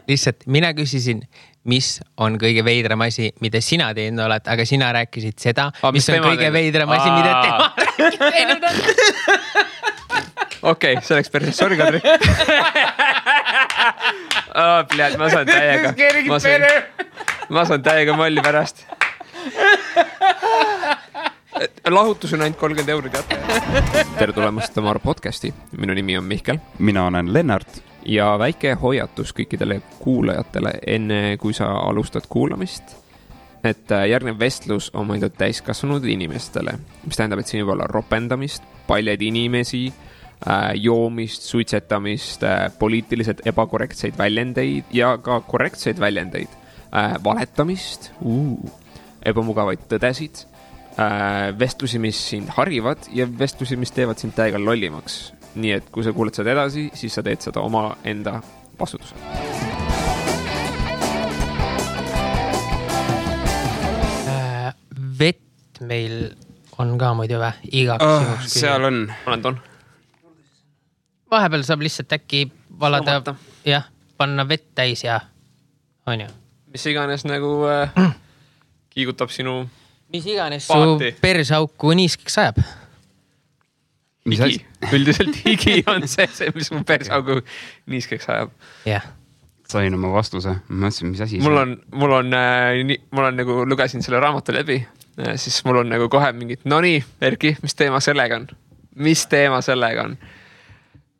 Lihtsalt mina küsisin, mis on kõige veidram asi, mida sina teinud oled, aga sina rääkisid seda, mis on kõige veidram asi, mida tema teinud on. Okei, see oleks päris sorry, Kadri. Ma saan täiega. Ma saan täiega molli pärast. Lahutus on ainult 30 €, teate. Tere tulemast Tamar podcasti. Minu nimi on Mihkel. Mina olen Lennart. Ja väike hoiatus kõikidele kuulajatele enne, kui sa alustad kuulamist. Et järgnev vestlus on mõeldud täiskasvanud inimestele, mis tähendab, et siin võib olla ropendamist, paljad inimesi, joomist, suitsetamist, poliitiliselt ebakorrektseid väljendeid ja ka korrektseid väljendeid, valetamist, ebamugavaid tõdesid, vestlusi, mis sind harivad ja vestlusi, mis teevad sind täiega lollimaks. Nii et kui sa kuuled seda edasi, siis sa teed seda oma enda vastutusel. Vett meil on ka muidu igaks seal on. Olen toon. Vahepeal saab lihtsalt äkki valada, jah, panna vett täis ja on ju. Mis iganes nagu kiigutab sinu mis iganes paati. Su persauku niiskeks sajab. Higi. Üldiselt higi on see, mis mu persaugu niiskeks ajab. Jah. Sain oma vastuse. Ma mõtlesin, mis asi mul on nagu lugesin selle raamatu läbi, siis mul on nagu kohe mingid, no nii, Erki, mis teema sellega on? Mis teema sellega on?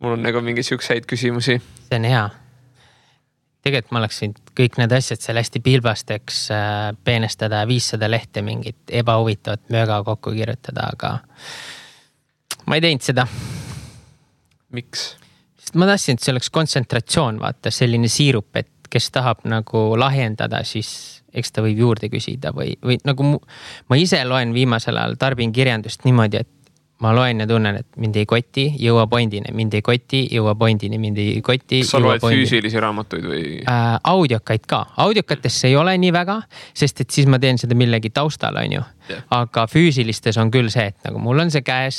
Mul on nagu mingi siukseid küsimusi. See on hea. Tegelikult ma oleksin kõik need asjad seal hästi pilbasteks peenestada 500 lehte mingit ebahuvitavat mööga kokku kirjutada, aga ma ei teinud seda. Miks? Sest ma tahtsin, et see oleks kontsentratsioon, vaata, selline siirup, et kes tahab nagu lahjendada, siis eks ta võib juurde küsida või nagu ma ise loen viimasel ajal tarbin kirjandust niimoodi, et ma loen ja tunnen, et mind ei koti, jõua pointini, mind ei koti, jõua pointini, mind ei koti. Kas sa loed füüsilisi raamatuid või? Audiokaid ka. Audiokatesse ei ole nii väga, sest et siis ma teen seda millegi taustal, on ju. Yeah. Aga füüsilistes on küll see, et nagu mul on see käes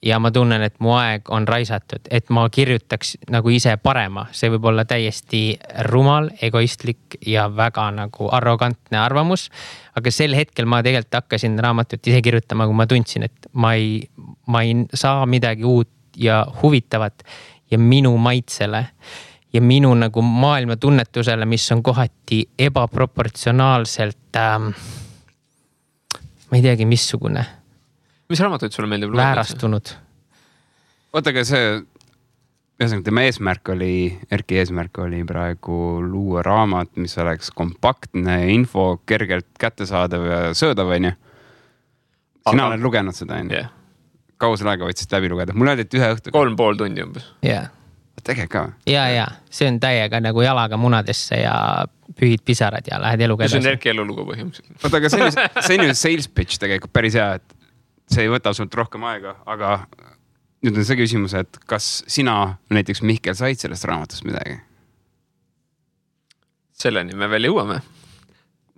ja ma tunnen, et mu aeg on raisatud, et ma kirjutaks nagu ise parema. See võib olla täiesti rumal, egoistlik ja väga nagu arrogantne arvamus. Aga sel hetkel ma tegelikult hakkasin raamatut ise kirjutama, kui ma tundsin, et ma ei saa midagi uut ja huvitavat ja minu maitsele ja minu nagu maailma tunnetusele, mis on kohati ebaproportsionaalselt ma ei teagi, missugune. Mis raamatuid sulle meeldib? Väärastunud. Ootagi see, tema Erki eesmärk oli praegu luua raamat, mis oleks kompaktne info, kergelt kättesaadav ja söödav, on ju. Sina oled lugenud seda, on ju? Yeah. Kaua selle aega võtsid läbi lugeda? Mul öeldi, et 1 õhtu. 3,5 tundi umbes. Yeah. Tegelikult ka? Ja. See on täiega nagu jalaga munadesse ja pühid pisarad ja lähed eluga edasi. See on Erki elulugu põhimõtteliselt. Oota, aga see on ju sales pitch tegelikult päris hea, et see ei võta sult rohkem aega, aga nüüd on see küsimus, et kas sina näiteks Mihkel said sellest raamatust midagi? Selleni me veel jõuame.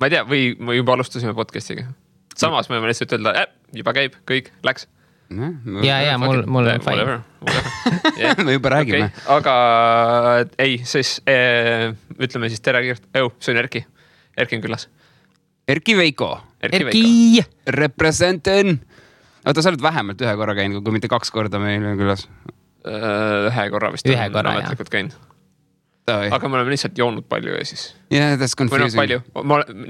Ma ei tea, või me juba alustasime podcastiga. Samas me võime lihtsalt öelda, juba käib, kõik, läks. Ja, mul on fine. Me juba räägime. Okay. Aga ei, siis ütleme siis tere kiirt. See on Erki. Erki on külas. Erki Veiko. Erki! Representen! Oota, sa oled vähemalt 1 korra käinud, kui mitte 2 korda meil on külas. 1 korra vist. 1 korra, jah. Käinud. Aga me oleme lihtsalt joonud palju ja siis. Yeah, that's confusing. Palju.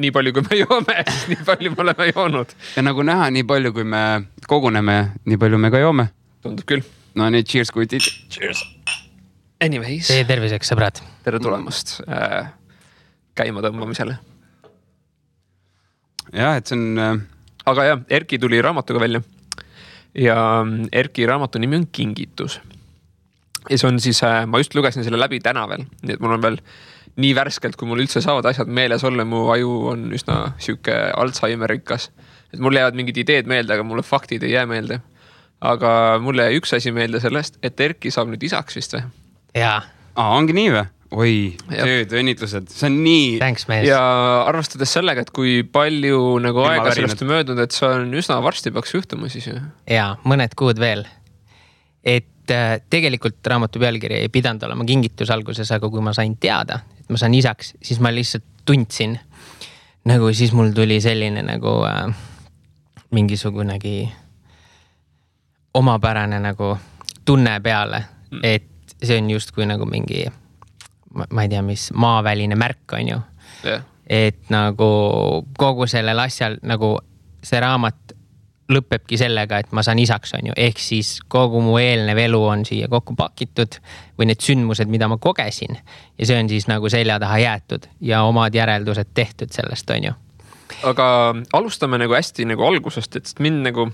Nii palju, kui me joome, siis nii palju me oleme joonud. Ja nagu näha, nii palju, kui me koguneme, nii palju me ka joome. Tundub küll. No nii, cheers, kuitid. Cheers. Anyways. Tee terviseks, sõbrad. Tere tulemast käima tõmbamisele. Jah, et see on... Aga jah, Erki tuli raamatuga välja. Ja Erki raamatu nimi on Kingitus. Ja see on siis, ma just lugesin selle läbi täna veel. Nii et mul on veel nii värskelt, kui mul üldse saavad asjad meeles olla. Mu aju on üsna siuke Alzheimerikas. Et mul jäävad mingid ideed meelde, aga mulle faktid ei jää meelde. Aga mulle jäi üks asi meelde sellest, et Erki saab nüüd isaks vist või? Jaa. Ongi nii või? Oi, tööd, õnnitlused. See on nii... Thanks, mees. Ja arvestades sellega, et kui palju nagu aega sellest on möödunud, et see on üsna varsti peaks juhtuma siis ju. Jaa, mõned kuud veel. Et tegelikult raamatu pealkiri ei pidanud olema kingitus alguses, aga kui ma sain teada, et ma saan isaks, siis ma lihtsalt tundsin, nagu siis mul tuli selline nagu mingisugunegi omapärane nagu tunne peale, et see on justkui nagu mingi, ma ei tea, mis maaväline märk on ju. Yeah. Et nagu kogu sellel asjal nagu see raamat lõppebki sellega, et ma saan isaks on ju. Ehk siis kogu mu eelnev elu on siia kokku pakitud või need sündmused, mida ma kogesin. Ja see on siis nagu selja taha jäetud ja omad järeldused tehtud sellest on ju. Aga alustame nagu hästi nagu algusest, et mind nagu,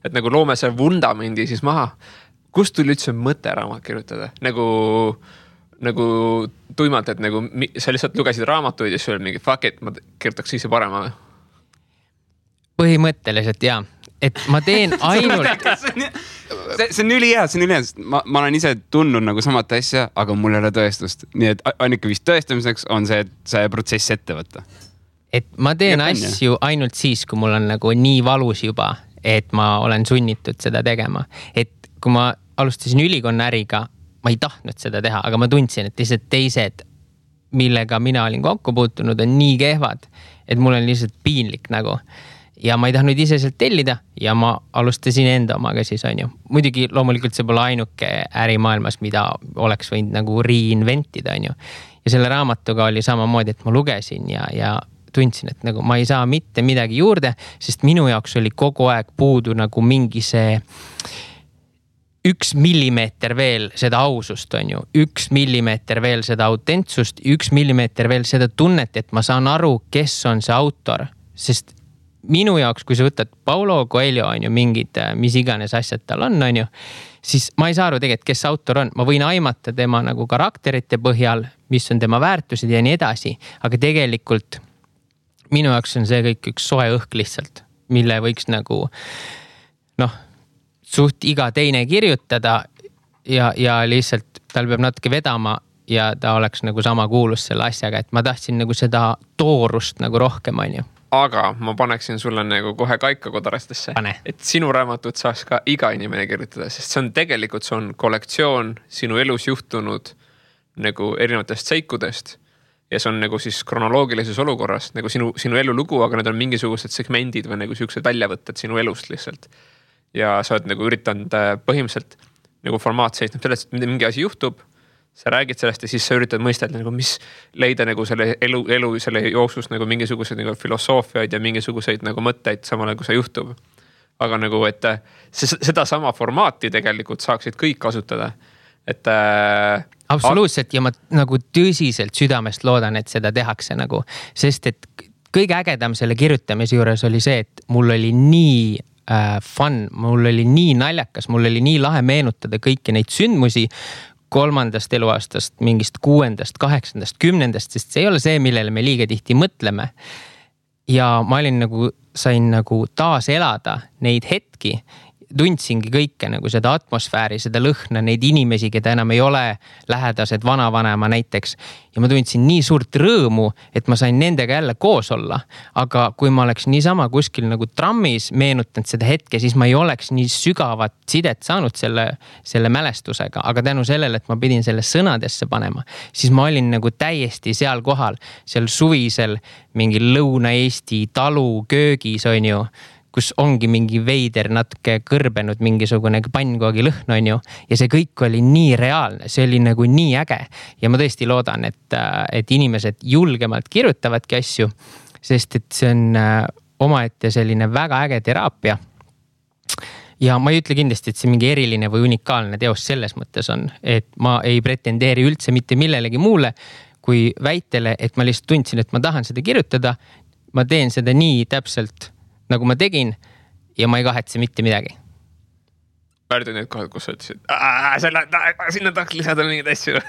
et nagu loome see vundamendi siis maha. Kust tuli üldse mõte raamat kirjutada? Nagu tuimalt, et nagu sa lihtsalt lugesid raamatuid ja siis oli mingi fuck it, ma kirjutaks ise parema. Põhimõtteliselt jaa, et ma teen ainult see on ülihea, ma olen ise tundnud nagu samat asja, aga mul ei ole tõestust. Nii et ainuke vist tõestamiseks on see, et see protsess ette võtta. Et ma teen asju ainult siis, kui mul on nagu nii valus juba, et ma olen sunnitud seda tegema. Et kui ma alustasin ülikonna äriga, ma ei tahtnud seda teha, aga ma tundsin, et lihtsalt teised, millega mina olin kokku puutunud, on nii kehvad, et mul on lihtsalt piinlik nagu. Ja ma ei tahtnud ise sealt tellida ja ma alustasin enda omaga siis on ju. Muidugi loomulikult see pole ainuke ärimaailmas, mida oleks võinud nagu reinventida on ju. Ja selle raamatuga oli samamoodi, et ma lugesin ja tundsin, et nagu ma ei saa mitte midagi juurde, sest minu jaoks oli kogu aeg puudu nagu mingi see 1 millimeeter veel seda ausust on ju, 1 millimeeter veel seda autentsust, 1 millimeeter veel seda tunnet, et ma saan aru, kes on see autor, sest minu jaoks, kui sa võtad Paulo Coelho on ju mingid, mis iganes asjad tal on ju, siis ma ei saa aru tegelikult, kes autor on, ma võin aimata tema nagu karakterite põhjal, mis on tema väärtused ja nii edasi, aga tegelikult minu jaoks on see kõik üks soe õhk lihtsalt, mille võiks nagu suht iga teine kirjutada ja lihtsalt tal peab natuke vedama ja ta oleks nagu sama kuulus selle asjaga, et ma tahtsin nagu seda toorust nagu rohkem on ju. Aga ma paneksin sulle nagu kohe kaika kodarastesse, et sinu raamatut saaks ka iga inimene kirjutada, sest see on tegelikult, see on kollektsioon sinu elus juhtunud nagu erinevatest seikudest ja see on nagu siis kronoloogilises olukorras nagu sinu elulugu, aga need on mingisugused segmendid või nagu siuksed väljavõtted sinu elust lihtsalt. Ja sa oled nagu üritanud põhimõtteliselt nagu formaat seisneb sellest, et mingi asi juhtub, sa räägid sellest ja siis sa üritad mõistelda nagu mis leida nagu selle elu selle jooksus nagu mingisuguseid nagu filosoofiaid ja mingisuguseid nagu mõtteid samal ajal, kui see juhtub. Aga nagu, et seda sama formaati tegelikult saaksid kõik kasutada. Et absoluutselt ja ma nagu tõsiselt südamest loodan, et seda tehakse nagu, sest et kõige ägedam selle kirjutamise juures oli see, et mul oli nii fun, mul oli nii naljakas, mul oli nii lahe meenutada kõiki neid sündmusi 3. eluaastast, mingist 6., 8., 10., sest see ei ole see, millele me liiga tihti mõtleme. Ja ma sain nagu taas elada neid hetki, tundsingi kõike nagu seda atmosfääri, seda lõhna, neid inimesi, keda enam ei ole lähedased vanavanema näiteks. Ja ma tundsin nii suurt rõõmu, et ma sain nendega jälle koos olla. Aga kui ma oleks niisama kuskil nagu trammis meenutanud seda hetke, siis ma ei oleks nii sügavat sidet saanud selle mälestusega. Aga tänu sellele, et ma pidin selle sõnadesse panema, siis ma olin nagu täiesti seal kohal, seal suvisel mingi Lõuna-Eesti talu köögis on ju, kus ongi mingi veider natuke kõrbenud mingisugune pannkoogi lõhn on ju. Ja see kõik oli nii reaalne, see oli nagu nii äge. Ja ma tõesti loodan, et inimesed julgemalt kirjutavadki asju, sest et see on omaette selline väga äge teraapia. Ja ma ei ütle kindlasti, et see mingi eriline või unikaalne teos selles mõttes on, et ma ei pretendeeri üldse mitte millelegi muule kui väitele, et ma lihtsalt tundsin, et ma tahan seda kirjutada. Ma teen seda nii täpselt nagu ma tegin ja ma ei kahetse mitte midagi. Väärdi need kohad, kus sa ütlesid, sinna tahaks lisada mingid asju.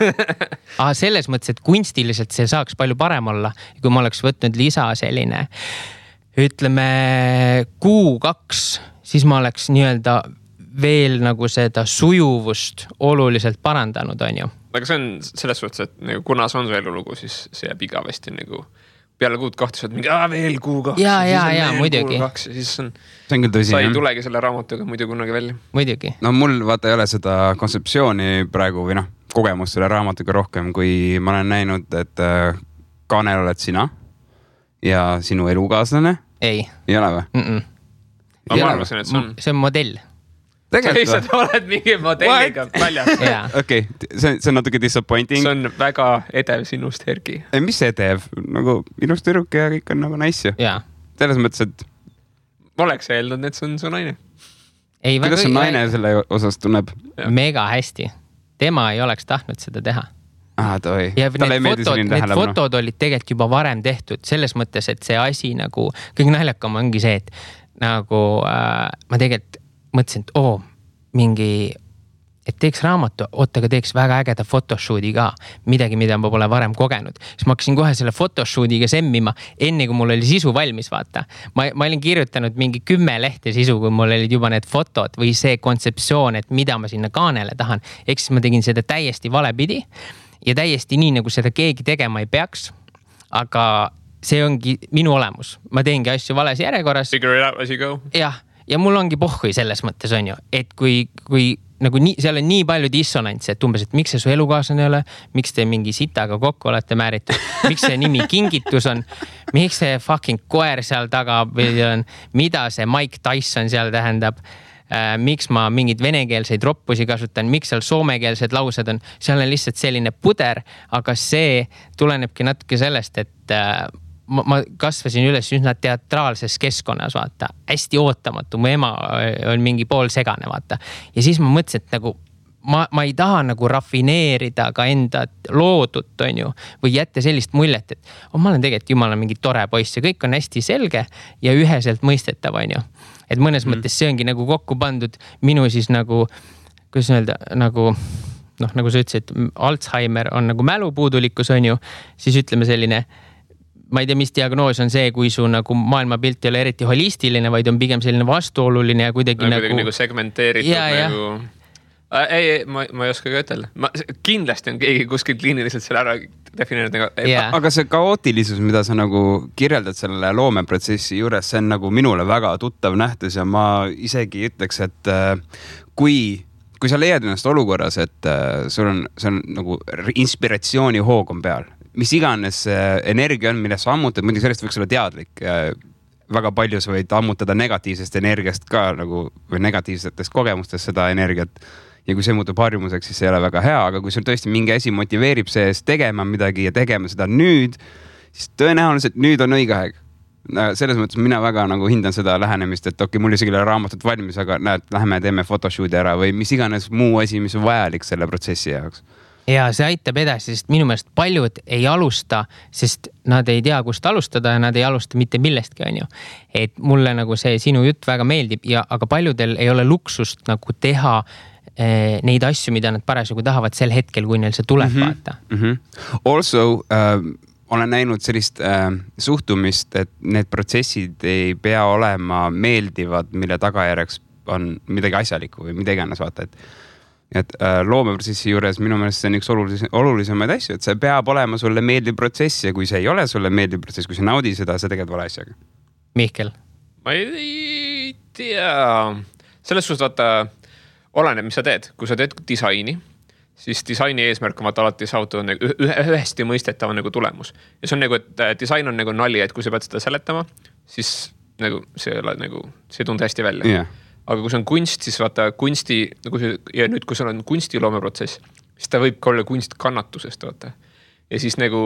Selles mõttes, et kunstiliselt see saaks palju parem olla, kui ma oleks võtnud lisa selline, ütleme 2, siis ma oleks nii-öelda veel nagu seda sujuvust oluliselt parandanud, on ju. Aga see on selles suhtes, et nagu, kuna see on su elulugu, siis see jääb igavesti nagu peale kuud 2 mingi, veel kuu 2. Ja muidugi. Ja siis see on küll tõsi. Sa ei tulegi selle raamatuga muidu kunagi välja. Muidugi. No mul vaata ei ole seda kontseptsiooni praegu või kogemust selle raamatuga rohkem, kui ma olen näinud, et kaanel oled sina ja sinu elukaaslane. Ei ole või? Ma arvasin, et see on modell. Tegelikult sa oled mingi modelliga väljas. Okei, see on natuke disappointing. See on väga edev sinust, Erki. Mis edev? Nagu minust tüdruk ja kõik on nagu nice ju. Selles mõttes, et ma oleks eeldanud, et see on su naine. Kuidas see naine selle osas tunneb? Mega hästi. Tema ei oleks tahtnud seda teha. Ja need fotod olid tegelikult juba varem tehtud selles mõttes, et see asi nagu, kõik naljakam ongi see, et nagu ma tegelikult mõtlesin, et mingi, et teeks raamatu, aga teeks väga ägeda photoshooti ka, midagi, mida ma pole varem kogenud. Siis ma hakkasin kohe selle photoshootiga semmima, enne kui mul oli sisu valmis, vaata. Ma olin kirjutanud mingi 10 lehte sisu, kui mul olid juba need fotod või see kontseptsioon, et mida ma sinna kaanele tahan. Eks siis ma tegin seda täiesti valepidi ja täiesti nii, nagu seda keegi tegema ei peaks. Aga see ongi minu olemus. Ma teengi asju vales järjekorras. Figure it out as you go. Ja mul ongi pohhui selles mõttes on ju, et kui nagu seal on nii palju dissonantsi, et umbes, et miks see su elukaaslane ei ole, miks te mingi sitaga kokku olete määritud, miks see nimi kingitus on, miks see fucking koer seal taga on, mida see Mike Tyson seal tähendab, miks ma mingid venekeelseid roppusi kasutan, miks seal soomekeelsed laused on, seal on lihtsalt selline puder, aga see tulenebki natuke sellest, et ma kasvasin üles üsna teatraalses keskkonnas, vaata, hästi ootamatu, mu ema on mingi pool segane, vaata. Ja siis ma mõtlesin, et nagu ma ei taha nagu rafineerida ka enda loodut, on ju, või jätta sellist muljet, et ma olen tegelikult jumala mingi tore poiss ja kõik on hästi selge ja üheselt mõistetav, on ju. Et mõnes mõttes see ongi nagu kokku pandud minu siis nagu, kuidas öelda, nagu nagu sa ütlesid, Alzheimer on nagu mälupuudulikkus, on ju, siis ütleme selline ma ei tea, mis diagnoos on see, kui su nagu maailmapilt ei ole eriti holistiline, vaid on pigem selline vastuoluline ja kuidagi nagu segmenteeritud nagu... Ei, ma ei oska ka ütelda. Kindlasti on keegi kuskil kliiniliselt selle ära defineerinud. Aga see kaootilisus, mida sa nagu kirjeldad selle loomeprotsessi juures, see on nagu minule väga tuttav nähtus ja ma isegi ütleks, et kui sa leiad ennast olukorras, et sul on nagu inspiratsiooni hoog on peal, mis iganes energia on, millest sa ammutad, muidugi sellest võiks olla teadlik. Väga palju sa võid ammutada negatiivsest energiast ka nagu, või negatiivsetest kogemustest seda energiat. Ja kui see muutub harjumuseks, siis see ei ole väga hea, aga kui sul tõesti mingi asi motiveerib sees tegema midagi ja tegema seda nüüd, siis tõenäoliselt nüüd on õige aeg. Selles mõttes mina väga nagu hindan seda lähenemist, et mul isegi ei ole raamatut valmis, aga näed, läheme teeme photoshooti ära või mis iganes muu asi, mis on vajalik selle protsessi jaoks. Ja see aitab edasi, sest minu meelest paljud ei alusta, sest nad ei tea, kust alustada ja nad ei alusta mitte millestki, on ju. Et mulle nagu see sinu jutt väga meeldib, aga paljudel ei ole luksust nagu teha neid asju, mida nad parasjagu tahavad sel hetkel, kui neil see tuleb vaata. Also, olen näinud sellist suhtumist, et need protsessid ei pea olema meeldivad, mille tagajärjeks on midagi asjalikku või mida iganes vaata, et loomeprotsessi juures minu meelest see on üks olulisemaid asju, et see peab olema sulle meeldiv protsess ja kui see ei ole sulle meeldiv protsess, kui sa naudi seda, sa teged vale asjaga. Mihkel? Ma ei tea. Selles suhtes vaata, oleneb, mis sa teed. Kui sa teed disaini, siis disaini eesmärk on vaata alati saavutada nagu ühesti mõistetava nagu tulemus. Ja see on nagu, et disain on nagu nali, et kui sa pead seda seletama, siis nagu see ei tunde hästi välja. Yeah. Aga kui see on kunst, siis vaata kunsti, ja nüüd kui sul on kunstiloomeprotsess, siis ta võib ka olla kunst kannatusest, vaata. Ja siis nagu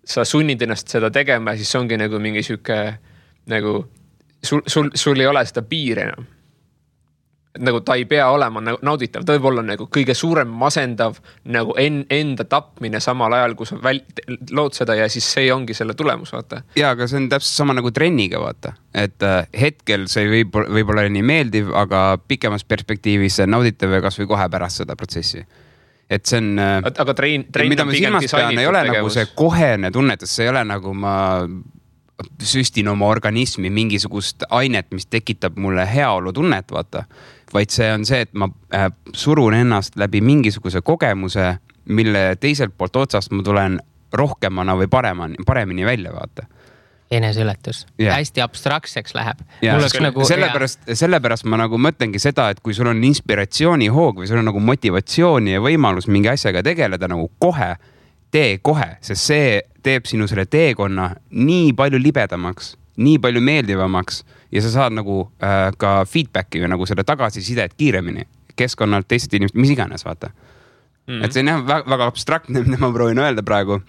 sa sunnid ennast seda tegema, siis see ongi nagu mingi süke, nagu sul ei ole seda piiri enam. Nagu ta ei pea olema nagu nauditav, ta võib olla nagu kõige suurem masendav nagu enda tapmine samal ajal, kui sa lood seda ja siis see ongi selle tulemus, vaata. Ja, aga see on täpselt sama nagu trenniga, vaata. Et hetkel see võib olla nii meeldiv, aga pikemas perspektiivis see nauditav ja kas või kohe pärast seda protsessi. Et see on... Aga trein mida ma silmas pean, ei ole nagu see kohene tunnetus, see ei ole nagu ma süstin oma organismi mingisugust ainet, mis tekitab mulle heaolu tunnet, vaata. Vaid see on see, et ma surun ennast läbi mingisuguse kogemuse, mille teiselt poolt otsast ma tulen rohkemana või paremini välja, vaata. eneseületus. Hästi abstraktseks läheb. Nagu, sellepärast ma nagu mõtlengi seda, et kui sul on inspiratsioonihoog või sul on nagu motivatsiooni ja võimalus mingi asjaga tegeleda nagu tee kohe, sest see teeb sinu selle teekonna nii palju libedamaks, nii palju meeldivamaks ja sa saad nagu ka feedbacki või nagu selle tagasisidet kiiremini keskkonnalt, teised inimesed, mis iganes, vaata. Et see on väga abstraktne, mida ma proovin öelda praegu.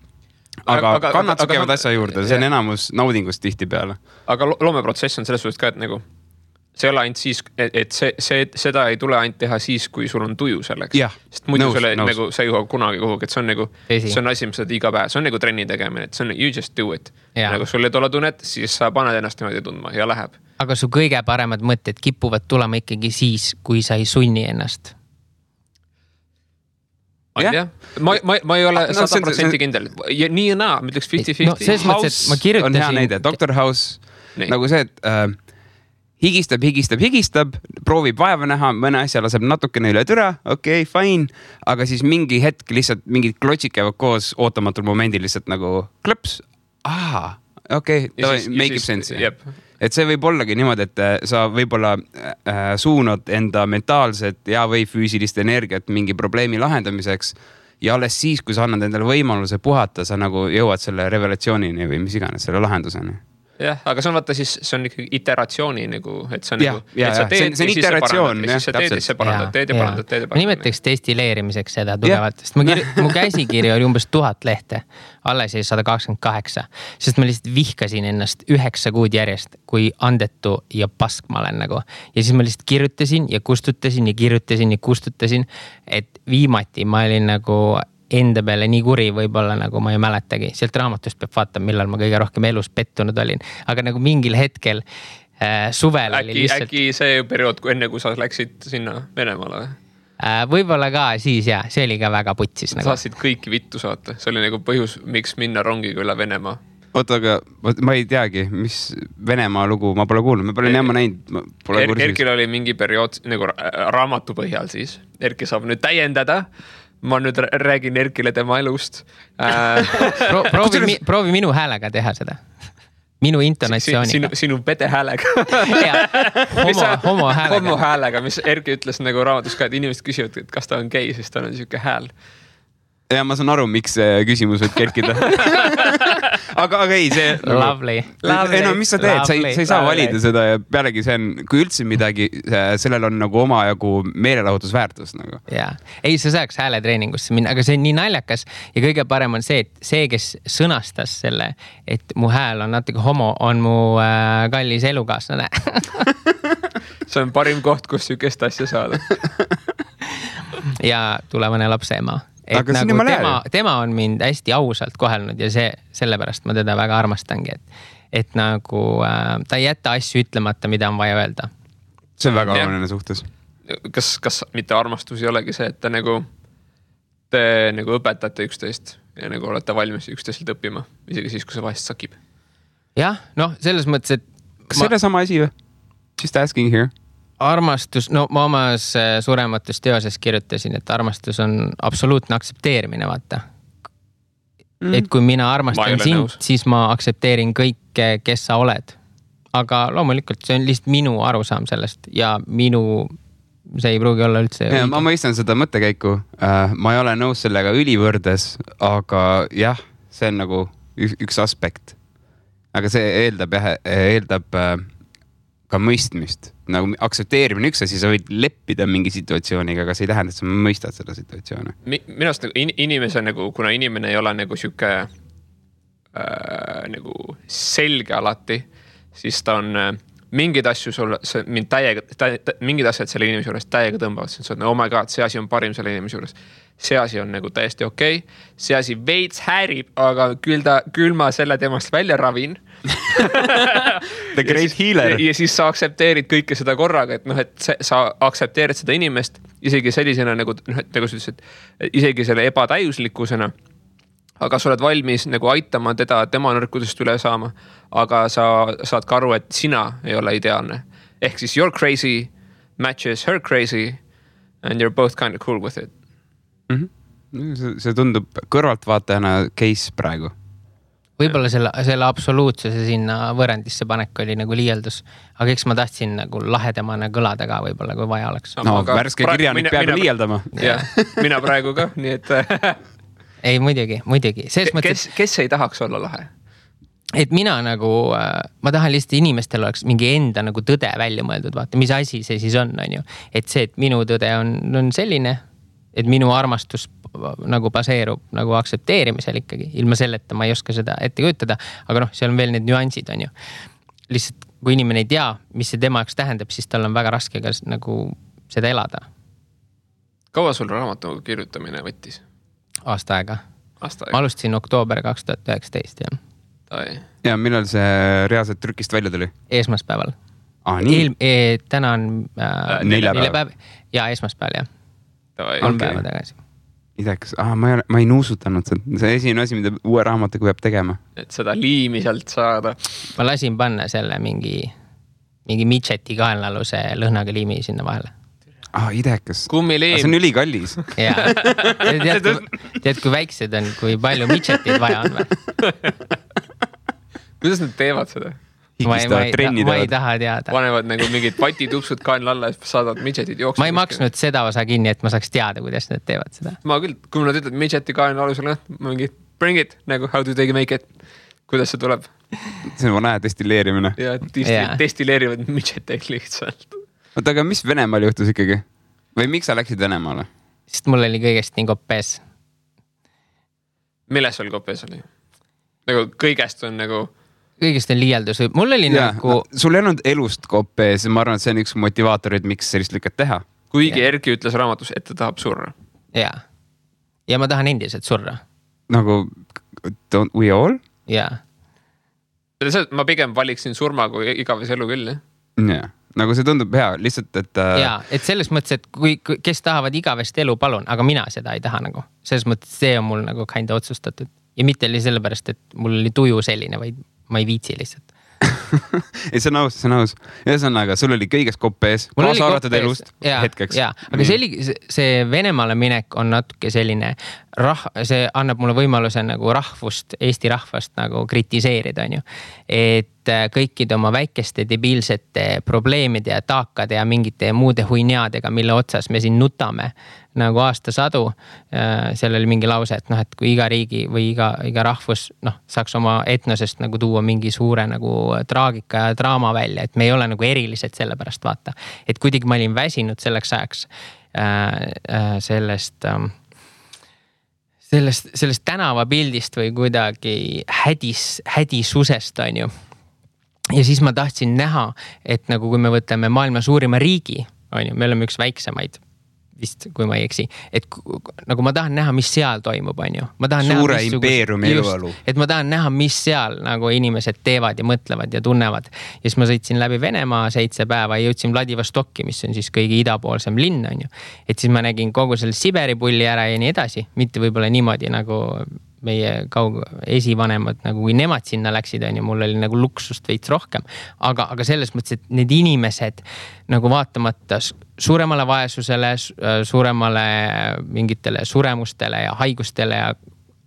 Aga kannad käivad asja juurde, see on enamus naudingust tihti peale. Aga loomeprotsess on selles suhtes ka, et nagu see ei ole ainult siis, et seda ei tule ainult teha siis, kui sul on tuju selleks. Sest muidu nagu sa ei jõua kunagi kuhugi, et see on nagu, see on asi, mis sa iga päev, see on nagu trenni tegemine, et see on you just do it. Nagu sul ei tule tunnet, siis sa paned ennast niimoodi tundma ja läheb. Aga su kõige paremad mõtted kipuvad tulema ikkagi siis, kui sa ei sunni ennast. Ma ei ole 100% kindel. Nii ja naa, ma ütleks 50-50. House on hea näide. Dr. House, nagu see, et higistab, proovib vaeva näha, mõne asja laseb natukene üle türa, okei, fine, aga siis mingi hetk lihtsalt mingid klotsid käivad koos ootamatul momendil lihtsalt nagu klõps. Okei, make it sense. Et see võib ollagi niimoodi, et sa võib-olla suunad enda mentaalset ja või füüsilist energiat mingi probleemi lahendamiseks ja alles siis, kui sa annad endale võimaluse puhata, sa nagu jõuad selle revelatsioonini või mis iganes selle lahenduseni. Jah, aga see on vaata siis, see on ikkagi iteratsiooni nagu, et see on nagu, et sa teed ja siis sa parandad, teed ja parandad. Ma nimetaks destilleerimiseks seda tugevalt, sest mu käsikiri oli umbes 1000 lehte, alles jäi 128, sest ma lihtsalt vihkasin ennast 9 kuud järjest, kui andetu ja pask ma olen nagu. Ja siis ma lihtsalt kirjutasin ja kustutasin ja kirjutasin ja kustutasin, et viimati ma olin nagu enda peale nii kuri võib-olla nagu ma ei mäletagi. Sealt raamatust peab vaatama, millal ma kõige rohkem elus pettunud olin. Aga nagu mingil hetkel suvel oli lihtsalt... Äkki see periood, enne kui sa läksid sinna Venemaale? Võib-olla ka siis see oli ka väga putsis. Nagu. Saatsid kõiki vittu saata. See oli nagu põhjus, miks minna rongiga üle Venemaa. Oota, aga ma ei teagi, mis Venemaa lugu ma pole kuulnud. Ma pole niema näinud. Erkil oli mingi periood nagu raamatu põhjal siis. Erki saab nüüd täiendada. Ma nüüd räägin Erkile tema elust. Proovi minu häälega teha seda. Minu intonatsiooniga. Sinu pede häälega. Homo häälega. Homo häälega, mis Erki ütles nagu raamatus ka, et inimesed küsivad, et kas ta on gei, siis ta on niisugune hääl. Ja ma saan aru, miks see küsimus võib kerkida. aga ei, see... Lovely. Ei no, mis sa teed? Sa ei saa valida seda ja pealegi see on, kui üldse midagi, sellel on nagu omajagu meelelahutusväärtus. Nagu. Ei, sa saaks hääletreeningusse minna, aga see on nii naljakas ja kõige parem on see, et see, kes sõnastas selle, et mu hääl on natuke homo, on mu kallis elukaaslane. See on parim koht, kus sükest asja saada. Ja tulevane lapse ema. Et nagu tema on mind hästi ausalt kohelnud ja sellepärast ma teda väga armastangi, et nagu ta ei jätta asju ütlemata, mida on vaja öelda. See on väga oluline suhtes. Kas mitte armastus ei olegi see, et te nagu õpetate üksteist ja nagu olete valmis üksteiselt õppima, isegi siis, kui see vahest sakib? Jah, selles mõttes, et... Kas selle sama asi või? Just asking here. Armastus, no ma omas surematus teoses kirjutasin, et armastus on absoluutne aksepteerimine, vaata. Et kui mina armastan sind, siis ma aksepteerin kõike, kes sa oled. Aga loomulikult see on lihtsalt minu arusaam sellest ja see ei pruugi olla üldse... Ja, ma mõistan seda mõttekäiku. Ma ei ole nõus sellega ülivõrdes, aga jah, see on nagu üks aspekt. Aga see eeldab ka mõistmist. Nagu aksepteerimine üks asi, sa võid leppida mingi situatsiooniga, aga see ei tähenda, et sa mõistad seda situatsiooni. Minust nagu inimese, kuna inimene ei ole nagu siuke nagu selge alati, siis ta on mingid asju sulle, mingid asjad selle inimese juures täiega tõmbavad. Sa oled, oh my god, see asi on parim selle inimese juures. See asi on nagu täiesti okei. See asi veits häärib, aga küll ma selle temast välja ravin. The great healer. Ja siis sa aksepteerid kõike seda korraga, et sa aksepteerid seda inimest isegi sellisena nagu sa ütles, et isegi selle ebatäiuslikkusena, aga sa oled valmis nagu aitama teda tema nõrkudest üle saama, aga sa saad ka aru, et sina ei ole ideaalne. Ehk siis your crazy matches her crazy and you're both kind of cool with it. See tundub kõrvaltvaatajana case praegu. võib-olla selle absoluutsuse sinna võrrandisse panek oli nagu liialdus, aga eks ma tahtsin nagu lahedamana kõlada ka võib-olla, kui vaja oleks. No värske kirjanik peab liialdama. Mina praegu ka, nii et... Ei, muidugi. Kes ei tahaks olla lahe? Et mina nagu, ma tahan lihtsalt inimestel oleks mingi enda nagu tõde välja mõeldud, vaata, mis asi see siis on ju. Et see, et minu tõde on selline, et minu armastus nagu baseerub nagu aktsepteerimisel ikkagi. Ilma selleta ma ei oska seda ette kujutada, aga seal on veel need nüansid on ju. Lihtsalt kui inimene ei tea, mis see tema jaoks tähendab, siis tal on väga raske ka nagu seda elada. Kaua sul raamatu kirjutamine võttis? Aasta aega. Ma alustasin oktoober 2019, jah. Ja millal see reaalselt trükist välja tuli? Esmaspäeval. Täna on neljapäev. Ja esmaspäeval, jah. 3 päeva tagasi. Idekas. Ma ei nuusutanud seda. See esimene asi, mida uue raamatuga peab tegema. Et seda liimi sealt saada. Ma lasin panna selle mingi midžeti kaenlaluse lõhnaga liimi sinna vahele. Idekas. Kummiliim. See on ülikallis. Jaa. Tead, kui väiksed on, kui palju midžetid vaja on või? Kuidas nad teevad seda? Ma ei taha teada. Panevad nagu mingid patitupsud kaenla alla ja saadavad midžetid jooksma. Ma ei maksnud seda osa kinni, et ma saaks teada, kuidas nad teevad seda. Ma küll, kui nad ütled midžeti kaenla alusel, mingi bring it, nagu how do they make it, kuidas see tuleb? See on näe destilleerimine. Ja destilleerivad midžeteid lihtsalt. Oota, aga mis Venemaal juhtus ikkagi? Või miks sa läksid Venemaale? Sest mul oli kõigest nii koppees. Milles sul koppees oli? Nagu kõigest on nagu... Kõigest on liialdus. Mul oli nagu... Sul ei olnud elust koppees. Ma arvan, et see on üks motivaatorid, miks sellist lükad teha. Kuigi Erki ütles raamatus, et ta tahab surra. Jaa. Ja ma tahan endiselt surra. Nagu don't we all? Jaa. Ma pigem valiksin surma kui igaves elu küll, jah? Nagu see tundub hea, lihtsalt, et... Jaa, et selles mõttes, et kes tahavad igavest elu, palun, aga mina seda ei taha nagu. Selles mõttes, see on mul nagu kinda otsustatud. Ja mitte oli sellepärast, et mul oli tuju selline, vaid ma ei viitsi lihtsalt. Ei, see on aus. Ühesõnaga, sul oli kõigest kopees, kaasa arvatud elust hetkeks. Jaa, aga see Venemaale minek on natuke selline, see annab mulle võimaluse nagu rahvust, Eesti rahvast nagu kritiseerida, on ju. Et kõikide oma väikeste debiilsete probleemide ja taakade ja mingite muude huinjadega, mille otsas me siin nutame nagu aastasadu. Seal oli mingi lause, et et kui iga riigi või iga rahvus saaks oma etnosest nagu tuua mingi suure nagu traagika ja draama välja, et me ei ole nagu erilised selle pärast, vaata. Et kuidagi ma olin väsinud selleks ajaks sellest tänavapildist või kuidagi hädisusest, on ju. Ja siis ma tahtsin näha, et nagu kui me võtame maailma suurima riigi, on ju, me oleme üks väiksemaid, vist, kui ma ei eksi, et nagu ma tahan näha, mis seal toimub, on ju. Suure impeeriumi eluolu. Et ma tahan näha, mis seal nagu inimesed teevad ja mõtlevad ja tunnevad. Ja siis ma sõitsin läbi Venemaa 7 päeva ja jõudsin Vladivostokki, mis on siis kõige idapoolsem linn, on ju. Et siis ma nägin kogu selle Siberi pulli ära ja nii edasi. Mitte võib-olla niimoodi nagu meie esivanemad, nagu kui nemad sinna läksid, on ju, mul oli nagu luksust veits rohkem. Aga selles mõttes, et need inimesed nagu vaatamata suuremale vaesusele, suuremale mingitele suremustele ja haigustele ja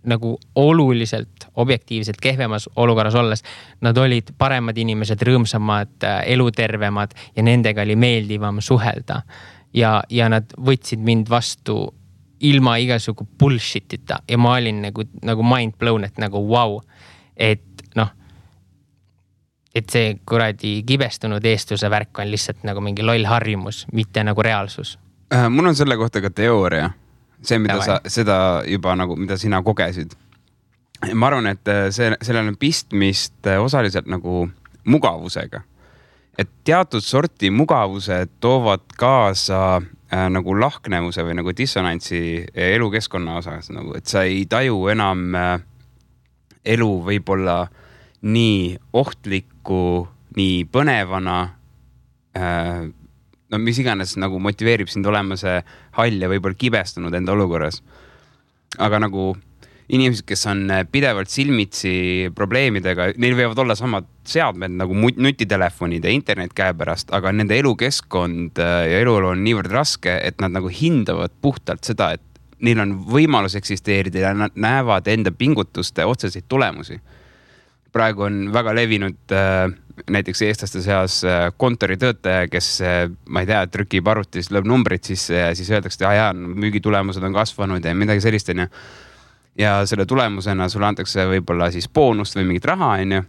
nagu oluliselt objektiivselt kehvemas olukorras olles, nad olid paremad inimesed, rõõmsamad, elutervemad ja nendega oli meeldivam suhelda. Ja nad võtsid mind vastu ilma igasugu bullshitita ja ma olin nagu mind blown, et nagu wow, et et see kuradi kibestunud eestluse värk on lihtsalt nagu mingi loll harjumus, mitte nagu reaalsus. Mul on selle kohta ka teooria. See, mida seda juba nagu, mida sina kogesid. Ma arvan, et sellel on pistmist osaliselt nagu mugavusega. Et teatud sorti mugavused toovad kaasa nagu lahknevuse või nagu dissonantsi elukeskkonna osas, nagu, et sa ei taju enam elu võib-olla nii ohtlikku, nii põnevana, mis iganes nagu motiveerib sind olema see hall ja võib-olla kibestunud enda olukorras. Aga nagu inimesed, kes on pidevalt silmitsi probleemidega, neil võivad olla samad seadmed nagu nutitelefonid ja internet käepärast, aga nende elukeskkond ja eluolu on niivõrd raske, et nad nagu hindavad puhtalt seda, et neil on võimalus eksisteerida ja nad näevad enda pingutuste otseseid tulemusi. praegu on väga levinud näiteks eestlaste seas kontoritöötaja, kes, ma ei tea, trükib arvutis, lööb numbrid sisse ja siis öeldakse, et müügitulemused on kasvanud ja midagi sellist, on ju. Ja selle tulemusena sulle antakse võib-olla siis boonust või mingit raha, on ju.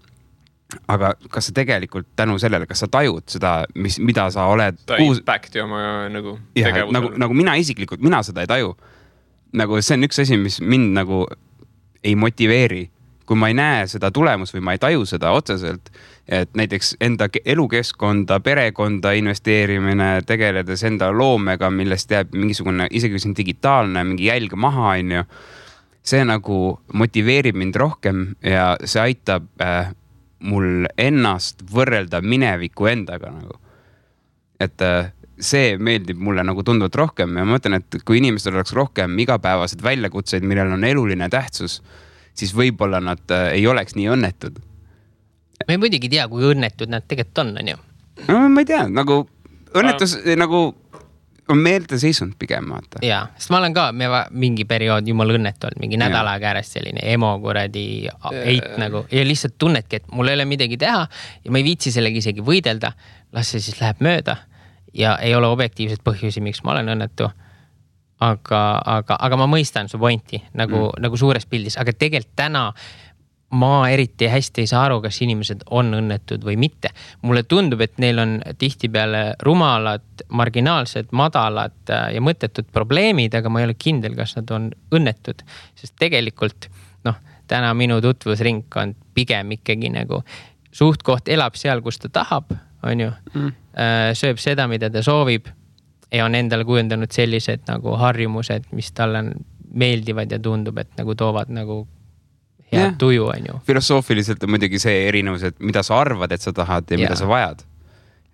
Aga kas sa tegelikult tänu sellele, kas sa tajud seda, mida sa oled... Ta impacti oma nagu tegevusele. Nagu mina isiklikult, mina seda ei taju. Nagu see on üks asi, mis mind nagu ei motiveeri. Kui ma ei näe seda tulemust või ma ei taju seda otseselt, et näiteks enda elukeskkonda, perekonda investeerimine, tegeledes enda loomega, millest jääb mingisugune, isegi kui see on digitaalne, mingi jälg maha, on ju, see nagu motiveerib mind rohkem ja see aitab mul ennast võrrelda mineviku endaga nagu. Et see meeldib mulle nagu tunduvalt rohkem ja ma mõtlen, et kui inimestel oleks rohkem igapäevased väljakutseid, millel on eluline tähtsus, siis võib-olla nad ei oleks nii õnnetud. Ma ei muidugi tea, kui õnnetud nad tegelikult on ju? No, ma ei tea, nagu õnnetus nagu on meelde seisund pigem, vaata. Jaa, sest ma olen ka mingi periood jumal õnnetu olnud, mingi nädala käärest selline emo kuradi eit nagu ja lihtsalt tunnedki, et mul ei ole midagi teha ja ma ei viitsi sellega isegi võidelda, las see siis läheb mööda ja ei ole objektiivset põhjusi, miks ma olen õnnetu. Aga ma mõistan su pointi nagu suures pildis, aga tegelikult täna ma eriti hästi ei saa aru, kas inimesed on õnnetud või mitte. Mulle tundub, et neil on tihtipeale rumalad, marginaalsed, madalad ja mõttetud probleemid, aga ma ei ole kindel, kas nad on õnnetud. Sest tegelikult, täna minu tutvusringkond pigem ikkagi nagu suhtkoht elab seal, kus ta tahab, on ju, sööb seda, mida ta soovib ja on endale kujendanud sellised nagu harjumused, mis talle meeldivad ja tundub, et nagu toovad nagu hea tuju, on ju. Filosoofiliselt on muidugi see erinevus, et mida sa arvad, et sa tahad ja mida sa vajad.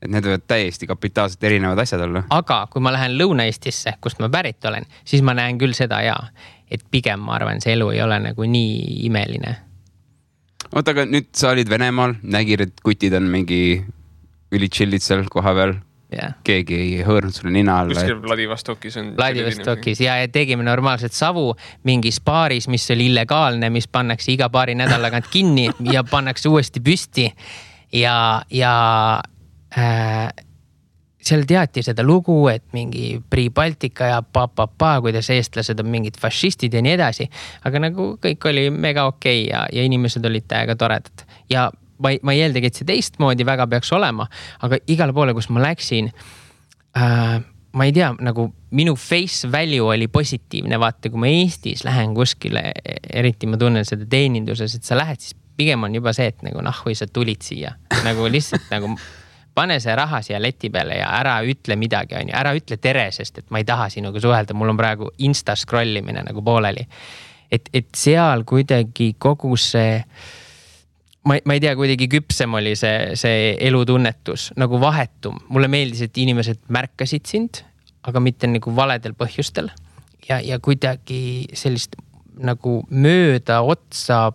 Et need võivad täiesti kapitaalselt erinevad asjad olla. Aga kui ma lähen Lõuna-Eestisse, kust ma pärit olen, siis ma näen küll seda et pigem ma arvan, see elu ei ole nagu nii imeline. Oota, aga nüüd sa olid Venemaal, nägid, et kutid on mingi ülitšillid seal koha peal. Keegi ei hõõrnud sulle nina alla. Kuskil Vladivostokis on... Vladivostokis ja tegime normaalselt savu mingis baaris, mis oli illegaalne, mis pannakse iga paari nädalagant kinni ja pannakse uuesti püsti. Ja seal teati seda lugu, et mingi Pri-Baltika ja kuidas eestlased on mingid fašistid ja nii edasi. Aga nagu kõik oli mega okei ja inimesed olid täiega toredad. Ja ma ei eeldagi, et see teistmoodi väga peaks olema, aga igale poole, kus ma läksin, ma ei tea, nagu minu face value oli positiivne, vaata, kui ma Eestis lähen kuskile, eriti ma tunnen seda teeninduses, et sa lähed, siis pigem on juba see, et nagu või sa tulid siia, nagu lihtsalt nagu pane see raha siia leti peale ja ära ütle midagi, on ju, ära ütle tere, sest et ma ei taha sinuga suhelda, mul on praegu insta scrollimine nagu pooleli. Et seal kuidagi kogu see ma ei tea, kuidagi küpsem oli see elutunnetus, nagu vahetum. Mulle meeldis, et inimesed märkasid sind, aga mitte nagu valedel põhjustel. Ja kuidagi sellist nagu mööda otsa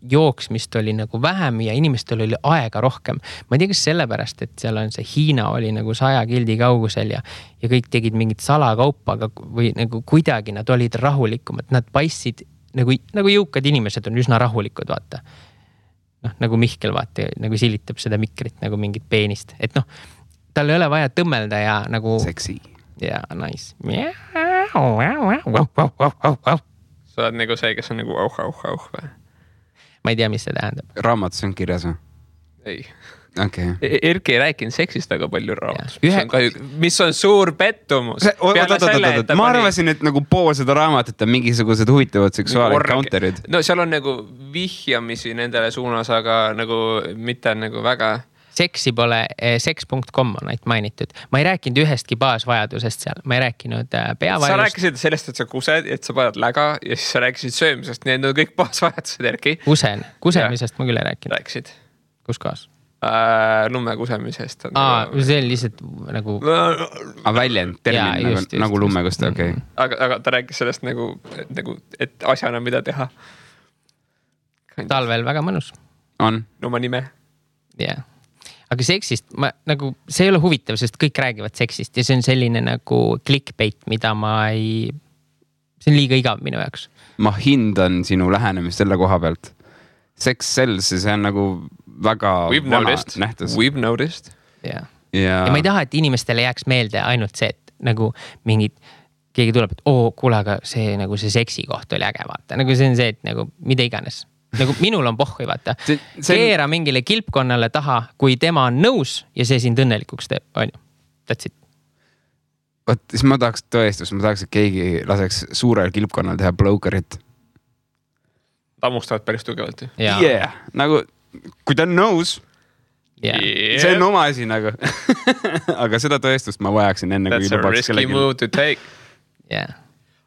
jooksmist oli nagu vähem ja inimestel oli aega rohkem. Ma ei tea, kas sellepärast, et seal on see Hiina oli nagu 100 kildi kaugusel ja kõik tegid mingit salakaupa, või nagu kuidagi nad olid rahulikumad. Nad paistsid, nagu jõukad inimesed on üsna rahulikud, vaata. Nagu Mihkel vaata, nagu silitab seda mikrit nagu mingit peenist. Et tal ei ole vaja tõmmelda ja nagu... Seksi. Ja, nice. Sa oled nagu see, kes on nagu auh või? Ma ei tea, mis see tähendab. Raamatus on kirjas või? Ei. Okay. Erki ei rääkinud seksist väga palju raamatus, mis on suur pettumus. Ma arvasin, et nagu pool seda raamatut on mingisugused huvitavad seksuaalencounterid. No seal on nagu vihjamisi nendele suunas, aga nagu mitte nagu väga... Seksi pole, seks.com on ainult mainitud. Ma ei rääkinud ühestki baasvajadusest seal, ma ei rääkinud peavajadust. Sa rääkisid sellest, et sa kused, et sa paned läga ja siis sa rääkisid söömisest, need on kõik baasvajadused, Erki. Kusemisest ma küll ei rääkinud. Rääkisid. Kus kohas? Lumme kusemisest. See on lihtsalt nagu... väljend, termin, nagu lumme kuste, okei. Aga ta rääkis sellest nagu, et asjana mida teha. Talvel väga mõnus. On. Oma nime. Jah. Aga seksist, see ei ole huvitav, sest kõik räägivad seksist ja see on selline nagu clickbait, mida see on liiga igav minu jaoks. Ma hindan sinu lähenemist selle koha pealt. sex sells, see on nagu väga vana nähtus. We've noticed. Ja ma ei taha, et inimestele jääks meelde ainult see, et nagu keegi tuleb, et kuule, aga see nagu see seksi koht oli äge, vaata. Nagu see on see, et nagu mida iganes. Nagu minul on pohhui, vaata. Keera mingile kilpkonnale taha, kui tema on nõus ja see sind õnnelikuks teeb, on ju. That's it. Võt, siis ma tahaks tõestust, ma tahaks, et keegi laseks suurel kilpkonnal teha blowcarit. Tammustavad päris tugevalt. Yeah, nagu kui ta on nõus, see on oma asi nagu. Aga seda tõestust ma vajaksin enne, kui lubaks kellegi. That's a risky move to take. Yeah.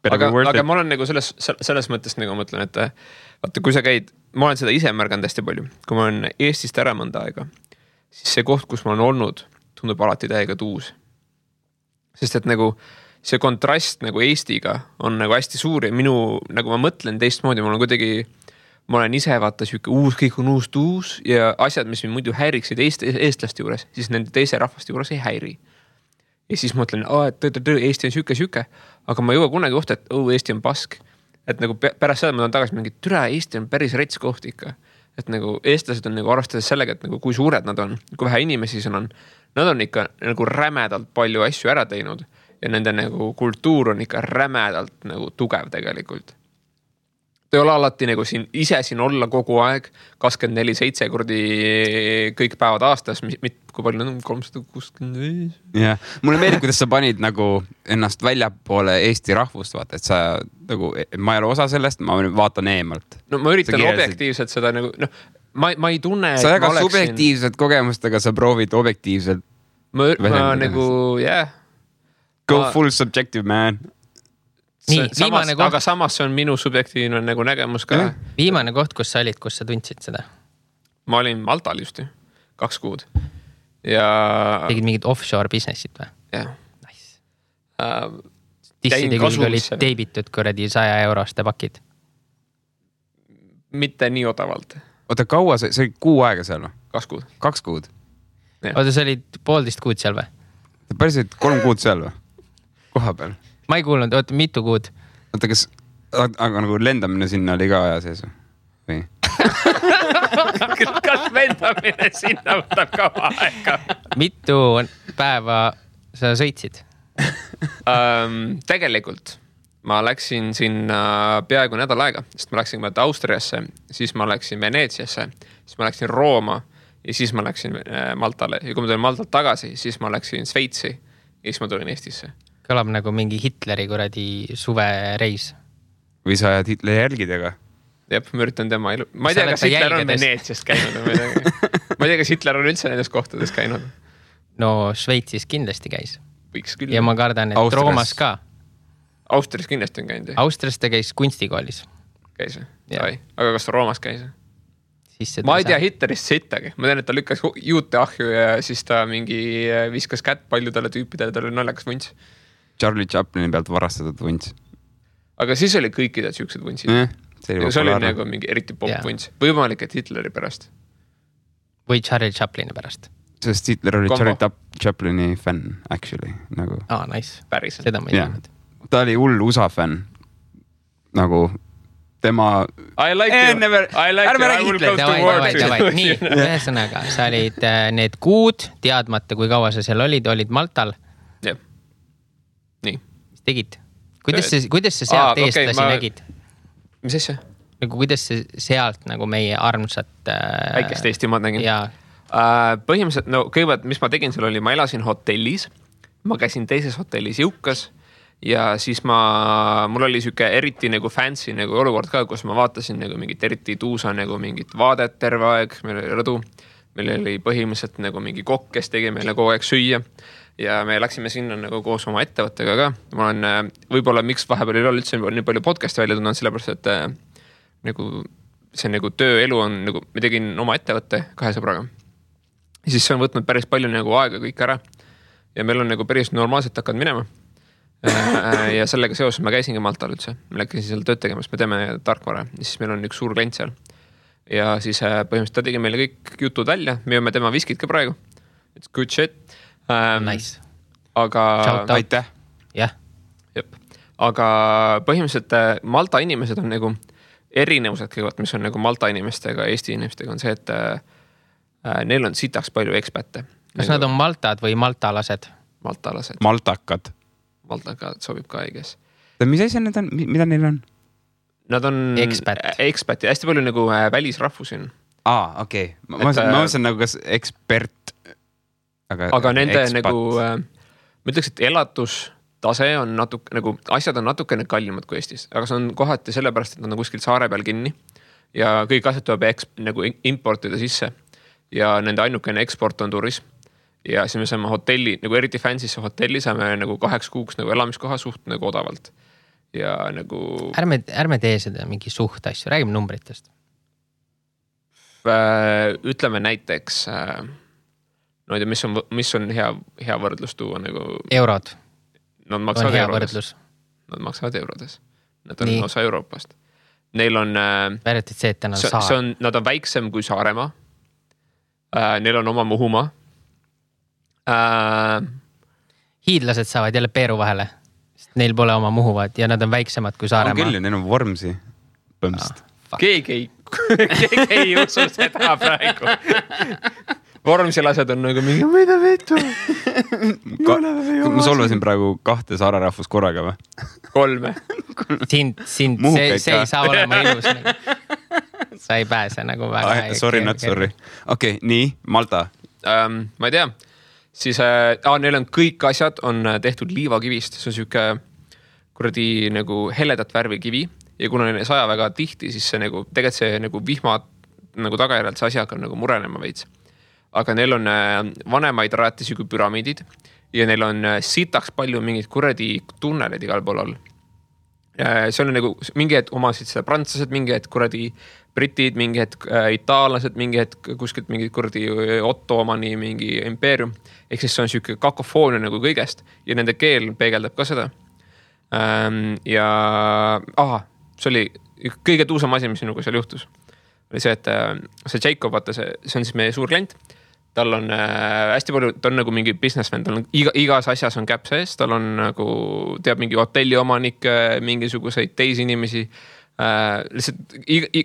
Aga ma olen nagu selles mõttes nagu mõtlen, et vaata, kui sa käid, ma olen seda ise märganud hästi palju. Kui ma olen Eestist ära mõnda aega, siis see koht, kus ma olen olnud, tundub alati täiega tuus. Sest et nagu see kontrast nagu Eestiga on nagu hästi suur ja minu, nagu ma mõtlen teistmoodi, ma olen ise vaata siuke kõik on uus ja asjad, mis mind muidu häiriksid eestlaste juures, siis nende teise rahvaste juures ei häiri. Ja siis mõtlen, et Eesti on siuke, aga ma ei jõua kunagi kohta, et Eesti on pask. Et nagu pärast seda ma tahan tagasi mingi, türa, Eesti on päris rets koht ikka. Et nagu eestlased on nagu arvestades sellega, et nagu kui suured nad on, kui vähe inimesi on, nad on ikka nagu rämedalt palju asju ära teinud ja nende nagu kultuur on ikka rämedalt nagu tugev tegelikult. Ta ei ole alati nagu siin olla kogu aeg 24/7 kordi kõik päevad aastas, kui palju on 365. Ja, mulle meeldib, kuidas sa panid nagu ennast väljapoole Eesti rahvust, vaata, et sa nagu, ma ei ole osa sellest, ma vaatan eemalt. No ma üritan objektiivselt seda nagu, ma ei tunne, sa väga subjektiivsed kogemustega, sa proovid objektiivselt. Ma nagu, Go full subjective, man. Aga samas see on minu subjektiivne nagu nägemus ka. Viimane koht, kus sa olid, kus sa tundsid seda? Ma olin Maltal just 2 kuud. Ja... Tegid mingid offshore businessid või? Jah. Nice. Tisside küll olid teibitud kuradi 100 euroste pakid. Mitte nii odavalt. Oota, kaua see oli kuu aega seal või? 2 kuud. 2 kuud? Oota, sa olid 1,5 kuud seal või? Päriselt 3 kuud seal või? Koha peal? Ma ei kuulnud, oota, mitu kuud? Oota, aga nagu lendamine sinna oli ka aja sees või? Kas lendamine sinna võtab ka aega? Mitu päeva sa sõitsid? Tegelikult ma läksin sinna peaaegu nädal aega, sest ma läksin Austriasse, siis ma läksin Veneetsiasse, siis ma läksin Rooma ja siis ma läksin Maltale. Ja kui ma tulin Maltalt tagasi, siis ma läksin Sveitsi ja siis ma tulin Eestisse. Kõlab nagu mingi Hitleri kuradi suvereis. Või sa ajad Hitleri jälgidega? Jep, ma üritan tema elu. Ma ei tea, kas Hitler on Veneetsiast käinud. Ma ei tea, kas Hitler on üldse nendes kohtades käinud. No Šveitsis kindlasti käis. Võiks küll. Ja ma kardan, et Austrias. Roomas ka. Austrias kindlasti on käinud. Austrias ta käis kunstikoolis. Käis. Aga kas ta Roomas käis? Ma ei tea Hitlerist sittagi. Ma tean, et ta lükkas juute ahju ja siis ta mingi viskas kätt paljudele tüüpidele, ta oli naljakas vunts. Charlie Chaplini pealt varastatud vunts. Aga siis oli kõikidel siuksed vuntsid. See oli nagu mingi eriti pop-vunts. Võimalik, et Hitleri pärast. Või Charlie Chaplini pärast. Sest Hitler oli Charlie Chaplini fänn, actually. Nagu. Nice. Päriselt. Seda ma ei teadnud. Ta oli hull USA fänn. Nagu tema... I like you. I will go to war. Nii, ühesõnaga, sa olid need kuud, teadmata, kui kaua sa seal olid Maltal. Jep. Nii. Mis tegid? Kuidas sa sealt eestlasi nägid? Mis asja? Nagu kuidas sa sealt nagu meie armsat... Väikest Eestimaad nägin. Jaa. Põhimõtteliselt, kõigepealt, mis ma tegin seal oli, ma elasin hotellis. Ma käisin teises hotellis Jõukas. Ja siis mul oli siuke eriti nagu fancy nagu olukord ka, kus ma vaatasin nagu mingit eriti tuusa nagu mingit vaadet terve aeg. Meil oli rõdu. Meil oli põhimõtteliselt nagu mingi kokk, kes tegi meile kogu aeg süüa. Ja me läksime sinna nagu koos oma ettevõttega ka. Ma olen võib-olla miks vahepeal ei ole üldse nii palju podcasti välja tulnud, sellepärast, et nagu see nagu tööelu on nagu, me tegin oma ettevõtte 2 sõbraga. Ja siis see on võtnud päris palju nagu aega kõik ära. Ja meil on nagu päris normaalselt hakkad minema. Ja sellega seoses ma käisingi Maltal üldse. Me läksin seal tööd tegemas, me teeme tarkvara. Ja siis meil on üks suur klient seal. Ja siis põhimõtteliselt ta tegi meile kõik jutud välja. Me jõume tema viskid ka praegu. It's good shit. Nice. Aga... Aitäh. Jah. Jep. Aga põhimõtteliselt Malta inimesed on nagu erinevused kõigepealt, mis on nagu Malta inimestega ja Eesti inimestega on see, et neil on sitaks palju ekspätte. Kas nad on Maltad või maltalased? Maltalased. Maltakad. Maltakad sobib ka õiges. Mis asja need on? Mida neil on? Nad on ekspat ja hästi palju nagu välisrahvusi on. Okei. Ma mõtlesin nagu kas ekspert. Aga nende nagu, ma ütleks, et elatustase on natuke, nagu asjad on natukene kallimad kui Eestis, aga see on kohati sellepärast, et nad on kuskil saare peal kinni ja kõik asjad tuleb nagu importida sisse ja nende ainukene eksport on turism. Ja siis me saame hotelli, nagu eriti fansisse hotelli saame nagu 8 kuuks nagu elamiskoha suht nagu odavalt. Ja nagu... Ärme tee seda mingi suht asju, räägime numbritest. Ütleme näiteks, no ei tea, mis on hea võrdlus tuua nagu... Eurod. Nad maksavad eurodes. Nad maksavad eurodes. Nad on osa Euroopast. Neil on... Väärjatid see, et täna saar. Nad on väiksem kui Saaremaa. Neil on oma Muhumaa. Hiidlased saavad jälle Peeru vahele. Neil pole oma Muhuvad ja nad on väiksemad kui Saaremaa. On küll, neil on Vormsi põmst. Keegi ei usu seda praegu. Vormsilased on nagu mingi, mida veetu? Ma solvasin praegu 2 saare rahvus korraga või? 3. Sind, see ei saa olema ilus. Sa ei pääse nagu väga. Sorry, not sorry. Okei, nii, Malta. Ma ei tea. Siis neil on kõik asjad on tehtud liivakivist. See on siuke kuradi nagu heledat värvi kivi. Ja kuna neil saja väga tihti, siis see nagu, tegelikult see nagu vihma nagu tagajärjalt see asi hakkab nagu murenema veits. Aga neil on vanemaid rajatisi kui püramiidid ja neil on sitaks palju mingid kuradi tunnelid igal pool all. See on nagu mingi hetk omasid seda prantslased, mingi hetk kuradi britid, mingi hetk itaallased, mingi hetk kuskilt mingi kuradi Ottomani mingi impeerium. Ehk siis see on siuke kakofoonia nagu kõigest ja nende keel peegeldab ka seda. Ja see oli kõige tuusam asi, mis sinuga seal juhtus. Oli see, et see Jacob, vaata, see on siis meie suur klient. Tal on hästi palju, ta on nagu mingi businessman, tal on igas asjas on käp sees, tal on nagu, teab mingi hotelli omanik, mingisuguseid teisi inimesi. Lihtsalt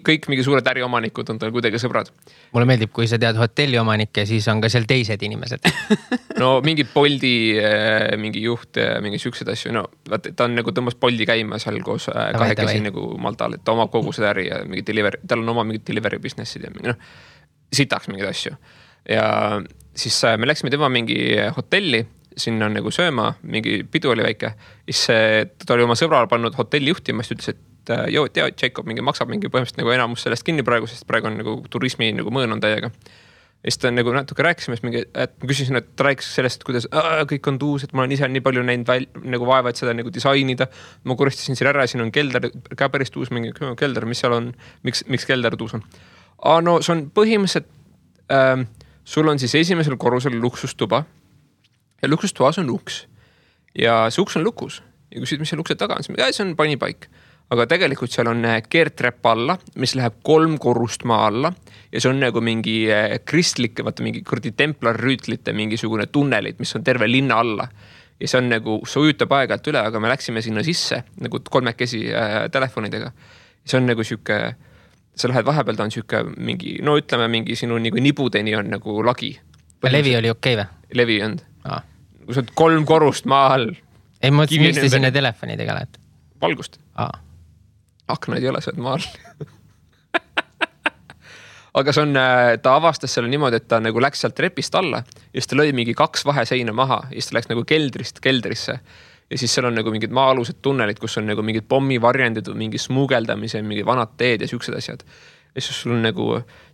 kõik mingi suured äriomanikud on tal kuidagi sõbrad. Mulle meeldib, kui sa tead hotelli omanikke, siis on ka seal teised inimesed. No mingi Boldi, mingi juht, mingi siuksed asju. No ta on nagu tõmbas Boldi käima seal koos kahekesi nagu Maltal, et ta omab kogu seda äri ja mingi delivery, tal on oma mingid delivery businessid ja mingi, sitaks mingid asju. Ja siis me läksime tema mingi hotelli, sinna on nagu sööma, mingi pidu oli väike. Siis ta oli oma sõbrale pannud hotelli juhtima, siis ütles, et joo, tea, Jacob mingi maksab mingi põhimõtteliselt nagu enamus sellest kinni praegu, sest praegu on nagu turismi nagu mõõn on täiega. Ja siis ta nagu natuke rääkisime, et ma küsisin, et ta rääkis sellest, kuidas kõik on tuus, et ma olen ise nii palju näinud nagu vaeva, et seda nagu disainida. Ma kuristasin siin ära, siin on kelder, ka päris tuus mingi kelder, mis seal on, miks kelder tuus on. No see on põhimõtteliselt, sul on siis esimesel korrusel luksustuba ja luksustuas on uks ja see uks on lukus ja küsid, mis see lukse taga on, see on panipaik, aga tegelikult seal on keertrepp alla, mis läheb 3 korrust maa alla ja see on nagu mingi kristlik, vaata mingi kurdi templarrüütlite mingisugune tunnelit, mis on terve linna alla ja see on nagu, see ujutab aegalt üle, aga me läksime sinna sisse nagu 3 telefonidega ja see on nagu siuke sa lähed vahepeal, ta on siuke mingi, no ütleme mingi sinu nagu nibudeni on nagu lagi. Levi oli okei või? Levi on. Kui sa oled 3 korrust maa all. Ei mõtlesin, miks te sinna telefonidega lähed? Valgust. Aknaid ei ole, sa oled maa all. Aga see on, ta avastas selle niimoodi, et ta nagu läks sealt trepist alla ja siis ta lõi mingi 2 vaheseina maha ja siis ta läks nagu keldrisse. Ja siis seal on nagu mingid maa-alused tunnelid, kus on nagu mingid pommivarjendid või mingi smuugeldamise, mingi vanad teed ja siuksed asjad. Ja siis sul on nagu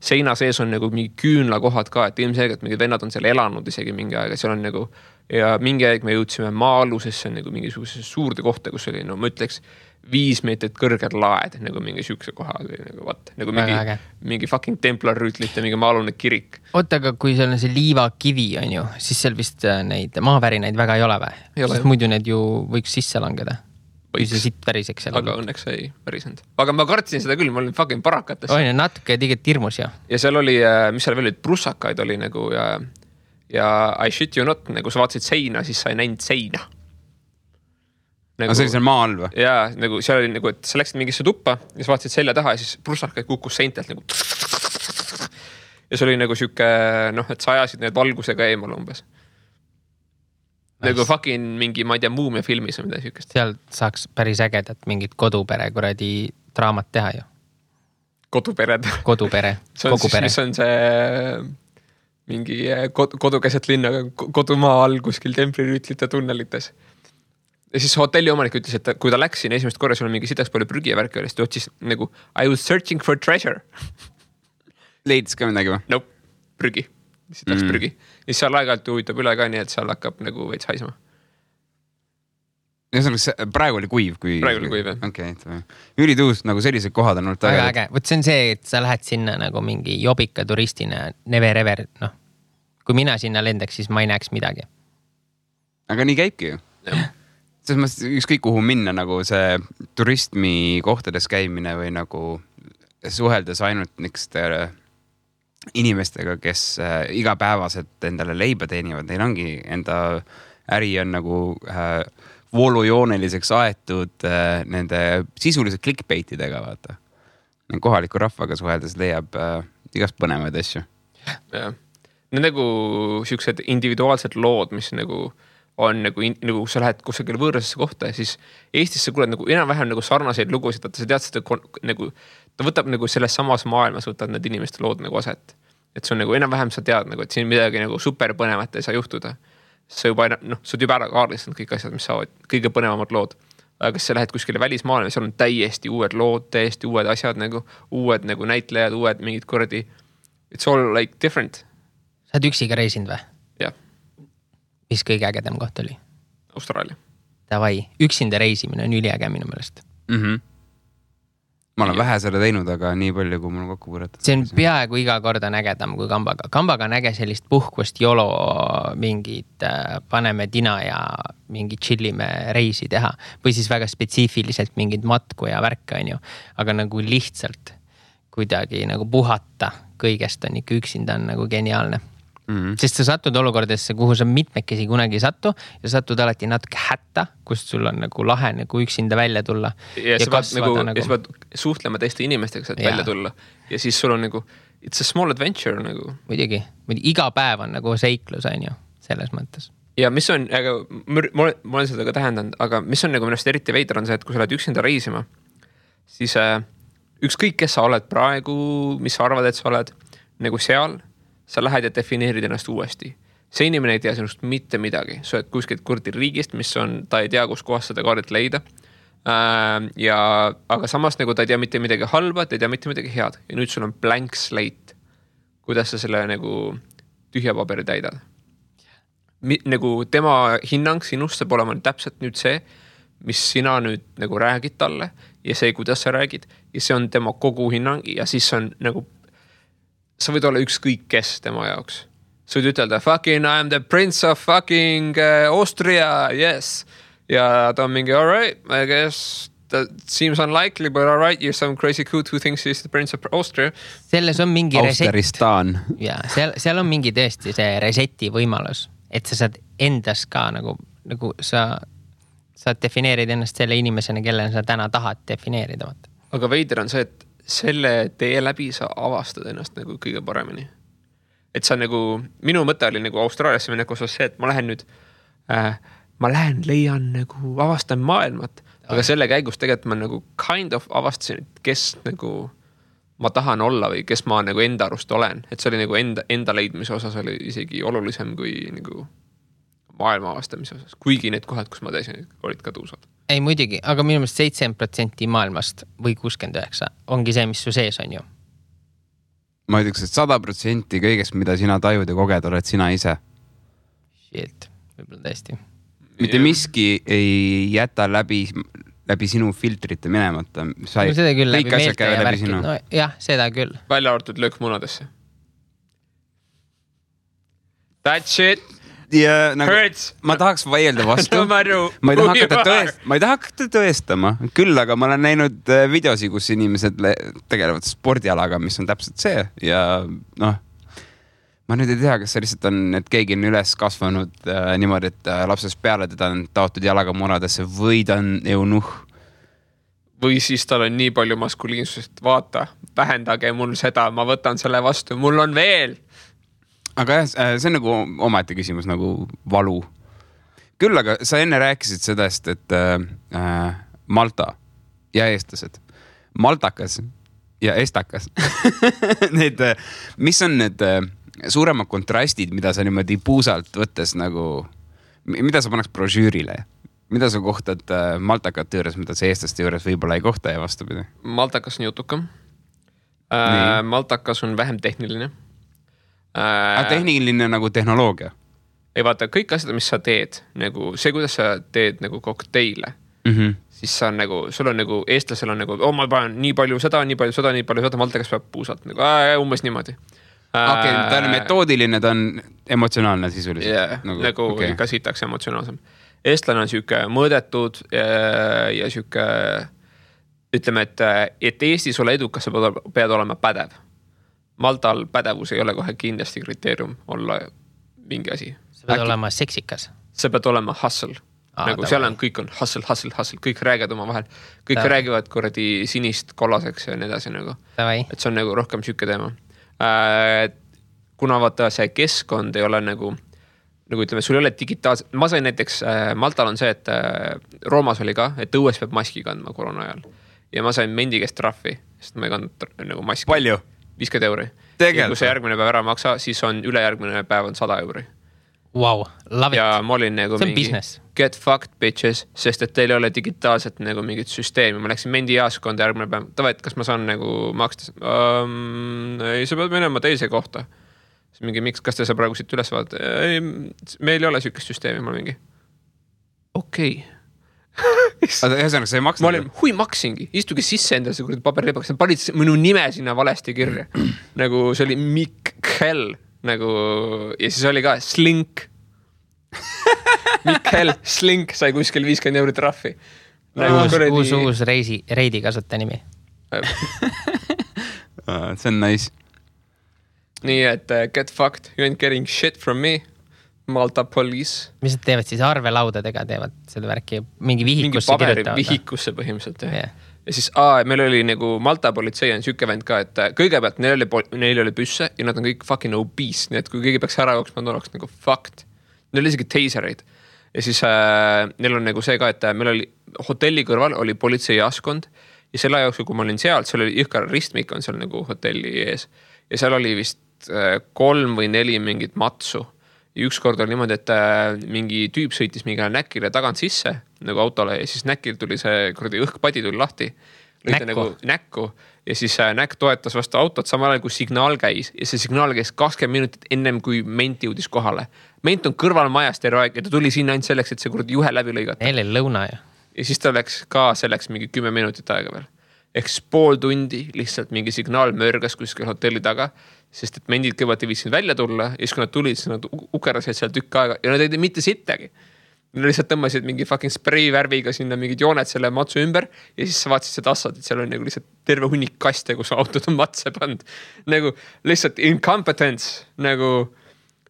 seina sees on nagu mingi küünlakohad ka, et ilmselgelt mingid vennad on seal elanud isegi mingi aeg. Seal on nagu, ja mingi aeg me jõudsime maa-alusesse nagu mingisuguse suurde kohta, kus oli, no ma ütleks, 5 meetrit kõrged laed, nagu mingi siukse koha, nagu vaat, nagu mingi fucking templarrüütlite, mingi maa-alune kirik. Oota, aga kui seal on see liivakivi on ju, siis seal vist neid maavärinaid väga ei ole või? Sest muidu need ju võiks sisse langeda. Kui see sitt väriseks seal. Aga õnneks ei värisend. Aga ma kartsin seda küll, ma olin fucking parakates. Oine, natuke tegelikult hirmus ju. Ja seal oli, mis seal veel olid, prussakaid oli nagu ja I shit you not, nagu sa vaatasid seina, siis sa ei näinud seina. Nagu, see oli seal maa all või? Jaa, nagu seal oli nagu, et sa läksid mingisse tuppa ja sa vaatasid selja taha ja siis prussakad kukkus seintelt nagu. Ja see oli nagu siuke, et sa ajasid need valgusega eemal umbes. Nagu fucking mingi, ma ei tea, Muumia filmis või mida siukest. Seal saaks päris ägedat mingit kodupere kuradi draamat teha ju. Kodupere. Kogupere. Mis on see mingi kodukeset linna, kodumaa all kuskil templirüütlite tunnelites. Ja siis hotelli omanik ütles, et kui ta läks siin esimest korra, sul on mingi sidaks palju prügi ja värki oli, siis ta otsis nagu I was searching for treasure. Leidis ka midagi või? Nope, prügi. Sidaks prügi. Ja seal aeg-ajalt huvitab üle ka nii, et seal hakkab nagu veits haisma. Ja praegu oli kuiv, Praegu oli kuiv, jah. Okay, ülituus, nagu sellised kohad on olnud väga äge. Võt see on see, et sa lähed sinna nagu mingi jobika turistina, never ever, Kui mina sinna lendaks, siis ma ei näeks midagi. Aga nii käibki ju. Selles mõttes ükskõik kuhu minna nagu see turismi kohtades käimine või nagu suheldes ainult nikste inimestega, kes igapäevaselt endale leiba teenivad. Neil ongi enda äri on nagu voolujooneliseks aetud nende sisuliselt clickbaitidega, vaata. Kohaliku rahvaga suheldes leiab igast põnevaid asju. Jah. Need nagu siuksed individuaalsed lood, mis nagu on nagu sa lähed kusagil võõrasesse kohta ja siis Eestis sa kuuled nagu enam-vähem nagu sarnaseid lugusid, et sa tead seda nagu, ta võtab nagu selles samas maailmas võtad need inimeste lood nagu aset. Et see on nagu enam-vähem sa tead nagu, et siin midagi nagu super põnevat ei saa juhtuda. Sa juba, sa oled juba ära kaardistanud kõik asjad, mis saavad kõige põnevamad lood. Aga kas sa lähed kuskile välismaailma, seal on täiesti uued lood, täiesti uued asjad nagu, uued nagu näitlejad, uued mingid kordi. It's all like different. Sa oled üksiga reisinud või? Jah. Mis kõige ägedam koht oli? Austraalia. Davai, üksinda reisimine on üliäge minu meelest. Ma olen vähe selle teinud, aga nii palju, kui mul on kokku võrratud. See on peaaegu iga kord on ägedam kui kambaga. Kambaga on äge sellist puhkust jolo mingid paneme tina ja mingi chillime reisi teha. Või siis väga spetsiifiliselt mingid matku ja värka on ju. Aga nagu lihtsalt kuidagi nagu puhata kõigest on ikka üksinda on nagu geniaalne. Sest sa satud olukordesse, kuhu sa mitmekesi kunagi satu ja satud alati natuke hätta, kust sul on nagu lahe nagu üksinda välja tulla. Ja sa pead suhtlema teiste inimestega, saad välja tulla. Ja siis sul on nagu, it's a small adventure nagu. Muidugi, iga päev on nagu seiklus on ju, selles mõttes. Ja mis on, aga ma olen seda ka tähendanud, aga mis on nagu minust eriti veider on see, et kui sa oled üksinda reisima, siis ükskõik, kes sa oled praegu, mis sa arvad, et sa oled nagu seal, sa lähed ja defineerid ennast uuesti. See inimene ei tea sinust mitte midagi. Sa oled kuskilt kurdi riigist, mis on, ta ei tea, kus kohast seda kaardilt leida. Aga samas nagu ta ei tea mitte midagi halba, ta ei tea mitte midagi head. Ja nüüd sul on blank slate. Kuidas sa selle nagu tühja paberi täidad? Nagu tema hinnang sinust saab olema täpselt nüüd see, mis sina nüüd nagu räägid talle ja see, kuidas sa räägid. Ja see on tema kogu hinnang ja siis on nagu sa võid olla ükskõik kes tema jaoks. Sa võid ütelda, fucking I am the prince of fucking Austria, yes. Ja ta on mingi, all right, I guess that seems unlikely, but all right, you're some crazy coot who thinks he's the prince of Austria. Selles on mingi Austeristaan. Ja, seal on mingi tõesti see reseti võimalus, et sa saad endas ka nagu sa defineerid ennast selle inimesena, kelle sa täna tahad defineerida. Aga veider on see, et selle tee läbi sa avastad ennast nagu kõige paremini. Et sa nagu, minu mõte oli nagu Austraaliasse minna osas see, et ma lähen, leian nagu, avastan maailmat, aga selle käigus tegelikult ma nagu kind of avastasin, et kes nagu ma tahan olla või kes ma nagu enda arust olen. Et see oli nagu enda leidmise osas oli isegi olulisem kui nagu maailma avastamise osas. Kuigi need kohad, kus ma täisin, olid ka tuusad. Ei muidugi, aga minu meelest 7% maailmast või 69 ongi see, mis su sees on ju. Ma ütleks, et 100% kõigest, mida sina tajud ja koged, oled sina ise. Shit, võib-olla tõesti. Mitte miski ei jäta läbi sinu filtrite minemata. No seda küll, läbi meelte ja värkid. No, jah, seda küll. Välja arvatud löök munadesse. That shit ja, nagu, ma tahaks vaielda vastu. ma ei taha hakata tõestama. Küll, aga ma olen näinud videosi, kus inimesed tegelevad spordialaga, mis on täpselt see. Ja ma nüüd ei tea, kas see lihtsalt on, et keegi on üles kasvanud niimoodi, et lapsest peale teda on taotud jalaga munadesse või ta on eunuh. Või siis tal on nii palju maskuliinsust, vaata, vähendage mul seda, ma võtan selle vastu, mul on veel. Aga jah, see on nagu omaette küsimus, nagu valu. Küll, aga sa enne rääkisid sedast, et Malta ja eestlased, maltakas ja estakas. Need, mis on need suuremad kontrastid, mida sa niimoodi puusalt võttes nagu, mida sa paneks brožüürile? Mida sa kohtad maltakate juures, mida sa eestlaste juures võib-olla ei kohta ja vastupidi? Maltakas on jutukam. Maltakas on vähem tehniline. Tehniline nagu tehnoloogia? Ei vaata, kõik asjad, mis sa teed, nagu see, kuidas sa teed nagu kokteile, siis sa on nagu, sul on nagu, eestlasel on nagu, ma panen nii palju seda, maltakas peab puusalt, nagu umbes niimoodi. Okei, ta on metoodiline, ta on emotsionaalne sisuliselt. Yeah, nagu okay. Ka sitaks emotsionaalsem. Eestlane on siuke mõõdetud ja siuke, ütleme, et Eestis ole edukas, sa pead olema pädev. Maltal pädevus ei ole kohe kindlasti kriteerium olla mingi asi. Sa pead olema seksikas. Sa pead olema hustle. Nagu seal on, kõik on hustle, kõik räägivad oma vahel. Kõik räägivad kuradi sinist kollaseks ja nii edasi nagu. Et see on nagu rohkem siuke teema. Kuna vaata see keskkond ei ole nagu ütleme, sul ei ole digitaalselt, ma sain näiteks, Maltal on see, et Roomas oli ka, et õues peab maski kandma koroona ajal ja ma sain mendi käest trahvi, sest ma ei kandnud nagu maski. Palju? 50 €. Ja kui see järgmine päev ära maksa, siis on ülejärgmine päev on 100 €. Wow, love it. Ja ma olin nagu see on mingi business. Get fucked bitches, sest et teil ei ole digitaalselt nagu mingit süsteemi. Ma läksin mendi jaaskonda järgmine päev. Tava, et kas ma saan nagu maksta? Ei, sa pead minema teise kohta. Mingi, miks, kas te sa praegu siit üles vaadate? Ei, meil ei ole sükest süsteemi, ma mingi. Okei. Ühesõnaga, sa ei maksnud? Ma olin, maksingi. Istuge sisse endale see kuradi paberlepakas. Panid minu nime sinna valesti kirja. Nagu see oli Mikkel. Nagu, ja siis oli ka Slink. Mikkel Slink sai kuskil 50 € trahvi. Nagu uus reidi kasutaja nimi. See on nice. Nii, et get fucked, you ain't getting shit from me, Malta police. Mis nad teevad siis arvelaudadega, teevad seda värki, mingi vihikusse kirjutavad? Mingi vihikusse põhimõtteliselt, jah. Yeah. Ja siis meil oli nagu Malta politsei on siuke vend ka, et kõigepealt neil oli püsse ja nad on kõik fucking obese, nii et kui keegi peaks ära jooksma, nad oleks nagu fucked. Neil oli isegi teisereid. Ja siis neil on nagu see ka, et meil oli hotelli kõrval oli politsei jaaskond ja selle jooksul, kui ma olin seal oli jõhkar ristmik on seal nagu hotelli ees ja seal oli vist 3 või 4 mingit matsu. Ja ükskord oli niimoodi, et mingi tüüp sõitis mingile näkile tagant sisse nagu autole ja siis näkil tuli see kuradi õhkpadi tuli lahti. Näkku. Ja siis näkk toetas vastu autot samal ajal, kui signaal käis. Ja see signaal käis 20 minutit ennem, kui ment jõudis kohale. Ment on kõrval majast terve aeg ja ta tuli sinna ainult selleks, et see kuradi juhe läbi lõigata. Neil oli lõuna ju. Ja siis ta läks ka selleks mingi 10 minutit aega veel. Ehk pool tundi lihtsalt mingi signaal mörgas kuskil hotelli taga, sest et mendid kõigepealt ei viitsinud välja tulla ja siis kui nad tulid, siis nad ukerasid seal tükk aega ja nad ei teinud mitte sittagi. Nad lihtsalt tõmbasid mingi fucking spray värviga sinna mingid jooned selle matsu ümber ja siis sa vaatasid seda assad, et seal on nagu lihtsalt terve hunnik kaste, kus autod on matse pand. Nagu lihtsalt incompetence, nagu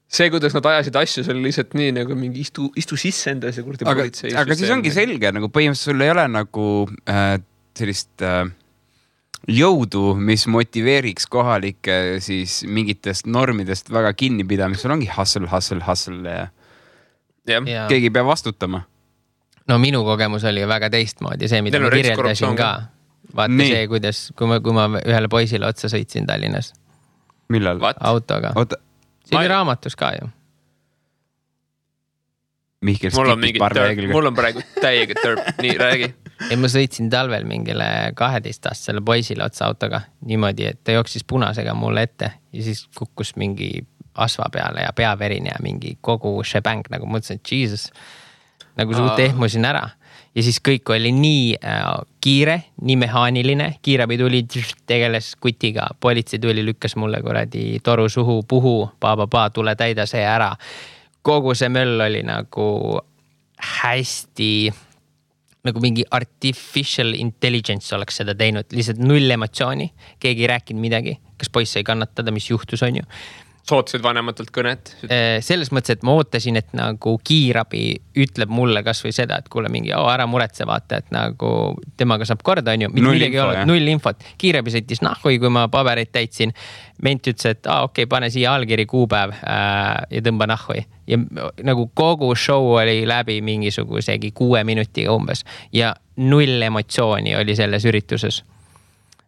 see, kuidas nad ajasid asju, see oli lihtsalt nii nagu mingi istu sisse enda see kurdi politsei. Aga siis ongi selge, nagu põhimõtteliselt sul ei ole nagu sellist jõudu, mis motiveeriks kohalikke siis mingitest normidest väga kinnipidamist. Sul ongi hustle ja keegi peab vastutama. No minu kogemus oli väga teistmoodi, see, mida ma kirjeldasin ka. Vaata nii. See, kuidas, kui ma ühele poisile otsa sõitsin Tallinnas. Millal? Autoga. See oli raamatus ka ju. Mihkel mul on praegu täiega törp, nii räägi. Ja ma sõitsin talvel mingile 12-aastasele poisile otsa autoga niimoodi, et ta jooksis punasega mulle ette ja siis kukkus mingi asva peale ja peaverine ja mingi kogu shebang, nagu mõtlesin, et Jesus, nagu suht ehmusin ära. Ja siis kõik oli nii kiire, nii mehaaniline, kiirabi tuli, tegeles kutiga, politsei tuli, lükkas mulle kuradi toru suhu, puhu, tule täida see ära. Kogu see möll oli nagu hästi, nagu mingi artificial intelligence oleks seda teinud, lihtsalt null emotsiooni, keegi ei rääkinud midagi, kas poiss ei kannatada, mis juhtus on ju. Sootasid vanematelt kõnet? Selles mõttes, et ma ootasin, et nagu kiirabi ütleb mulle kas või seda, et kuule mingi, ära muretse vaata, et nagu temaga saab korda, on ju. Null infot. Kiirabi sõitis nahhui, kui ma pabereid täitsin. Ment ütles, et okei, pane siia allkiri kuupäev ja tõmba nahhui. Ja nagu kogu show oli läbi mingisugusegi 6 minutiga umbes. Ja 0 emotsiooni oli selles ürituses.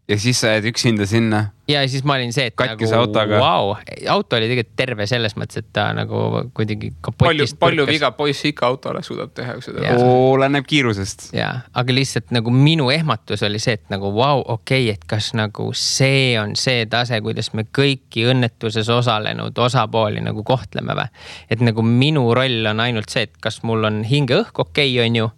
Ja siis sa jääd üksinda sinna. Ja siis ma olin see, et katkise nagu, autoga. Auto oli tegelikult terve selles mõttes, et ta nagu kuidagi kapotist palju viga poiss ikka autole suudab teha. Oleneb kiirusest. Ja, aga lihtsalt nagu minu ehmatus oli see, et nagu okei, et kas nagu see on see tase, kuidas me kõiki õnnetuses osalenud osapooli nagu kohtleme või. Et nagu minu roll on ainult see, et kas mul on hingeõhk okei, on ju,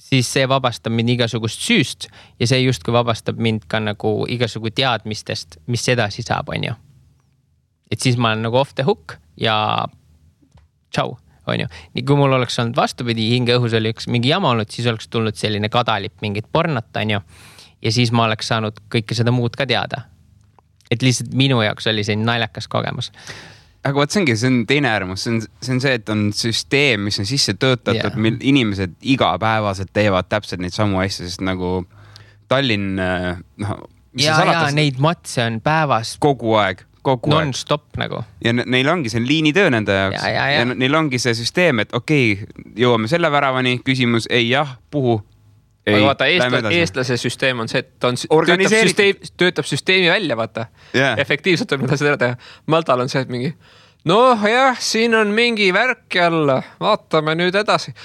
siis see vabastab mind igasugust süüst ja see justkui vabastab mind ka nagu igasugu teadmistest, mis edasi saab, on ju. Et siis ma olen nagu off the hook ja tšau, on ju. Nii kui mul oleks olnud vastupidi, hingeõhus oli üks mingi jama olnud, siis oleks tulnud selline kadalip mingit pornot, on ju. Ja siis ma oleks saanud kõike seda muud ka teada. Et lihtsalt minu jaoks oli see naljakas kogemus. Aga võt see on teine äärmus, see on see, et on süsteem, mis on sisse töötatud, mil inimesed igapäevaselt teevad täpselt neid samu asju, sest nagu Tallinn, neid matse on päevas kogu aeg. Non-stop nagu. Ja neil ongi see liinitöö nende jaoks. Ja neil ongi see süsteem, et okei, jõuame selle väravani, küsimus, ei jah, puhu. Aga vaata, eestlase süsteem on see, et ta töötab süsteemi välja, vaata. Efektiivselt võib seda teha. Maltal on see, et mingi, jah, siin on mingi värk jälle, vaatame nüüd edasi.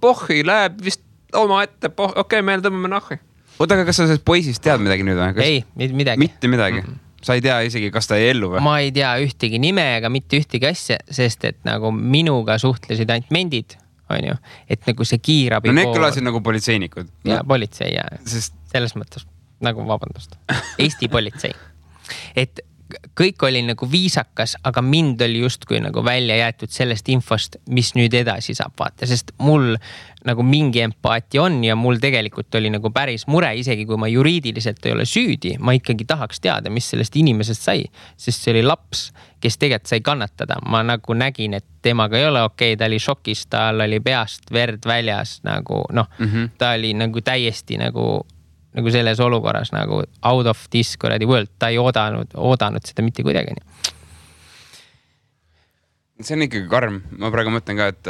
Pohhi läheb vist oma ette, okei, meil tõmbame nahhi. Oota, aga kas sa sellest poisist tead midagi nüüd? Ei, midagi. Mitte midagi. Sa ei tea isegi, kas ta ei ellu või? Ma ei tea ühtegi nime ega mitte ühtegi asja, sest et nagu minuga suhtlesid ainult mendid. On ju, et nagu see kiirabi need kõlasid nagu politseinikud. Ja politsei ja selles mõttes nagu vabandust. Eesti politsei. Et kõik oli nagu viisakas, aga mind oli justkui nagu välja jäetud sellest infost, mis nüüd edasi saab vaata, sest mul nagu mingi empaati on ja mul tegelikult oli nagu päris mure, isegi kui ma juriidiliselt ei ole süüdi, ma ikkagi tahaks teada, mis sellest inimesest sai, sest see oli laps, kes tegelikult sai kannatada. Ma nagu nägin, et temaga ei ole okei, ta oli šokis, tal oli peast verd väljas nagu ta oli nagu täiesti nagu selles olukorras nagu out of this world, ta ei oodanud seda mitte kuidagi. See on ikkagi karm. Ma praegu mõtlen ka, et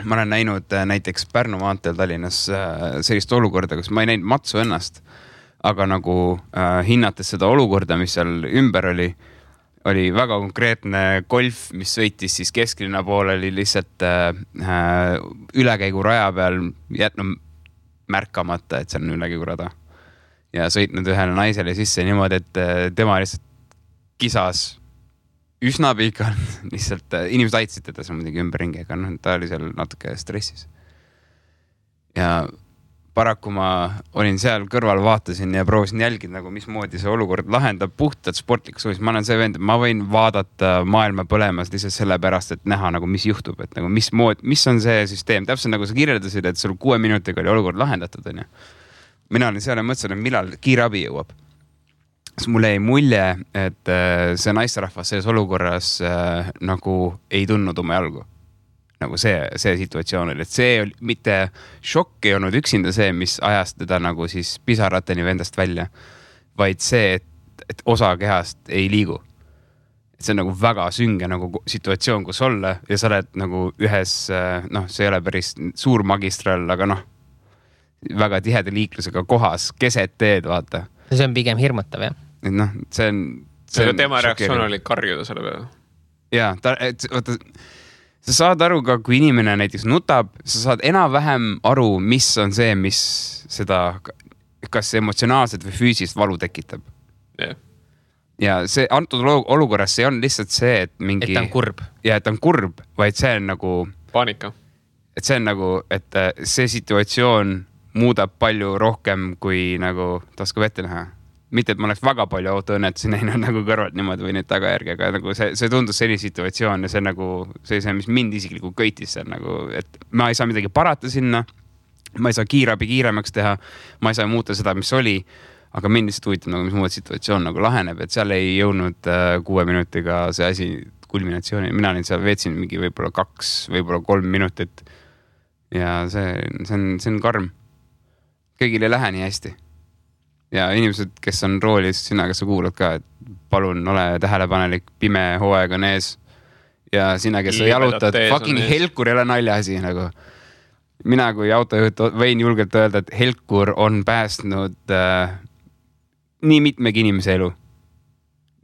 ma olen näinud näiteks Pärnu maanteel Tallinnas sellist olukorda, kus ma ei näinud matsu ennast, aga nagu hinnates seda olukorda, mis seal ümber oli väga konkreetne golf, mis sõitis siis kesklinna poole, oli lihtsalt ülekäigu raja peal jätnud märkamata, et see on ülekäigurada. Ja sõitnud ühele naisele sisse niimoodi, et tema lihtsalt kisas üsna pikalt. Lihtsalt inimesed aitasid teda seal muidugi ümberringi, aga ta oli seal natuke stressis. Ja paraku ma olin seal kõrval, vaatasin ja proovisin jälgida, nagu mismoodi see olukord lahendab puhtalt sportlikus suunis. Ma olen see vend, ma võin vaadata maailma põlemas lihtsalt sellepärast, et näha nagu mis juhtub, et nagu mis on see süsteem. Täpselt nagu sa kirjeldasid, et sul 6 minutiga oli olukord lahendatud. On ju. Mina olin seal ja mõtlesin, et millal kiirabi jõuab. Siis mulle jäi mulje, et see naisterahvas selles olukorras nagu ei tundnud oma jalgu. Nagu see situatsioon oli, et see oli mitte šokk ei olnud üksinda see, mis ajas teda nagu siis pisarateni vendast välja, vaid see, et osa kehast ei liigu. Et see on nagu väga sünge nagu situatsioon, kus olla ja sa oled nagu ühes, see ei ole päris suur magistral, aga väga tiheda liiklusega kohas, keset teed, vaata. See on pigem hirmutav, jah? Et see on tema reaktsioon oli karjuda selle peale. Jaa, vaata, sa saad aru ka, kui inimene näiteks nutab, sa saad enam-vähem aru, mis on see, mis seda, kas emotsionaalselt või füüsist valu tekitab. Yeah. Ja see antud olukorras see on lihtsalt see, et mingi... Et ta on kurb. Ja, et ta on kurb, vaid see on nagu... Paanika. Et see on nagu, et see situatsioon muudab palju rohkem kui nagu taskab ette näha. Mitte, et ma oleks väga palju autoõnnetusi näinud nagu kõrvalt niimoodi või neid tagajärgi, aga nagu see tundus selline situatsioon ja see nagu see, mis mind isiklikult köitis seal nagu, et ma ei saa midagi parata sinna, ma ei saa kiirabi kiiremaks teha, ma ei saa muuta seda, mis oli, aga mind lihtsalt huvitab nagu, mis muud situatsioon nagu laheneb, et seal ei jõudnud 6 minutiga see asi kulminatsiooni. Mina olin seal, veetsin mingi võib-olla 2, võib-olla 3 minutit ja see on karm. Kõigil ei lähe nii hästi. Ja inimesed, kes on roolis, sina, kes sa kuulad ka, et palun ole tähelepanelik, pime hooaeg on ees ja sina, kes sa jalutad, fucking Helkur ei ole naljaasi nagu. Mina kui autojuht võin julgelt öelda, et Helkur on päästnud nii mitmegi inimese elu.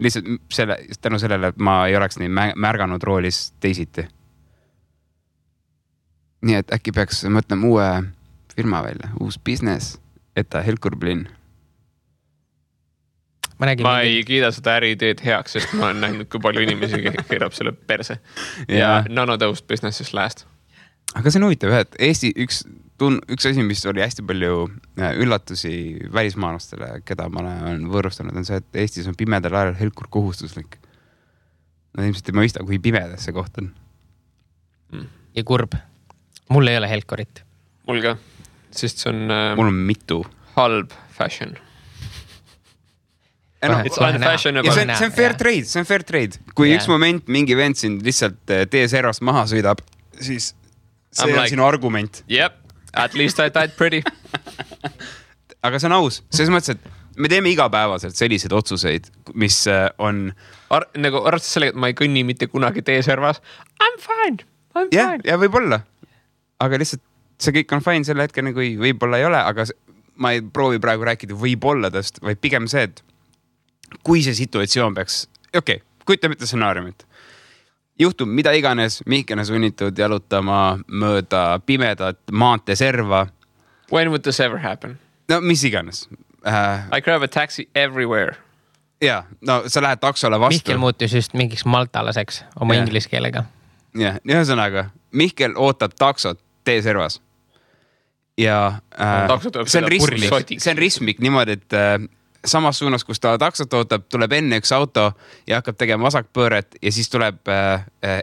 Lihtsalt tänu sellele, et ma ei oleks nii märganud roolis teisiti. Nii et äkki peaks mõtlema uue firma välja, uus business, et Helkur Blinn. Ma ei kiida seda äriideed heaks, sest ma olen näinud, kui palju inimesi keerab selle perse. Ja nanotõust businesses last. Aga see on huvitav, et Eesti üks asi, mis oli hästi palju üllatusi välismaalastele, keda ma olen võõrustanud, on see, et Eestis on pimedal ajal Helkur kohustuslik. Nad ilmselt ei mõista, kui pimedas see koht on. Ja kurb. Mul ei ole Helkurit. Mul ka, sest see on... Mul on mitu. Halb fashion. It's unfashionable. Ja see on fair trade. Kui üks moment mingi vend siin lihtsalt TSR-ast maha sõidab, siis see on sinu argument. Yep, at least I died pretty. Aga see on aus. Selles mõttes, et me teeme igapäevaselt selliseid otsuseid, mis on... Nagu arvestades sellega, et ma ei kõnni mitte kunagi TSR-vas. I'm fine. Ja võib-olla. Aga lihtsalt see kõik on fine selle hetkel, kui võib-olla ei ole, aga ma ei proovi praegu rääkida võib-olladest, vaid pigem see, et kui see situatsioon peaks... Okei, kujutame ette stsenaariumit. Juhtub mida iganes, Mihkel on sunnitud jalutama mööda pimedat maanteeserva. When would this ever happen? No mis iganes. I grab a taxi everywhere. Ja, no sa lähed taksole vastu. Mihkel muutus just mingiks maltalaseks oma inglise keelega. Ja, ühesõnaga, Mihkel ootab taksot T-servas. Ja see on ristmik niimoodi, et samas suunas, kus ta taksot ootab, tuleb enne üks auto ja hakkab tegema vasakpööret ja siis tuleb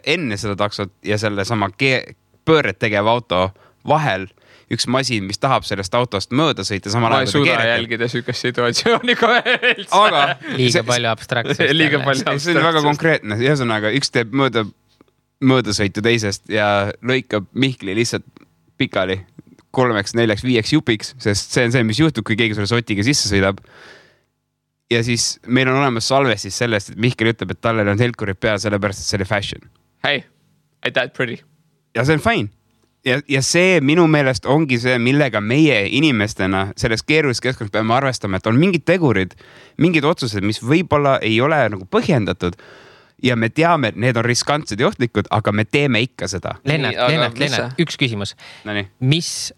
enne seda taksot ja selle sama pööret tegev auto vahel üks masin, mis tahab sellest autost mööda sõita. Ma ei suuda jälgida sükest situatsiooni ka üldse. Aga liiga palju abstraktsust. See on väga konkreetne. Ühesõnaga, üks teeb möödasõitu teisest ja lõikab Mihkli lihtsalt pikali 3, 4, 5 jupiks, sest see on see, mis juhtub, kui keegi sulle sotiga sisse sõidab. Ja siis meil on olemas salvestis sellest, et Mihkel ütleb, et talle on Helkurid pea, sellepärast, et see oli fashion. Hey, I died pretty. Ja see on fine. Ja see minu meelest ongi see, millega meie inimestena selles keerulises keskkonnas peame arvestama, et on mingid tegurid, mingid otsused, mis võib-olla ei ole nagu põhjendatud ja me teame, et need on riskantsed ja ohtlikud, aga me teeme ikka seda. Lennart, üks küsimus. Nonii. Mis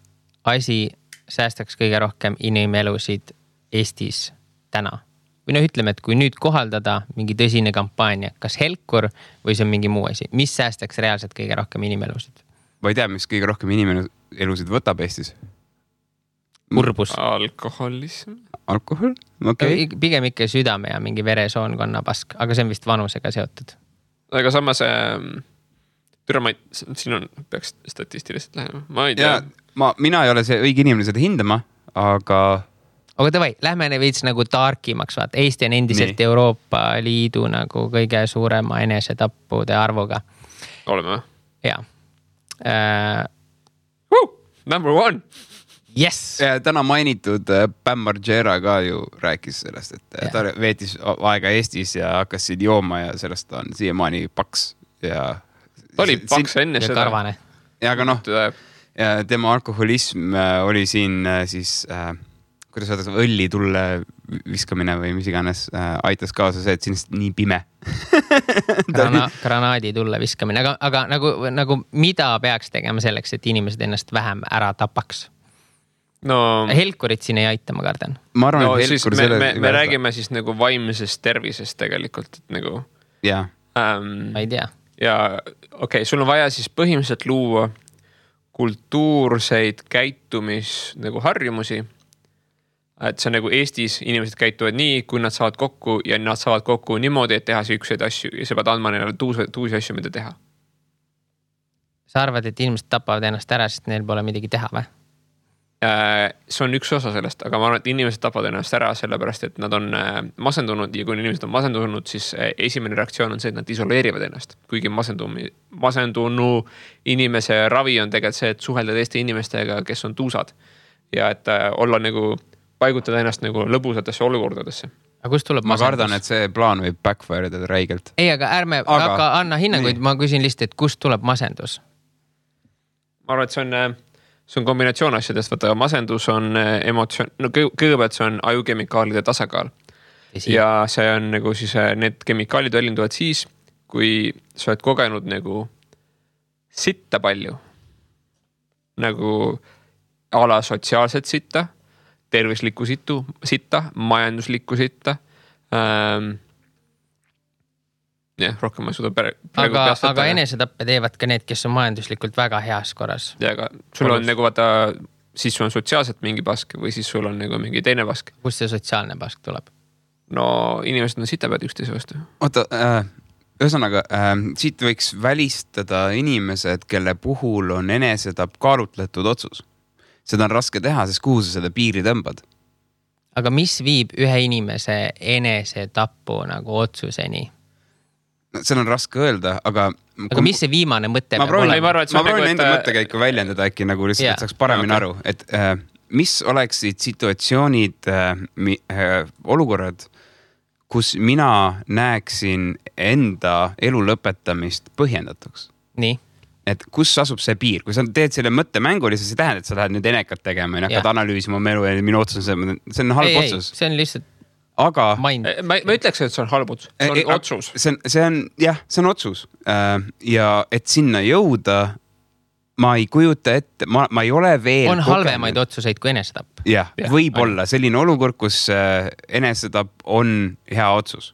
asi säästaks kõige rohkem inimelusid Eestis täna? Või ütleme, et kui nüüd kohaldada mingi tõsine kampaania, kas Helkur või see on mingi muu asi, mis säästaks reaalselt kõige rohkem inimelusid? Ma ei tea, mis kõige rohkem inimelusid võtab Eestis. Kurbus. Alkoholism. Alkohol? Okay. Pigem ikka südame ja mingi veresoonkonna pask, aga see on vist vanusega seotud. Aga samas, siin on, peaks statistiliselt lähema. Ma ei tea. Mina ei ole see õige inimene seda hindama, aga davai, lähme veits nagu tarkimaks, vaat. Eesti on endiselt Euroopa Liidu nagu kõige suurema enesetappude arvuga. Oleme või? Jaa. Number 1. Yes! Täna mainitud Bam Margera ka ju rääkis sellest, et ta veetis aega Eestis ja hakkas siin jooma ja sellest on siiamaani paks. Ta oli paks enne seda. Karvane. Ja aga tema alkoholism oli siin siis... kuidas öeldakse, õlli tulle viskamine või mis iganes aitas kaasa see, et sinist nii pime. Granaadi tulle viskamine, aga nagu mida peaks tegema selleks, et inimesed ennast vähem ära tapaks? No, Helkurit siin ei aita, ma kardan. Ma arvan, et Helkur me räägime siis nagu vaimsest tervisest tegelikult, et nagu... Jaa. Ma ei tea. Ja okei, sul on vaja siis põhimõtteliselt luua kultuurseid käitumis nagu harjumusi. Et see nagu Eestis inimesed käituvad nii, kui nad saavad kokku ja nad saavad kokku niimoodi, et teha siukseid asju ja sa pead andma neile tuusi asju, mida teha. Sa arvad, et inimesed tapavad ennast ära, sest neil pole midagi teha või? see on üks osa sellest, aga ma arvan, et inimesed tapavad ennast ära sellepärast, et nad on masendunud ja kui inimesed on masendunud, siis esimene reaktsioon on see, et nad isoleerivad ennast. Kuigi masendunu inimese ravi on tegelikult see, et suhelda teiste inimestega, kes on tuusad ja et olla nagu, paigutada ennast nagu lõbusatesse olukordadesse. Aga kust tuleb ma kardan, et see plaan võib backfire'ida räigelt. Ei, aga ärme aga anna hinnanguid, ma küsin lihtsalt, et kust tuleb masendus? Ma arvan, et see on kombinatsioon asjadest, vaata masendus on emotsioon, no kõigepealt see on ajukemikaalide tasakaal. Ja see on nagu siis, need kemikaalid välinduvad siis, kui sa oled kogenud nagu sitta palju. Nagu ala sotsiaalset sitta, tervislikku sitta, majanduslikku sitta. Rohkem ma ei suuda praegu aga enesetappe teevad ka need, kes on majanduslikult väga heas korras. Ja aga sul on nagu vaata, siis sul on sotsiaalselt mingi pask või siis sul on nagu mingi teine pask. Kust see sotsiaalne pask tuleb? No inimesed on sitapead üksteise vastu. Oota, ühesõnaga, siit võiks välistada inimesed, kelle puhul on enesetapp kaalutletud otsus. Seda on raske teha, sest kuhu sa seda piiri tõmbad? Aga mis viib ühe inimese enesetappu nagu otsuseni? Seal on raske öelda, aga mis see viimane mõte ma proovin enda mõttekäiku väljendada äkki nagu lihtsalt, et saaks paremini aru, et mis oleksid situatsioonid, olukorrad, kus mina näeksin enda elu lõpetamist põhjendatuks. Nii. Et kus asub see piir, kui sa teed selle mõttemängu, siis see tähendab, et sa lähed nüüd enekat tegema ja hakkad analüüsima oma elu ja minu otsus, see on halb otsus. See on lihtsalt aga ma ütleks, et see on halb otsus. See on otsus. See on otsus. Ja et sinna jõuda, ma ei kujuta ette, ma ei ole veel on halvemaid otsuseid kui enesetapp. Jah, võib olla selline olukord, kus enesetapp on hea otsus.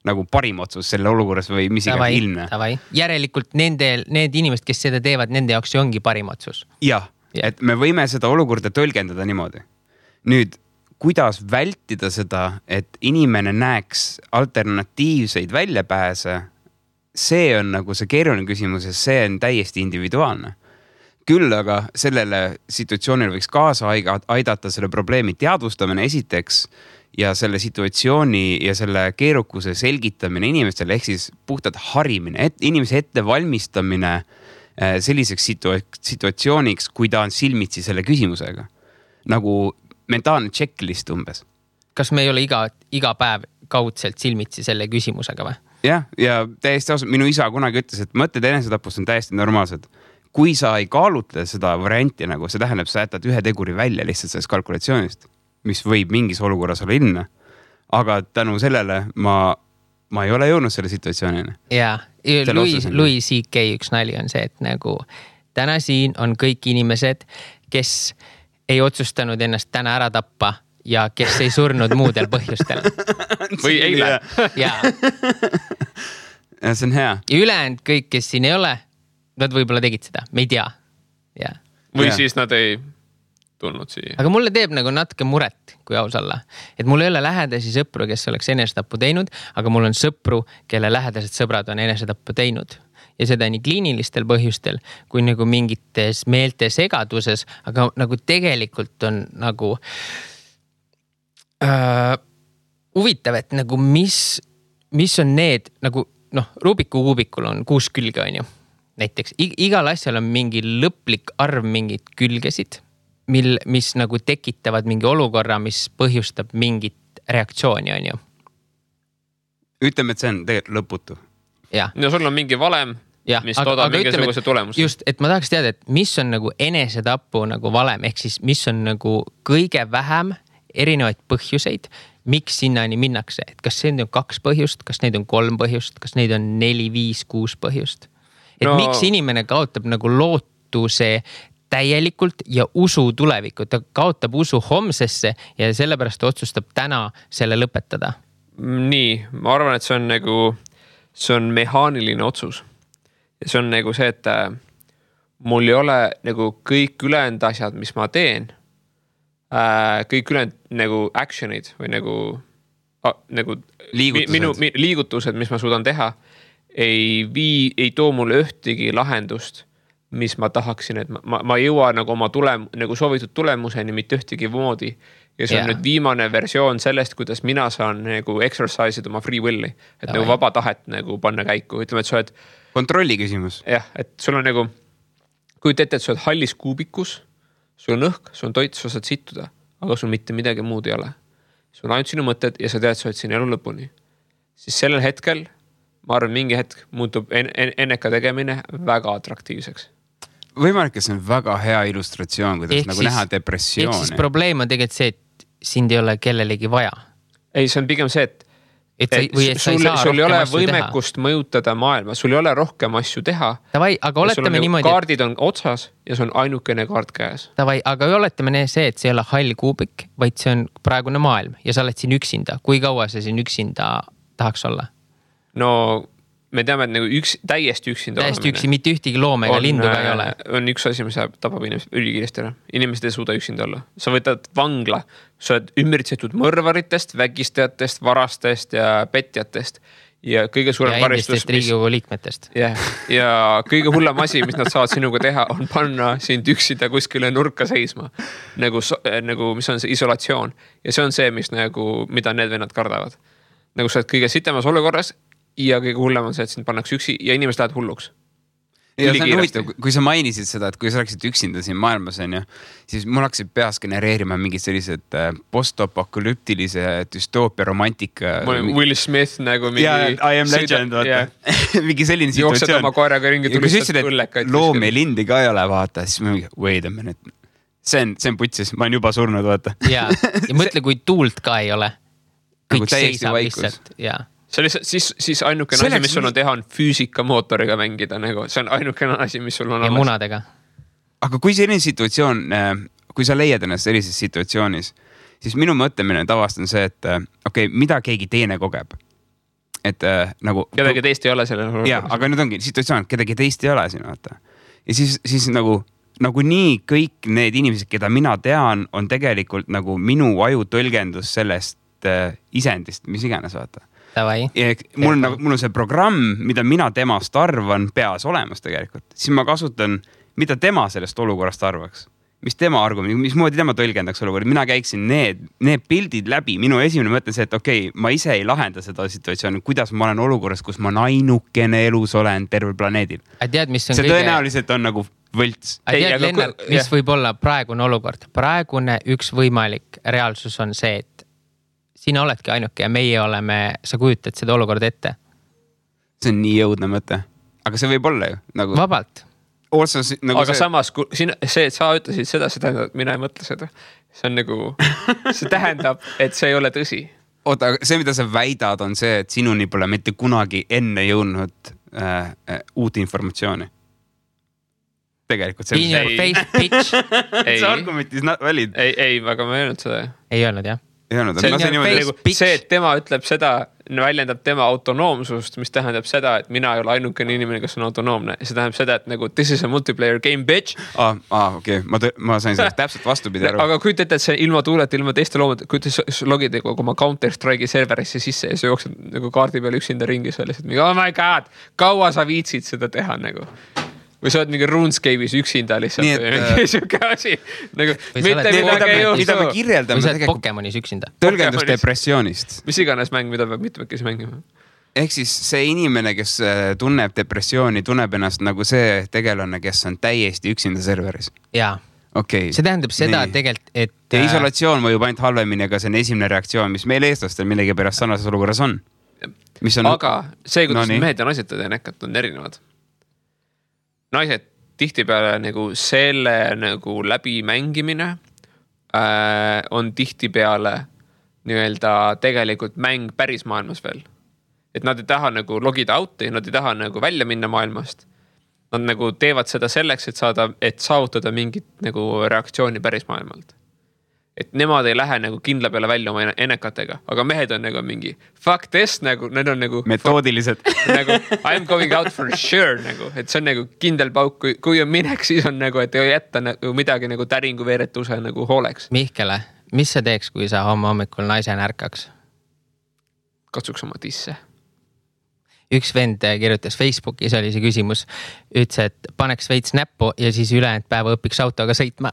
Nagu parim otsus selle olukorras või mis iga ilmne. Järelikult need inimesed, kes seda teevad, nende jaoks ongi parim otsus. Jah, et me võime seda olukorda tõlgendada niimoodi. Nüüd kuidas vältida seda, et inimene näeks alternatiivseid väljapääse, see on nagu see keeruline küsimus ja see on täiesti individuaalne. Küll aga sellele situatsioonile võiks kaasa aidata selle probleemi teadvustamine esiteks ja selle situatsiooni ja selle keerukuse selgitamine inimestele ehk siis puhtalt harimine, inimese ettevalmistamine selliseks situatsiooniks, kui ta on silmitsi selle küsimusega. Nagu mentaalne checklist umbes. Kas me ei ole iga päev kaudselt silmitsi selle küsimusega või? Ja täiesti ausalt, minu isa kunagi ütles, et mõtted enesetapust on täiesti normaalsed. Kui sa ei kaalutle seda varianti, nagu see tähendab, sa jätad ühe teguri välja lihtsalt sellest kalkulatsioonist, mis võib mingis olukorras olla ilmne. Aga tänu sellele ma ei ole jõudnud selle situatsioonini. Jaa, Louis C.K. üks nali on see, et nagu täna siin on kõik inimesed, kes ei otsustanud ennast täna ära tappa ja kes ei surnud muudel põhjustel. Või eile. Jaa. Ja see on hea. Ja ülejäänud kõik, kes siin ei ole, nad võib-olla tegid seda, me ei tea. Ja. Või siis nad ei tulnud siia. Aga mulle teeb nagu natuke muret, kui aus olla. Et mul ei ole lähedasi sõpru, kes oleks enesetappu teinud, aga mul on sõpru, kelle lähedased sõbrad on enesetappu teinud. Ja seda nii kliinilistel põhjustel, kui nagu mingites meelte segaduses, aga nagu tegelikult on nagu huvitav, et nagu mis on need, nagu Rubiku kuubikul on 6 külge, on ju. Näiteks igal asjal on mingi lõplik arv mingit külgesid, mis nagu tekitavad mingi olukorra, mis põhjustab mingit reaktsiooni, on ju. Ütleme, et see on tegelikult lõputu. Ja sul on mingi valem, mis toodab mingisuguse tulemuse. Just, et ma tahaks teada, et mis on nagu enesetapu nagu valem, ehk siis mis on nagu kõige vähem erinevaid põhjuseid, miks sinnani minnakse. Et kas see on 2 põhjust, kas neid on 3 põhjust, kas neid on 4, 5, 6 põhjust. Et miks inimene kaotab nagu lootuse täielikult ja usu tulevikku. Ta kaotab usu homsesse ja sellepärast otsustab täna selle lõpetada. Nii, ma arvan, et see on mehaaniline otsus. Ja see on nagu see, et mul ei ole nagu kõik ülejäänud asjad, mis ma teen, kõik ülejäänud nagu actionid või nagu liigutused, mis ma suudan teha, ei too mulle ühtegi lahendust mis ma tahaksin, et ma ei jõua nagu oma nagu soovitud tulemuseni mitte ühtegi moodi. Ja see on nüüd viimane versioon sellest, kuidas mina saan nagu exercise'id oma free will'i, et nagu vaba tahet nagu panna käiku. Ütleme, et sa oled kontrolli küsimus. Jah, et sul on nagu, kui ette, et sa oled hallis kuubikus, sul on õhk, sul on toit, sa saad sittuda, aga sul mitte midagi muud ei ole. Sul on ainult sinu mõtted ja sa tead, sa oled siin elu lõpuni. Siis sellel hetkel, ma arvan, mingi hetk muutub enneka tegemine väga atraktiivseks. Võimalik, et see on väga hea illustratsioon, kuidas nagu näha depressiooni. Ehk siis probleem on tegelikult see, et sind ei ole kellelegi vaja. Ei, see on pigem see, et sul ei ole võimekust mõjutada maailma, sul ei ole rohkem asju teha. Tavai, aga oletame niimoodi. Kaardid on otsas ja see on ainukene kaart käes. Tavai, aga oletame see, et see ei ole hall kuubik, vaid see on praegune maailm ja sa oled siin üksinda. Kui kaua sa siin üksinda tahaks olla? No me teame, et nagu täiesti üksinda täiesti üksi, mitte ühtegi loome ega lindu ka ei ole. On üks asi, mis tapab inimesed ülikiiresti ära. Inimesed ei suuda üksinda olla. Sa võtad vangla, sa oled ümbritsetud mõrvaritest, vägistajatest, varastest ja petjatest. Ja kõige suurem karistus. Ja endistest Riigikogu liikmetest. Ja kõige hullem asi, mis nad saavad sinuga teha, on panna sind üksida kuskile nurka seisma. Nagu mis on see isolatsioon. Ja see on see, mida need vennad kardavad. Nagu sa oled kõige sitemas olukorras ja kõige hullem on see, et sind pannakse üksi ja inimesed lähevad hulluks. Ja see on huvitav, kui sa mainisid seda, et kui sa oleksid üksinda siin maailmas, siis mul hakkasid peas genereerima mingid sellised post-apokalüptilise düstoopia romantika. Will Smith nagu mingi... I am legend, vaata. Mingi selline situatsioon. Jooksed oma koeraga ringi tulistad õllekaid. Loom ja lindi ka ei ole, vaata. Siis ma mingi, wait a minute. See on putsis, ma olen juba surnud, vaata. Ja mõtle, kui tuult ka ei ole. Kõik seisab lihtsalt, jaa. Siis ainukene asi, mis sul on teha, on füüsikamootoriga mängida. Nagu. See on ainukene asi, mis sul on alles. Ja munadega. Aga kui selline situatsioon, kui sa leiad ennast sellises situatsioonis, siis minu mõtlemine tavast on see, et mida keegi teine kogeb. Et nagu... Kedagi teist ei ole selle. Jaa, aga nüüd ongi situatsioon, kedagi teist ei ole siin, vaata. Ja siis nagu nii kõik need inimesed, keda mina tean, on tegelikult nagu minu aju tõlgendus sellest isendist, mis iganes, vaata. Mul on see programm, mida mina temast arvan peas olemas tegelikult. Siis ma kasutan, mida tema sellest olukorrast arvaks. Mis tema argument, mismoodi tema tõlgendaks olukorda. Mina käiksin need pildid läbi. Minu esimene mõte see, et ma ise ei lahenda seda situatsiooni, kuidas ma olen olukorras, kus ma ainukene elus olen tervel planeedil. See tõenäoliselt on nagu võlts. Lennart, mis võib olla praegune olukord? Praegune üks võimalik reaalsus on see, et sina oledki ainuke ja meie oleme, sa kujutad seda olukorda ette. See on nii jõudne mõte. Aga see võib olla ju. Nagu... Vabalt. Aga samas, see, et sa ütlesid seda, see tähendab, et mina ei mõtle seda. See on nagu, see tähendab, et see ei ole tõsi. Oota, see, mida sa väidad, on see, et sinuni pole mitte kunagi enne jõudnud uut informatsiooni. Tegelikult see on face pitch. See argument is not valid. Ei, aga ma ei öelnud seda. Ei öelnud, jah. See, et tema ütleb seda, väljendab tema autonoomsust, mis tähendab seda, et mina ei ole ainukene inimene, kes on autonoomne. See tähendab seda, et nagu this is a multiplayer game, bitch. Okei. Ma sain sellest täpselt vastupidi aru. Aga kui te ütled, et see ilma tuuleta, ilma teiste loomad, kui te logid oma Counter-Strike'i serverisse sisse ja sa jooksed nagu kaardi peal üksinda ringi selles, et oh my god, kaua sa viitsid seda teha nagu. Või sa oled mingi RuneScape'is üksinda lihtsalt. Nii, või siuke asi. Nagu, mida me kirjeldame. Või sa oled Pokemonis üksinda. Tõlgendus depressioonist. Mis iganes mäng, mida peab mitmekesi mängima. Ehk siis see inimene, kes tunneb depressiooni, tunneb ennast nagu see tegelane, kes on täiesti üksinda serveris. Jaa. See tähendab seda tegelikult, et... Ja isolatsioon mõjub ainult halvemini, aga see on esimene reaktsioon, mis meil eestlastel millegi pärast sarnases olukorras on. Aga see, kuidas mehed ja naised nekat on erinevad. Naised tihtipeale nagu selle nagu läbi mängimine on tihtipeale nii-öelda tegelikult mäng päris maailmas veel. Et nad ei taha nagu logida out'i, nad ei taha nagu välja minna maailmast. Nad nagu teevad seda selleks, et saavutada mingit nagu reaktsiooni päris maailmalt. Et nemad ei lähe nagu kindla peale välja oma ennekatega, aga mehed on nagu mingi fuck this, nagu, need on nagu metoodilised. Nagu I'm going out for sure, nagu, et see on nagu kindel pauk, kui on minek, siis on nagu, et ei jätta nagu midagi nagu täringu veeretuse nagu hooleks. Mihkele, mis sa teeks, kui sa hommikul naise närkaks? Katsuks oma tisse. üks vend kirjutas Facebookis, oli see küsimus, ütles, et paneks veits näppu ja siis ülejäänud päeva õpiks autoga sõitma.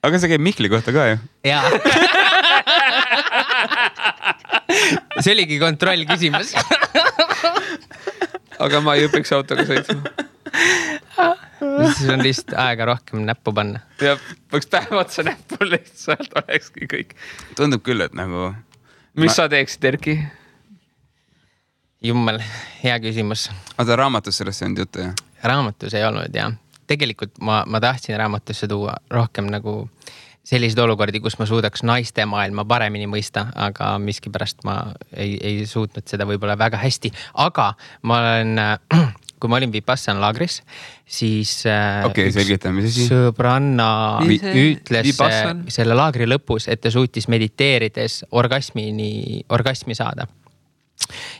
aga see käib Mihkli kohta ka ju. Jaa. See oligi kontroll küsimus. aga ma ei õpiks autoga sõitma. Siis on lihtsalt aega rohkem näppu panna. Ja võiks päev otsa näppu lihtsalt olekski kõik. Tundub küll, et nagu... Mis sa teeksid, Erki? Jummel, hea küsimus. Aga raamatus sellest ei olnud juttu, jah? Raamatus ei olnud, jah. Tegelikult ma tahtsin raamatusse tuua rohkem nagu sellised olukordi, kus ma suudaks naiste maailma paremini mõista, aga miskipärast ma ei suutnud seda võib-olla väga hästi. Aga ma olen... kui ma olin Vipassana laagris, siis selgitame, mis asi? Sõbranna ütles selle laagri lõpus, et ta suutis mediteerides orgasmi saada.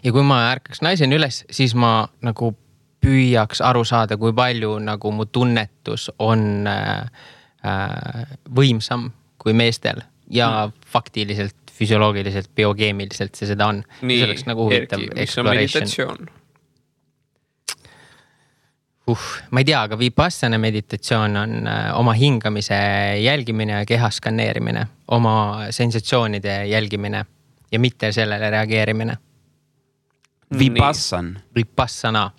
Ja kui ma ärkaks naisena üles, siis ma nagu püüaks aru saada, kui palju nagu mu tunnetus on võimsam kui meestel ja faktiliselt, füsioloogiliselt, biokeemiliselt see seda on. Nii, see oleks nagu huvitav Erki, mis on meditatsioon? Ma ei tea, aga Vipassana meditatsioon on oma hingamise jälgimine ja keha skaneerimine, oma sensatsioonide jälgimine ja mitte sellele reageerimine. Vipassana.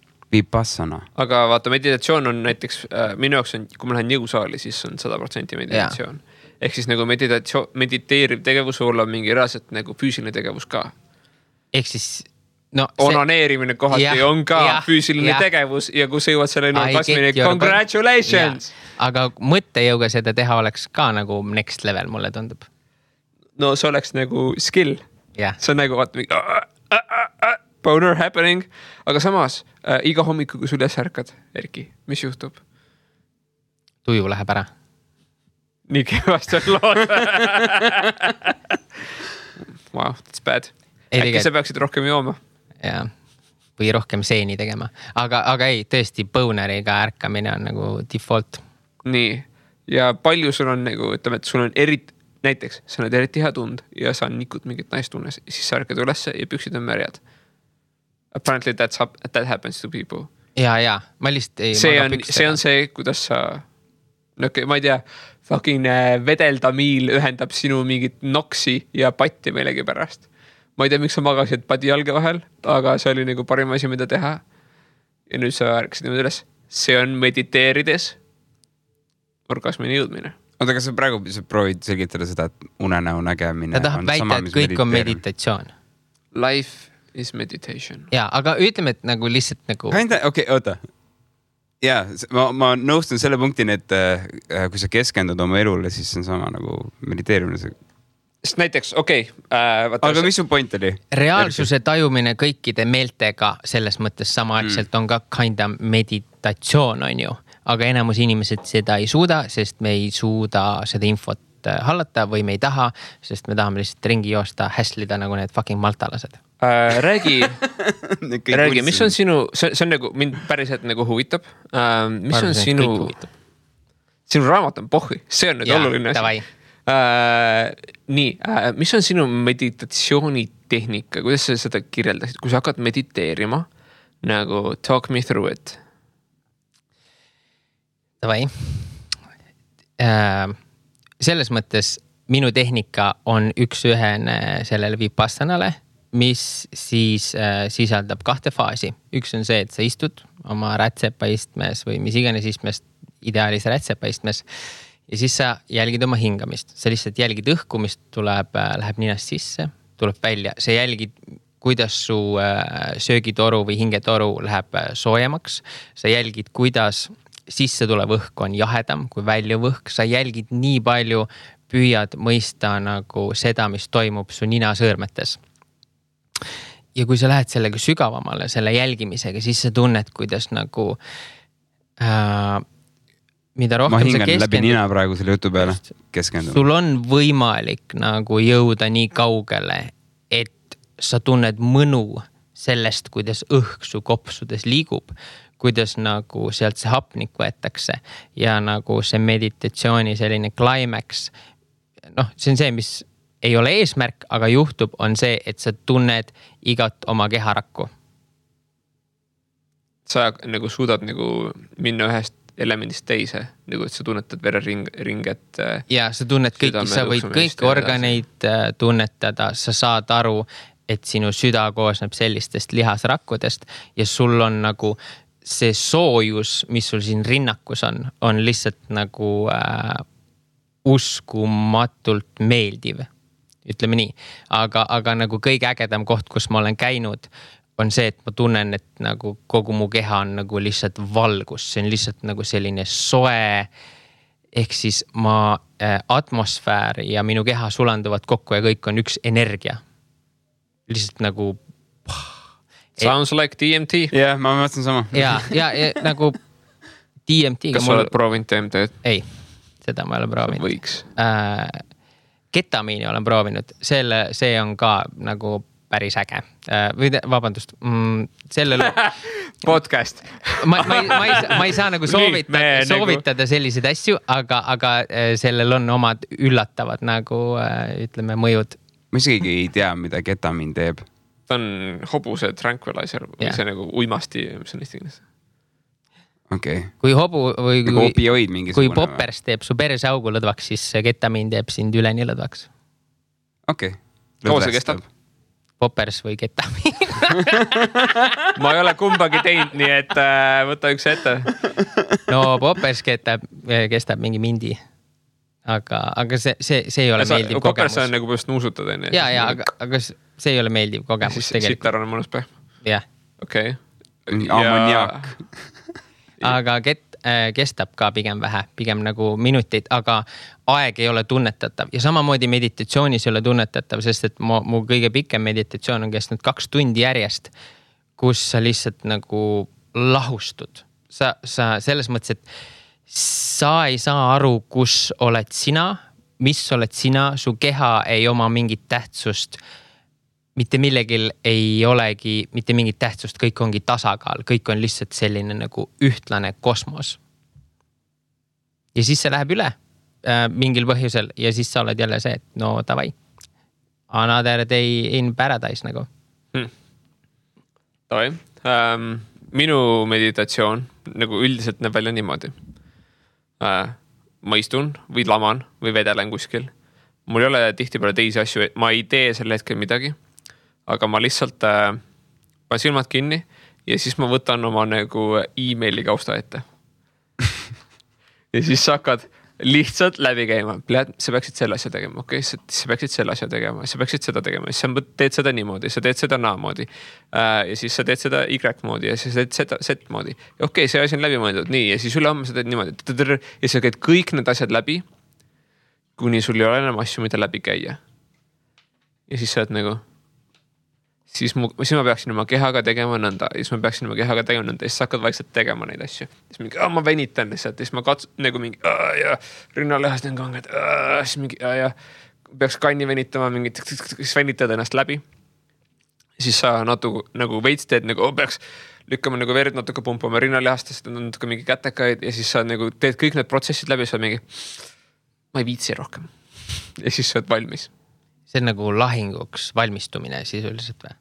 Aga vaata, meditatsioon on näiteks, minu jaoks on, kui ma lähen jõusaali, siis on 100% meditatsioon. Ehk siis nagu mediteeriv tegevus olla mingi reaalselt nagu füüsiline tegevus ka. Ehk siis... onaneerimine kohati on ka füüsiline tegevus ja kui sa jõuad selleni orgasmini, congratulations! Aga mõttejõuga seda teha oleks ka nagu next level, mulle tundub. No see oleks nagu skill. Yeah. See on nagu boner happening, aga samas iga hommiku, kui sul üles ärkad, Erki, mis juhtub? Tuju läheb ära. Nii kevast on lood. Wow, that's bad. Äkki sa peaksid rohkem jooma? Ja, või rohkem seeni tegema. Aga ei, tõesti, boneriga ärkamine on nagu default. Nii, ja palju sul on nagu, ütleme, et sul on näiteks, sa oled eriti hea tund ja sa nikud mingit naistunnes, siis sa ärkad ülesse ja püksid on märjad. Apparently that happens to people. Ja, ma lihtsalt ei... See on see, kuidas sa... ma ei tea, fucking vedeldamiil ühendab sinu mingit noksi ja patti meilegi pärast. Ma ei tea, miks sa magasid padi jalge vahel, aga see oli nagu parim asi, mida teha. Ja nüüd sa ärkasid niimoodi üles. See on mediteerides orgasmini jõudmine. Oota, kas sa praegu proovid selgitada seda, et unenäo nägemine ta tahab väita, et kõik on meditatsioon. Life is meditation. Ja, aga ütleme, et nagu lihtsalt nagu... oota. Ja, ma nõustun selle punktini, et kui sa keskendud oma elule, siis see on sama nagu mediteerimine. Sest näiteks, aga mis su point oli? Reaalsuse tajumine kõikide meeltega selles mõttes samaaegselt on ka kinda meditatsioon, on ju. Aga enamus inimesed seda ei suuda, sest me ei suuda seda infot hallata või me ei taha, sest me tahame lihtsalt ringi joosta, häslida nagu need fucking maltalased. Räägi, mis on sinu, see on nagu, mind päriselt nagu huvitab. Mis on sinu raamat on pohhi, see on nüüd oluline asi. Mis on sinu meditatsioonitehnika, kuidas sa seda kirjeldasid, kui sa hakkad mediteerima, nagu talk me through it? Davai. Selles mõttes minu tehnika on üks-ühene sellele Vipassanale, mis siis sisaldab 2 faasi. Üks on see, et sa istud oma rätsepaistmes või mis iganes istmes, ideaalis rätsepaistmes. Ja siis sa jälgid oma hingamist. Sa lihtsalt jälgid õhku, mis läheb ninast sisse, tuleb välja. Sa jälgid, kuidas su söögitoru või hingetoru läheb soojemaks. Sa jälgid, kuidas sisse tulev õhk on jahedam kui väljuv õhk. Sa jälgid nii palju, püüad mõista nagu seda, mis toimub su ninasõõrmetes. Ja kui sa lähed sellega sügavamale, selle jälgimisega, siis sa tunned, kuidas nagu... mida rohkem ma hingan läbi nina praegu selle jutu peale keskenduma. Sul on võimalik nagu jõuda nii kaugele, et sa tunned mõnu sellest, kuidas õhk su kopsudes liigub, kuidas nagu sealt see hapnik võetakse ja nagu see meditatsiooni selline climax see on see, mis ei ole eesmärk, aga juhtub, on see, et sa tunned igat oma keharakku. Sa nagu suudad nagu minna ühest elemendist teise, nagu et sa tunnetad vereringet. Ja sa tunned kõiki, sa võid kõiki organeid tunnetada, sa saad aru, et sinu süda koosneb sellistest lihasrakkudest ja sul on nagu see soojus, mis sul siin rinnakus on lihtsalt nagu uskumatult meeldiv, ütleme nii. Aga nagu kõige ägedam koht, kus ma olen käinud, on see, et ma tunnen, et nagu kogu mu keha on nagu lihtsalt valgus. See on lihtsalt nagu selline soe, ehk siis atmosfäär ja minu keha sulanduvad kokku ja kõik on üks energia. Lihtsalt nagu... Sounds like DMT. Jah, ma mõtlen sama. Ja nagu DMT. Kas sa oled proovinud DMT-d? Ei, seda ma ei ole proovinud. Võiks. Ketamiini olen proovinud. See on ka nagu päris äge. Vabandust, sellele... Podcast. ma ei saa nagu soovitada selliseid asju, aga sellel on omad üllatavad nagu, ütleme, mõjud. Ma isegi ei tea, mida ketamiin teeb. Ta on hobuse tranquilizer või see nagu uimasti, mis on eesti keeles. Okay. Kui hobu või kui poppers teeb su perse augu lõdvaks, siis ketamiin teeb sind üleni lõdvaks. Okei. Kaua see kestab? Poppers või ketamiin. Ma ei ole kumbagi teinud, nii et võta üks ette. No poppers kestab mingi mindi. Aga see ei ole meeldiv kogemus. Poppers on nagu põhjust nuusutad. Ja, aga see ei ole meeldiv kogemus tegelikult. Sitar on mõnus päev? Jah. Okei. Ammoniak. Aga kestab ka pigem vähe, pigem nagu minuteid, aga aeg ei ole tunnetatav. Ja samamoodi meditatsioonis ei ole tunnetatav, sest et mu kõige pikem meditatsioon on kestnud 2 tundi järjest, kus sa lihtsalt nagu lahustud. Sa selles mõttes, et sa ei saa aru, kus oled sina, mis oled sina, su keha ei oma mingit tähtsust. Mitte millegil ei olegi mitte mingit tähtsust, kõik ongi tasakaal, kõik on lihtsalt selline nagu ühtlane kosmos. Ja siis see läheb üle mingil põhjusel ja siis sa oled jälle see, et no davai, another day in paradise nagu. Davai. Minu meditatsioon nagu üldiselt näeb välja niimoodi. Ma istun või laman või vedelen kuskil. Mul ei ole tihtipeale teisi asju, ma ei tee selle hetkel midagi. Aga ma lihtsalt panen silmad kinni ja siis ma võtan oma nagu e-maili kausta ette. Ja siis sa hakkad lihtsalt läbi käima. Sa peaksid selle asja tegema, okei? Sa peaksid selle asja tegema, sa peaksid seda tegema. Siis sa teed seda niimoodi, sa teed seda naamoodi. Ja siis sa teed seda Y-moodi ja siis sa teed seda Z-moodi. Okei, see asi on läbi mõeldud, nii. Ja siis ülehomme sa teed niimoodi. Ja sa käid kõik need asjad läbi, kuni sul ei ole enam asju, mida läbi käia. Ja siis sa oled nagu... Siis ma peaksin oma kehaga tegema nõnda. Ja siis ma peaksin oma kehaga tegema nõnda. Ja siis sa hakkad vaikselt tegema neid asju. Siis mingi, ma venitan lihtsalt. Ja siis ma nagu mingi, ja rinnalehast on kanged. Siis mingi, ja peaks kanni venitama, mingi, siis venitad ennast läbi. Ja siis sa nagu veits teed, nagu peaks lükkama nagu verd natuke pumpama rinnalehastest, natuke mingi kätekaid. Ja siis sa nagu teed kõik need protsessid läbi. Ja sa mingi, ma ei viitsi rohkem. Ja siis sa oled valmis. See on nagu lahinguks valmistumine sisuliselt või?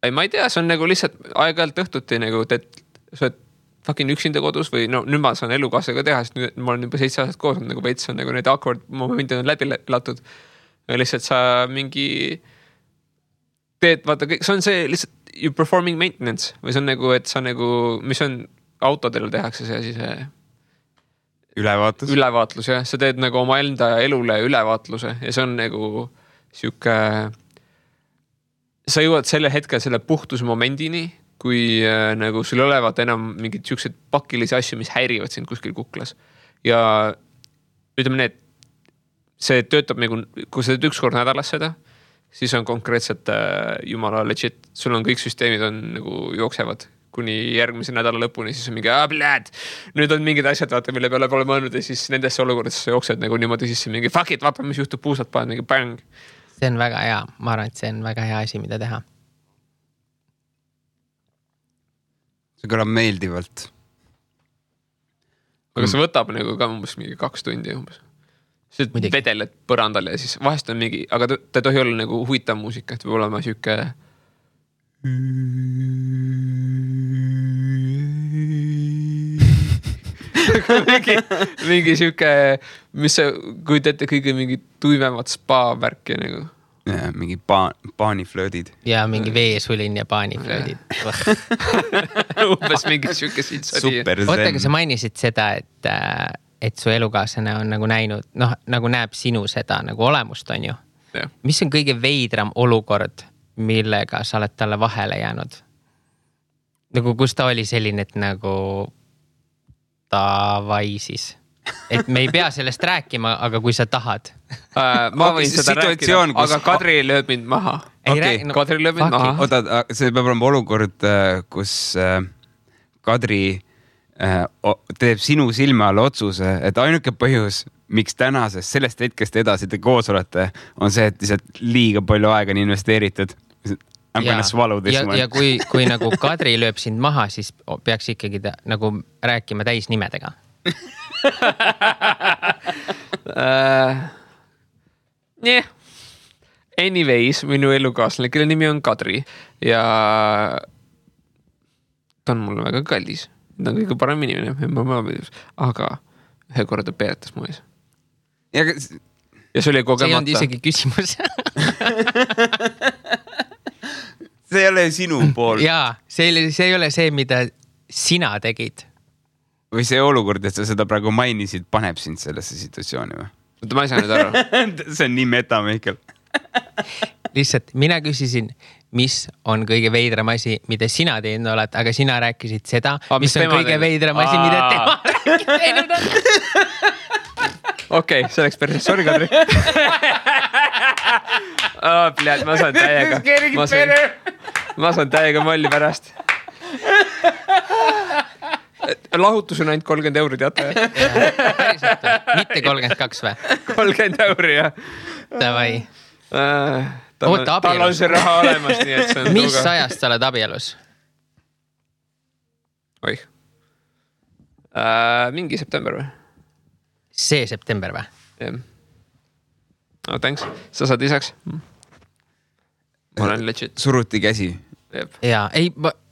Ei, ma ei tea, see on nagu lihtsalt aeg-ajalt õhtuti nagu, et sa oled fucking üksinda kodus või no nüüd ma saan elukaasega teha, sest nüüd ma olen juba 7 aastat koos, nagu veits on nagu need awkward momendid on läbi latud. Ja lihtsalt sa mingi teed, vaata, see on see lihtsalt you performing maintenance või see on nagu, et sa nagu, mis on autodel tehakse see asi, see ülevaatlus, jah. Sa teed nagu oma enda elule ülevaatluse ja see on nagu siuke, sa jõuad selle hetkel selle puhtuse momendini, kui nagu sul olevat enam mingid siuksed pakilisi asju, mis häirivad sind kuskil kuklas. Ja ütleme need, see töötab nagu, kui sa teed 1 kord nädalas seda, siis on konkreetselt jumala legit. Sul on kõik süsteemid on nagu jooksevad kuni järgmise nädala lõpuni, siis on mingi, nüüd on mingid asjad, vaata, mille peale pole mõelnud ja siis nendesse olukordades sa jooksed nagu niimoodi sisse mingi fuck it, vaata, mis juhtub, puusad paned mingi bang. See on väga hea, ma arvan, et see on väga hea asi, mida teha. See kõlab meeldivalt. Aga see võtab nagu ka umbes mingi 2 tundi umbes. sa vedeled põrandal ja siis vahest on mingi, aga ta ei tohi olla nagu huvitav muusika, et võib olema siuke mingi siuke, mis sa kujutate kõige mingi tuimemat spa värki nagu. Ja, mingi paaniflöödid. Ja mingi veesulin ja paaniflöödid. Umbes mingi siuke siit. Oota, aga sa mainisid seda, et su elukaaslane on nagu näinud, nagu näeb sinu seda nagu olemust, on ju. Ja. Mis on kõige veidram olukord, millega sa oled talle vahele jäänud? Nagu kus ta oli selline, et nagu davai siis. Et me ei pea sellest rääkima, aga kui sa tahad. Ma võin seda rääkida, aga Kadri lööb mind maha. Kadri lööb mind maha. Oota, see peab olema olukord, kus Kadri teeb sinu silme all otsuse, et ainuke põhjus, miks tänasest sellest hetkest edasi te koos olete, on see, et lihtsalt liiga palju aega on investeeritud. Ja kui nagu Kadri lööb sind maha, siis peaks ikkagi nagu rääkima täisnimedega. Anyways, minu elukaaslane, kelle nimi on Kadri ja ta on mulle väga kallis. Ta on kõige parem inimene, aga ühe korda peeretas mu ees. Ja see oli kogemata. See ei olnud isegi küsimus. See ei ole sinu pool. Jaa, see ei ole see, mida sina tegid. Või see olukord, et sa seda praegu mainisid, paneb sind sellesse situatsiooni või? Ma ei saa nüüd aru. See on nii meta, Mihkel. Lihtsalt mina küsisin, mis on kõige veidram asi, mida sina teinud oled, aga sina rääkisid seda, mis on kõige veidram asi, mida tema teinud on. Okei, see oleks päris. Sorry, Kadri. Ma saan täiega molli pärast. Lahutus on ainult 30 euri, teate? Päriselt, mitte 32 või? 30 euri, jah. Davai. Tal on see raha olemas, nii et see on mis ajast sa oled abielus? Oih. Mingi september või? See september või? Jah. Oh, thanks. Sa saad lisaks? Ma olen legit. Suruti käsi. Jaa, ei,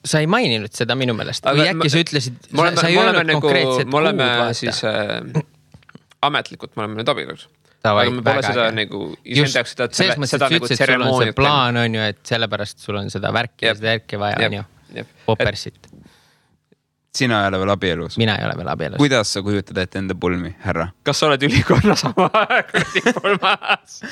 sa ei maininud seda minu meelest. Või äkki sa ütlesid, sa ei öelnud konkreetset kuud. Me oleme siis ametlikult, me oleme nüüd abielus. Aga me pole seda nagu isendaks seda nagu tseremooniat. Plaan on ju, et sellepärast sul on seda värki ja seda järki vaja on ju. Popersit. Sina ei ole veel abielus? Mina ei ole veel abielus. Kuidas sa kujutad ette enda pulmi, härra? Kas sa oled ülikonna sama pulmas?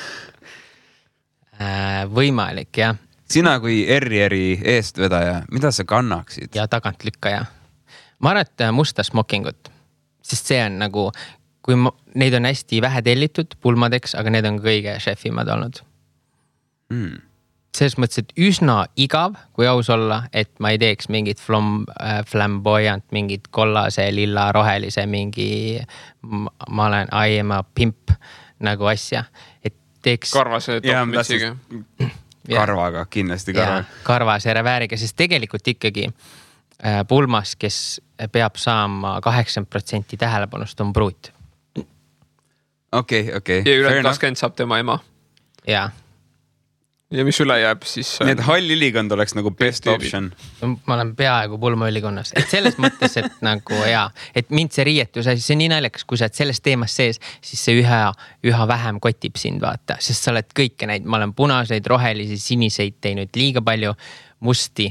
Võimalik, jah. Sina kui Errieri eestvedaja, mida sa kannaksid? Ja tagantlükkaja. Ma arvan, et musta smokingut. Sest see on nagu, kui neid on hästi vähe tellitud pulmadeks, aga need on kõige šefimad olnud. Selles mõttes, et üsna igav, kui aus olla, et ma ei teeks mingit flamboyant, mingit kollase, lilla, rohelise, mingi ma olen I am a pimp nagu asja. Et teeks... Karvase topmitsiga. Karvaga, kindlasti karvaga. Karvase revääriga, sest tegelikult ikkagi pulmas, kes peab saama 80% tähelepanust, on pruut. Okei. Ja üle 20 saab tema ema. Jaa. Ja mis üle jääb siis... Nii et hall ülikond oleks nagu best option. Ma olen peaaegu pulma ülikonnas. Et selles mõttes, et nagu et mind see riietus, see on nii naljakas, kui sa oled selles teemas sees, siis see üha vähem kotib sind vaata. Sest sa oled kõike neid, ma olen punaseid, rohelisi, siniseid teinud liiga palju, musti,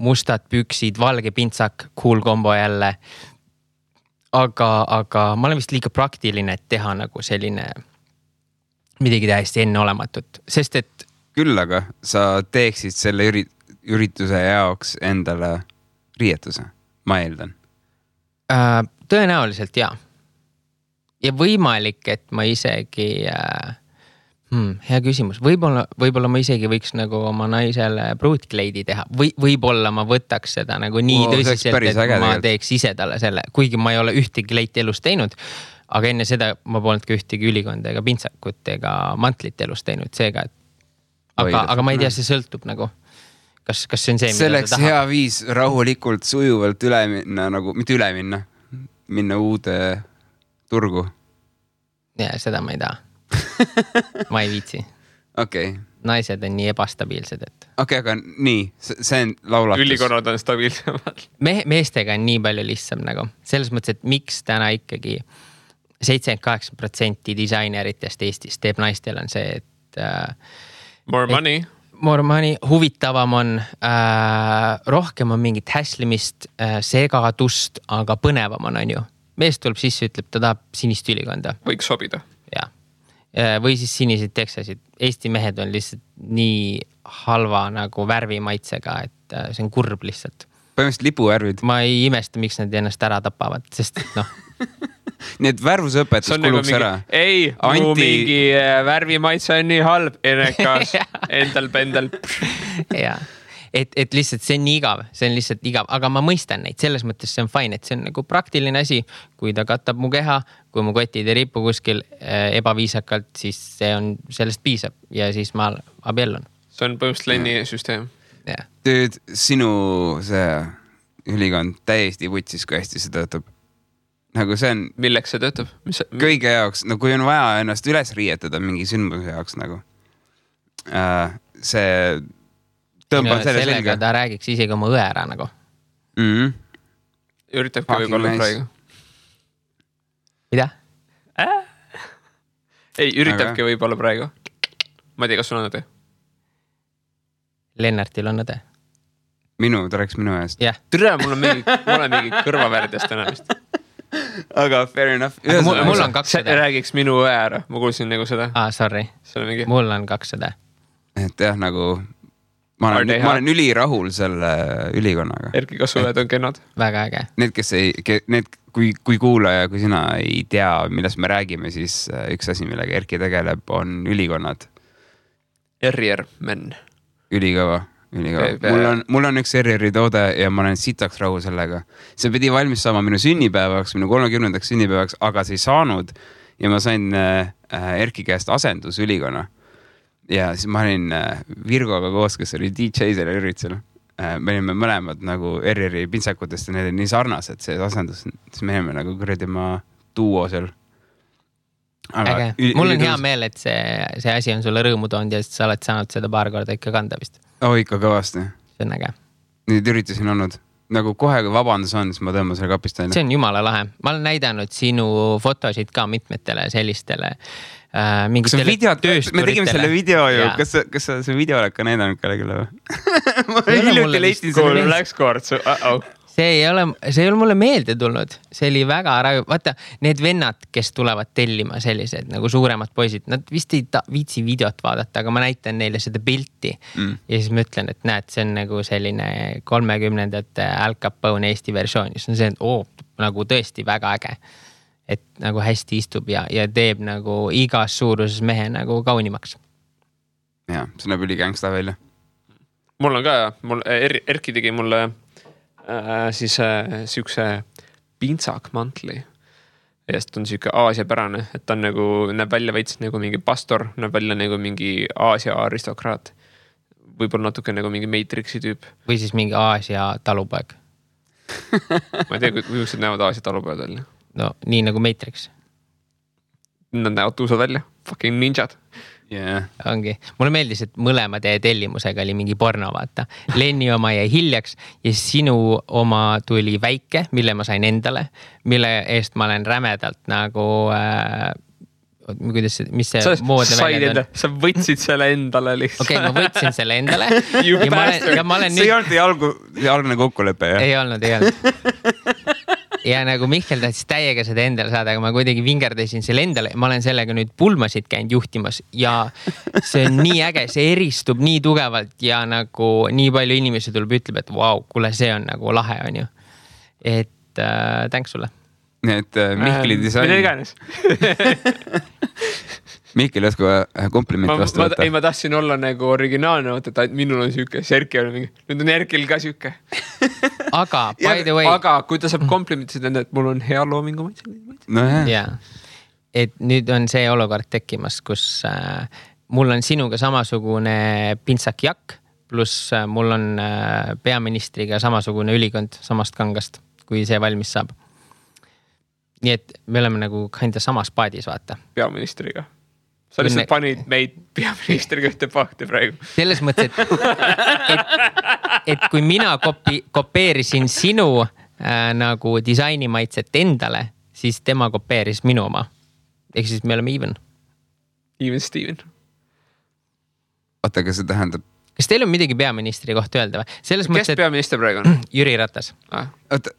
mustad püksid, valge pintsak, cool kombo jälle. Aga ma olen vist liiga praktiline, et teha nagu selline... midagi täiesti enneolematut, sest et... Küll aga sa teeksid selle ürituse jaoks endale riietuse, ma eeldan. Tõenäoliselt, jaa. Ja võimalik, et ma isegi... hea küsimus. Võib-olla ma isegi võiks nagu oma naisele pruutkleidi teha. Võib-olla ma võtaks seda nagu nii tõsiselt, et ma teeks ise talle selle. Kuigi ma ei ole ühtegi kleiti elus teinud, aga enne seda ma polnud ka ühtegi ülikonda ega pintsakut ega mantlit elus teinud seega. Aga ma ei tea, see sõltub nagu. Kas see on see, mida selleks ta tahab? hea viis rahulikult, sujuvalt üle minna, nagu, mitte üle minna, minna uude turgu. Ja seda ma ei taha. Ma ei viitsi. Okei. Naised on nii ebastabiilsed, et... Okei, aga nii, see on laulatus. Ülikonnad on stabiilsemad. Meestega on nii palju lihtsam nagu. Selles mõttes, et miks täna ikkagi 78% disaineritest Eestis teeb naistel on see, et... More money. More money, huvitavam on, rohkem on mingit häslimist, segadust, aga põnevam on ju. Mees tuleb sisse, ütleb, ta tahab sinist ülikonda. Võiks sobida. Ja. Või siis siniseid teksasid. Eesti mehed on lihtsalt nii halva nagu värvimaitsega, et see on kurb lihtsalt. Põhimõtteliselt lipuvärvid. Ma ei imesta, miks nad ennast ära tapavad, sest noh. Nii et värvusõpetus kuluks ära. Ei, mu mingi värvimaitse on nii halb, enekas, endal pendel. Jaa. Et lihtsalt see on nii igav, see on lihtsalt igav, aga ma mõistan neid, selles mõttes see on fine, et see on nagu praktiline asi, kui ta katab mu keha, kui mu kotid ei ripu kuskil ebaviisakalt, siis see on, sellest piisab ja siis ma abiellun. See on põhimõtteliselt Lenni süsteem. Yeah. Tüüd, sinu see ülikond täiesti võtsis, kui hästi see töötab. Nagu see on... Milleks see töötab? Kõige jaoks, no kui on vaja ennast üles riietada mingi sündmuse jaoks nagu. See... Sellega ta räägiks isegi oma õe ära nagu. Üritabki võib-olla praegu. Mida? Ei, üritabki võib-olla praegu. Ma ei tea, kas sul on õde? Lennartil on õde. Ta rääks minu eest. Yeah. Tere, mul on mingi kõrvavärdest enamist. Aga fair enough. Mul on 2 õde. Räägiks minu õe ära. Ma kuulsin nagu seda. Sorry. Mul on 2 õde. Et jah, nagu... Ma olen ülirahul selle ülikonnaga. Erki, kas õed on kennad? Väga äge. Kui kuulaja, kui sina ei tea, millest me räägime, siis üks asi, millega Erki tegeleb, on ülikonnad. RR-men. Ülikõva. Mul on üks RR-i toode ja ma olen sitaks rahu sellega. See pidi valmis saama minu sünnipäevaks, minu 30. sünnipäevaks, aga see ei saanud ja ma sain Erki käest asendus ülikonna. Ja siis ma olin Virgoga koos, kes oli DJ sellel üritusel. Me olime mõlemad nagu RR-i pintsakutest ja need on nii sarnased, see asendus. Siis me olime nagu kurjadima duo seal. Äge. Mul on hea meel, et see asi on sulle rõõmu toonud ja sa oled saanud seda paar korda ikka kanda vist. Ikka kõvasti. See on äge. Nüüd üritasin olnud. Nagu kohe, kui vabandus on, siis ma tõmban selle kapist aina. See on jumala lahe. Ma olen näidanud sinu fotosid ka mitmetele sellistele mingitele töösturitele. Me tegime selle video ju. Kas sa see video oled ka näidanud kellelegi või? Ma hiljuti leistin selle. Läks kord. See ei ole mulle meelde tulnud. See oli väga raju. Vaata, need vennad, kes tulevad tellima sellised nagu suuremad poisid, nad vist ei viitsi videot vaadata, aga ma näitan neile seda pilti. Ja siis ma ütlen, et näed, see on nagu selline 30ndate Al Capone Eesti versioon. See on see, et nagu tõesti väga äge. Et nagu hästi istub ja teeb nagu igas suuruses mehe nagu kaunimaks. Ja, see näeb üli gangsta välja. Mul on ka, Erki tegi mulle siis siukse pintsakmantli. Ja sest on siuke aasiapärane, et ta on nagu, näeb välja veits nagu mingi pastor, näeb välja nagu mingi Aasia aristokraat. Võib-olla natuke nagu mingi Matrixi tüüp. Või siis mingi Aasia talupoeg. Ma ei tea, kui näevad Aasia talupoed välja. No, nii nagu Matrix. Nad näevad tuusad välja. Fucking ninjad. Yeah. Ongi. Mulle meeldis, et mõlema teie tellimusega oli mingi porno, vaata. Lenni oma jäi hiljaks ja sinu oma tuli väike, mille ma sain endale, mille eest ma olen rämedalt nagu... mis see moodne välja on? Sa võtsid selle endale lihtsalt. Okei, ma võtsin selle endale. See ei olnud see algne kokkulepe, jah? Ei olnud. Ja nagu Mihkel tahtis täiega seda endale saada, aga ma kuidagi vingerdasin selle endale. Ma olen sellega nüüd pulmasid käinud juhtimas ja see on nii äge, see eristub nii tugevalt ja nagu nii palju inimesi tuleb ütleb, et vau, kuule, see on nagu lahe, on ju. Et tänks sulle. Et Mihkeli disain. Mida iganes. Mihkel jäsku komplimenti vastu võtta. Ei, ma tahtsin olla nagu originaalne, et minul on siuke, Erki on mingi, nüüd on Erkil ka siuke. Aga, by the way. Aga kui ta saab komplimenti, et mul on hea loomingu maitse. No jah. Ja. Et nüüd on see olukord tekkimas, kus mul on sinuga samasugune pintsakjakk, pluss mul on peaministriga samasugune ülikond samast kangast, kui see valmis saab. nii et me oleme nagu kinda samas paadis, vaata. Peaministriga. Sa lihtsalt panid meid peaministriga ühte pakti praegu. Selles mõttes, et kui mina kopeerisin sinu nagu disainimaitset endale, siis tema kopeeris minu oma. Ehk siis me oleme even. Even Steven. Oota, aga see tähendab... Kas teil on midagi peaministri kohta öelda või? Selles Kes peaminister praegu on? Jüri Ratas. Oota,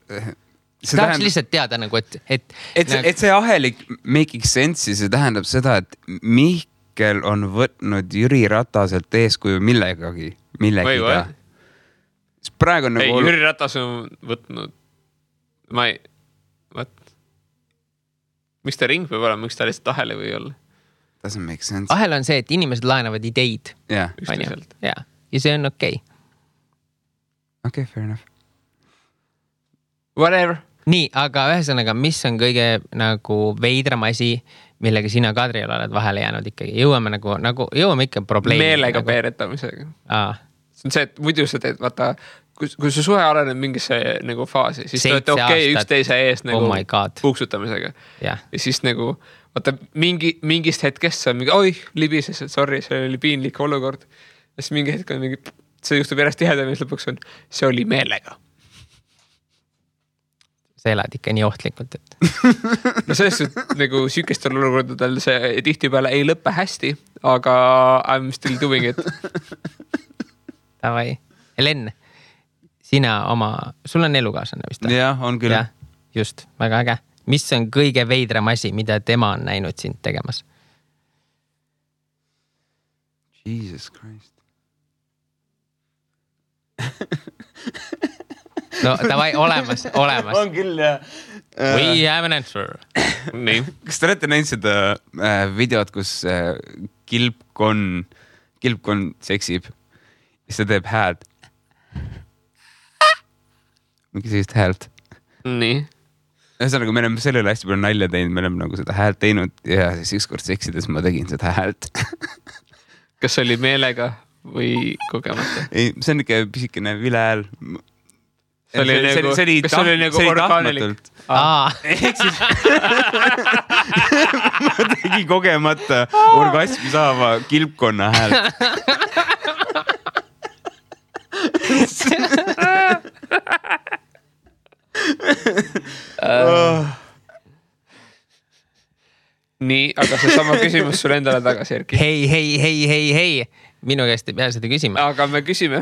tahaks lihtsalt teada nagu, et see ahelik making sense'i, see tähendab seda, et Mihkel on võtnud Jüri Rataselt eeskuju millegagi. Praegu on nagu... Jüri Ratas on võtnud... Miks ta ring võib olema, miks ta lihtsalt ahele või olla? Doesn't make sense. Ahel on see, et inimesed laenavad ideid. Yeah. Ja see on okei. Okay, fair enough. Whatever. Nii, aga ühesõnaga, mis on kõige nagu veidram asi, millega sina Kadriel oled vahele jäänud ikkagi? Jõuame ikka probleemi. Meelega peeretamisega. See on see, et muidu sa teed, vaata, kui su suhe areneb mingisse nagu faasi, siis te olete okei üksteise ees nagu puuksutamisega. Ja siis nagu, vaata, mingist hetkest sa on mingi, oi, libises, sorry, see oli piinlik olukord. Ja siis mingi hetk on mingi, see juhtub järjest tihedam ja lõpuks on, see oli meelega. Sa elad ikka nii ohtlikult, et... No sellest, et nagu sükestel olukordadel see tihti peale ei lõppe hästi, aga I'm still doing it. Tavai. Helen, sul on elukaaslane vist? Jah, on küll. Ja, just, väga äge. Mis on kõige veidram asi, mida tema on näinud sind tegemas? Jesus Christ. No, tavai, olemas. On küll, jah. We have an answer. Nii. Kas te olete näinud seda videot, kus kilpkonn seksib? Siis ta teeb häält. Mingi sellist häält. Nii. Ühesõnaga, me oleme sellele hästi palju nalja teinud, me oleme nagu seda häält teinud ja siis ükskord seksides ma tegin seda häält. Kas see oli meelega või kogemata? Ei, see on ikka pisikene vile hääl. Kas see oli nagu orgaanilik? Ehk siis ma tegin kogemata orgasmi saava kilpkonna häält. Nii, aga see sama küsimus sulle endale tagasi, Erki. Hei. Minu käest ei pea seda küsima. Aga me küsime.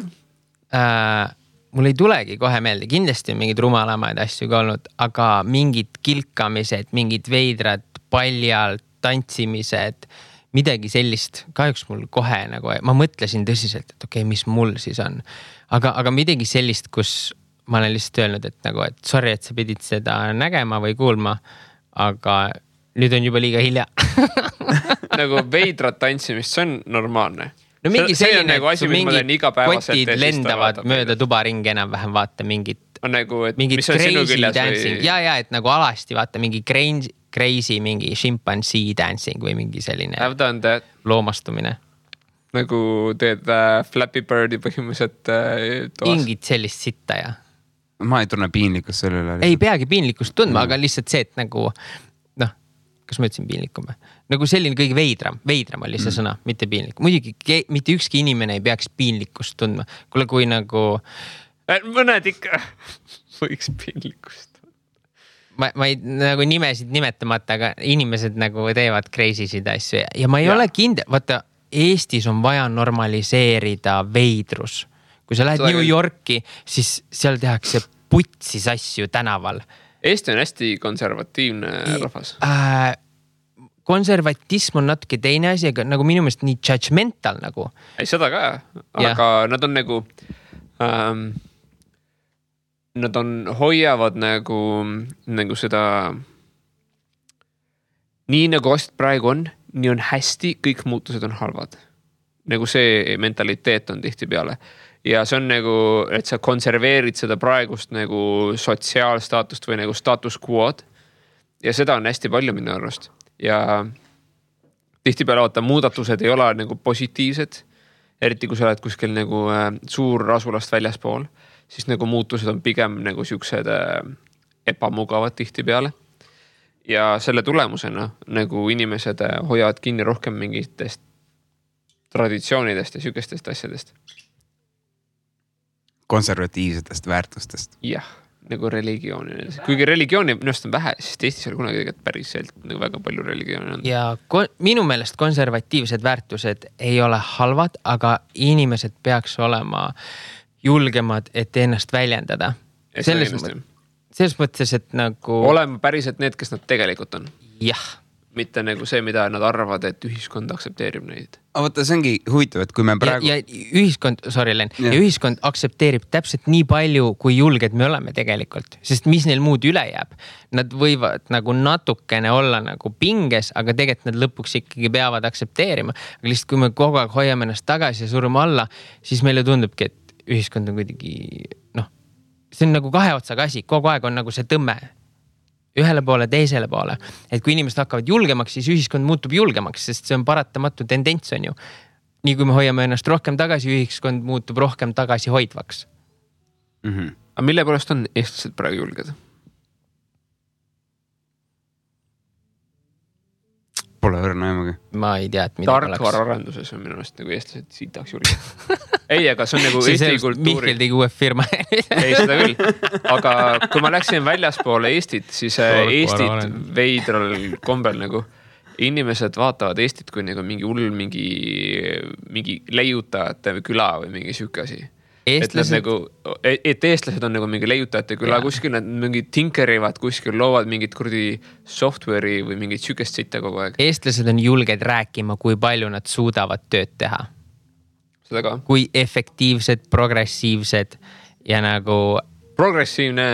Mul ei tulegi kohe meelde. Kindlasti on mingid rumalamaid asju ka olnud, aga mingid kilkamised, mingid veidrad, paljalt, tantsimised, midagi sellist. Kahjuks mul kohe nagu, ma mõtlesin tõsiselt, et okei, mis mul siis on. Aga midagi sellist, kus ma olen lihtsalt öelnud, et nagu, et sorry, et sa pidid seda nägema või kuulma, aga nüüd on juba liiga hilja. Nagu veidrat tantsimist, see on normaalne. No mingi selline, nagu asi, mingid kotid lendavad mööda tubaringi enam-vähem, vaata mingid nagu, et mingid mis on sinu küljes dancing. Ja, et nagu alasti vaata mingi crazy, mingi chimpanzee dancing või mingi selline loomastumine. Nagu teed Flappy Birdi põhimõtteliselt toas. Ingid sellist sitta ja. Ma ei tunne piinlikkust selle üle. Ei peagi piinlikkust tundma, aga lihtsalt see, et nagu, kas ma ütlesin piinlikum? Nagu selline kõige veidram oli see sõna, mitte piinlik. Muidugi, mitte ükski inimene ei peaks piinlikkust tundma. Kuule, kui nagu... Mõned ikka võiks piinlikkust. Ma ei nagu nimesid nimetamata, aga inimesed nagu teevad crazy'sid asju. Ja ma ei ole kindel, vaata, Eestis on vaja normaliseerida veidrus. Kui sa lähed New Yorki, siis seal tehakse putsis asju tänaval. Eesti on hästi konservatiivne rahvas. Konservatism on natuke teine asi, aga nagu minu meelest nii judgmental nagu. Ei, seda ka, aga nad on nagu, nad hoiavad nagu seda, nii nagu asjad praegu on, nii on hästi, kõik muutused on halvad. Nagu see mentaliteet on tihti peale. Ja see on nagu, et sa konserveerid seda praegust nagu sotsiaalstaatust või nagu status quo'd. Ja seda on hästi palju minu arvast. Ja tihti peale vaata, muudatused ei ole nagu positiivsed. Eriti kui sa oled kuskil nagu suur asulast väljaspool, siis nagu muutused on pigem nagu siuksed ebamugavad tihti peale. ja selle tulemusena nagu inimesed hoiavad kinni rohkem mingitest traditsioonidest ja sükestest asjadest. Konservatiivsetest väärtustest. Jah, nagu religiooni. Kuigi religiooni minust on vähe, siis Eestis oli kunagi tegelikult päriselt nagu väga palju religiooni on. Ja minu meelest konservatiivsed väärtused ei ole halvad, aga inimesed peaks olema julgemad, et ennast väljendada. Selles mõttes, et nagu... Olema päriselt need, kes nad tegelikult on. Jah. Mitte nagu see, mida nad arvavad, et ühiskond aksepteerib neid. Vaata, see ongi huvitav, et kui me praegu... Ja ühiskond, ja ühiskond aksepteerib täpselt nii palju, kui julged me oleme tegelikult. Sest mis neil muud üle jääb? Nad võivad nagu natukene olla nagu pinges, aga tegelikult nad lõpuks ikkagi peavad aksepteerima. Aga lihtsalt kui me kogu aeg hoiame ennast tagasi ja surume alla, siis meile tundubki, et ühiskond on kuidagi... see on nagu kahe otsaga asi. Kogu aeg on nagu see tõmme. Ühele poole, teisele poole. Et kui inimesed hakkavad julgemaks, siis ühiskond muutub julgemaks, sest see on paratamatu tendents on ju. Nii kui me hoiame ennast rohkem tagasi, ühiskond muutub rohkem tagasi hoidvaks. Aga mille poolest on eestlased praegu julged? Pole õrna emagi. Ma ei tea, et mida oleks. Tarkvaraarenduses on minu meelest nagu eestlased siitaks julged. Ei, aga see on nagu Eesti kultuuri... Mihkel tegi uue firma. Ei, seda küll. Aga kui ma läksin väljaspoole Eestit, siis Eestit veidral kombel nagu inimesed vaatavad Eestit kui nagu mingi hull, mingi leiutajate küla või mingi süüke asi. Eestlased... Et eestlased on nagu mingi leiutajate küla kuskil, nad mingi tinkerivad kuskil, loovad mingit kurdi software'i või mingit sükest sitta kogu aeg. Eestlased on julged rääkima, kui palju nad suudavad tööd teha. Seda ka. Kui efektiivsed, progressiivsed ja nagu... Progressiivne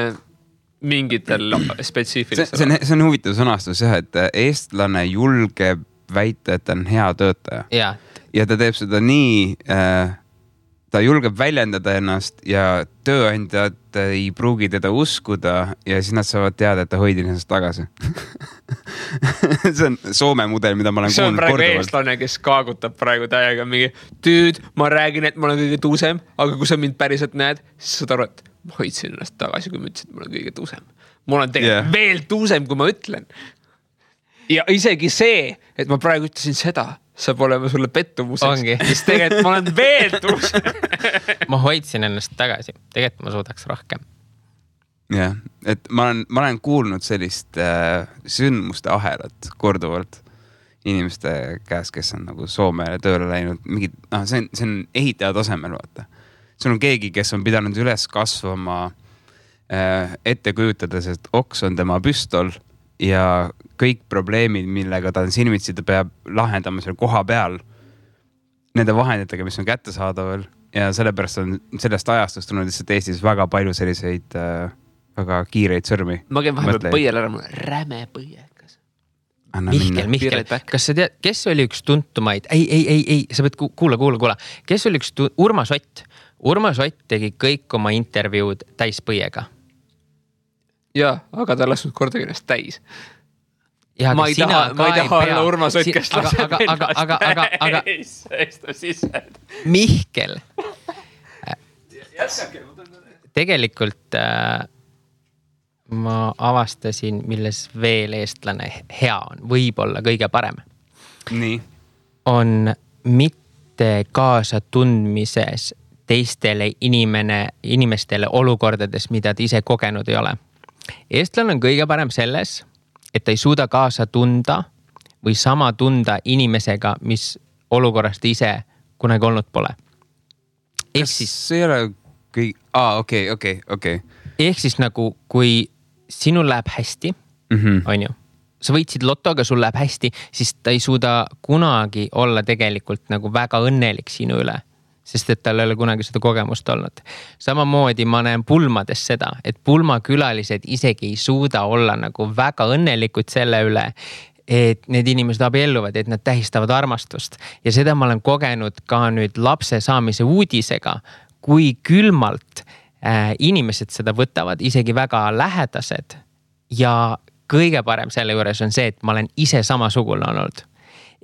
mingitel spetsiifilistel. See on huvitav sõnastus jah, et eestlane julgeb väita, et ta on hea töötaja. Ja ta teeb seda nii... ta julgeb väljendada ennast ja tööandjad ei pruugi teda uskuda ja siis nad saavad teada, et ta hoidis ennast tagasi. See on Soome mudel, mida ma olen kuulnud korduvalt. See on praegu eestlane, kes kaagutab praegu täiega mingi ma räägin, et ma olen kõige tuusem, aga kui sa mind päriselt näed, siis saad aru, et ma hoidsin ennast tagasi, kui ma ütlesin, et ma olen kõige tuusem. Ma olen tegelikult veel tuusem, kui ma ütlen. Ja isegi see, et ma praegu ütlesin seda, saab olema sulle pettumuseks. Sest tegelikult ma olen veel tuusem. Ma hoidsin ennast tagasi. Tegelikult ma suudaks rohkem. Jah, et ma olen kuulnud sellist sündmuste ahelat korduvalt inimeste käes, kes on nagu Soomele tööle läinud. See on ehitaja tasemel, vaata. See on keegi, kes on pidanud üles kasvama ette kujutades, et oks on tema püstol ja kõik probleemid, millega ta on silmitsi, ta peab lahendama seal koha peal nende vahenditega, mis on kättesaadaval ja sellepärast on sellest ajastust tulnud lihtsalt Eestis väga palju selliseid väga kiireid sõrmi. Ma käin vahepeal põiel ära, mul räme põiekas. Mihkel, kas sa tead, kes oli üks tuntumaid? Ei, sa pead kuula. Kes oli üks Urmas Ott? Urmas Ott tegi kõik oma intervjuud täispõiega. Jaa, aga ta lasnud kordagi ennast täis. Ja, ma ei taha olla Urmas Ott, kes laseb ennast. Mihkel. Tegelikult ma avastasin, milles veel eestlane hea on, võib-olla kõige parem. Nii. On mitte kaasa tundmises teistele inimestele olukordades, mida ta ise kogenud ei ole. Eestlane on kõige parem selles, et ta ei suuda kaasa tunda või sama tunda inimesega, mis olukorrast ise kunagi olnud pole. Kas see ei ole okei. Ehk siis nagu, kui sinul läheb hästi, on ju, sa võitsid lotoga, sul läheb hästi, siis ta ei suuda kunagi olla tegelikult nagu väga õnnelik sinu üle. Sest et tal ei ole kunagi seda kogemust olnud. Samamoodi ma näen pulmades seda, et pulmakülalised isegi ei suuda olla nagu väga õnnelikud selle üle, et need inimesed abielluvad, et nad tähistavad armastust. Ja seda ma olen kogenud ka nüüd lapse saamise uudisega, kui külmalt inimesed seda võtavad, isegi väga lähedased. Ja kõige parem selle juures on see, et ma olen ise samasugune olnud.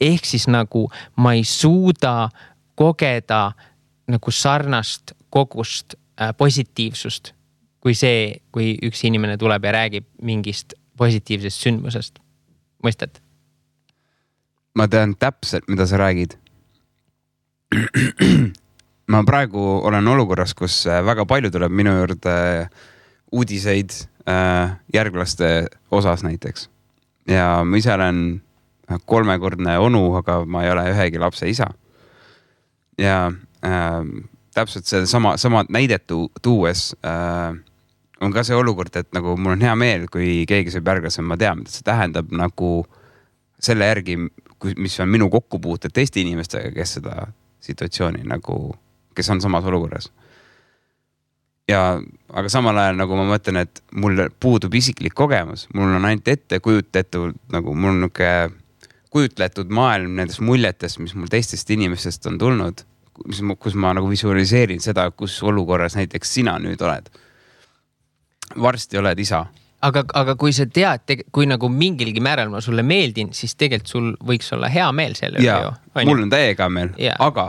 Ehk siis nagu ma ei suuda kogeda nagu sarnast kogust positiivsust, kui see, kui üks inimene tuleb ja räägib mingist positiivsest sündmusest. Mõistad? Ma tean täpselt, mida sa räägid. Ma praegu olen olukorras, kus väga palju tuleb minu juurde uudiseid järglaste osas näiteks. Ja ma ise olen 3-kordne onu, aga ma ei ole ühegi lapse isa. Ja täpselt see sama näidet tuues on ka see olukord, et nagu mul on hea meel, kui keegi saab järglasem, ma tean, mida see tähendab nagu selle järgi, mis on minu kokkupuuted teiste inimestega, kes seda situatsiooni nagu, kes on samas olukorras. Aga samal ajal nagu ma mõtlen, et mul puudub isiklik kogemus, mul on ainult ette kujutletud, nagu mul on niuke kujutletud maailm nendest muljetest, mis mul teistest inimestest on tulnud, kus ma nagu visualiseerin seda, kus olukorras näiteks sina nüüd oled. Varsti oled isa. Aga kui sa tead, kui nagu mingilgi määral ma sulle meeldin, siis tegelikult sul võiks olla hea meel selle üle ju. Mul on täiega meel, aga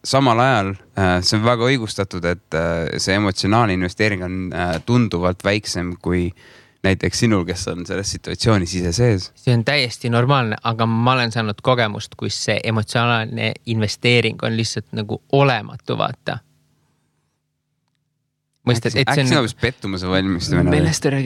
samal ajal see on väga õigustatud, et see emotsionaalne investeering on tunduvalt väiksem kui näiteks sinul, kes on selles situatsioonis ise sees. See on täiesti normaalne, aga ma olen saanud kogemust, kus see emotsionaalne investeering on lihtsalt nagu olematu, vaata. Mõistad, et see on pettumuse valmistamine.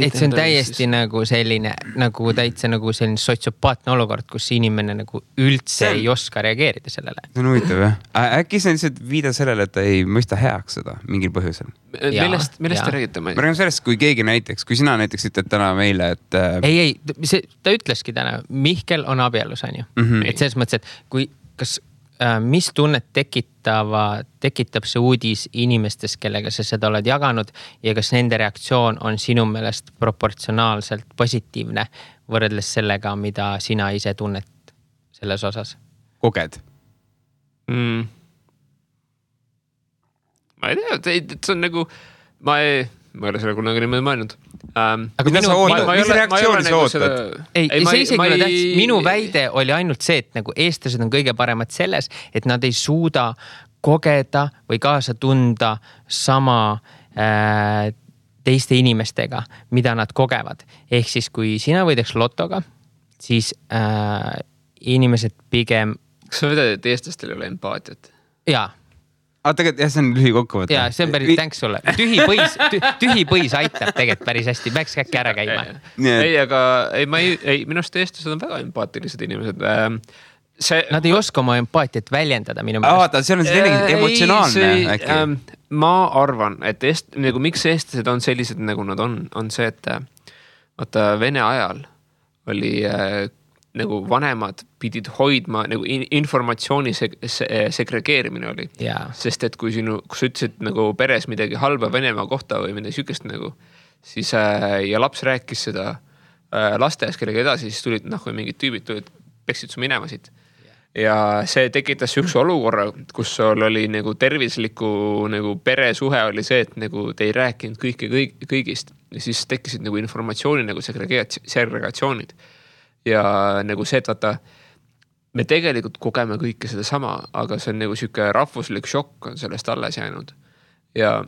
Et see on täiesti nagu selline, nagu täitsa nagu selline sotsiopaatne olukord, kus inimene nagu üldse ei oska reageerida sellele. See on huvitav, jah? Äkki see on lihtsalt viida sellele, et ta ei mõista heaks seda mingil põhjusel. Millest te räägite? Ma räägin sellest, kui keegi näiteks, kui sina näiteks ütled täna meile, et... Ei, ta ütleski täna, Mihkel on abielus, on ju. Et selles mõttes, et kui, mis tunnet tekitab see uudis inimestes, kellega sa seda oled jaganud ja kas nende reaktsioon on sinu meelest proportsionaalselt positiivne võrreldes sellega, mida sina ise tunnet selles osas? Koged? Ma ei tea, see on nagu, ma ei ole selle kunagi niimoodi mõelnud. Aga mis reaktsiooni sa ootad? See isegi ole tähtis. Minu väide oli ainult see, et nagu eestlased on kõige paremad selles, et nad ei suuda kogeda või kaasa tunda sama teiste inimestega, mida nad kogevad. Ehk siis, kui sina võidaks lotoga, siis inimesed pigem... Kas sa vedad, et eestlastel ei ole empaatiat? Jaa. Tegelikult jah, see on lühikokkuvõte. Jaa, see on päris tänks sulle. Tühi põis aitab tegelikult päris hästi. Peaks äkki ära käima. Ei, aga minu arust eestlased on väga empaatilised inimesed. Nad ei oska oma empaatiat väljendada minu meelest. Vaata, see on selline emotsionaalne äkki. Ma arvan, et miks eestlased on sellised, nagu nad on see, et vaata Vene ajal oli nagu vanemad pidid hoidma, nagu informatsiooni segregeerimine oli. Sest et kui sa ütlesid nagu peres midagi halba Venemaa kohta või midagi sükest nagu, siis ja laps rääkis seda lasteas kellega edasi, siis tulid, kui mingid tüübid tulid, peksid su minema siit. Ja see tekitas üks olukorra, kus sul oli nagu tervisliku nagu peresuhe oli see, et nagu te ei rääkinud kõigist. Ja siis tekkisid nagu informatsiooni nagu segregatsioonid. Ja nagu see, et vaata, me tegelikult kogeme kõike seda sama, aga see on nagu siuke rahvuslik šokk on sellest alles jäänud. Ja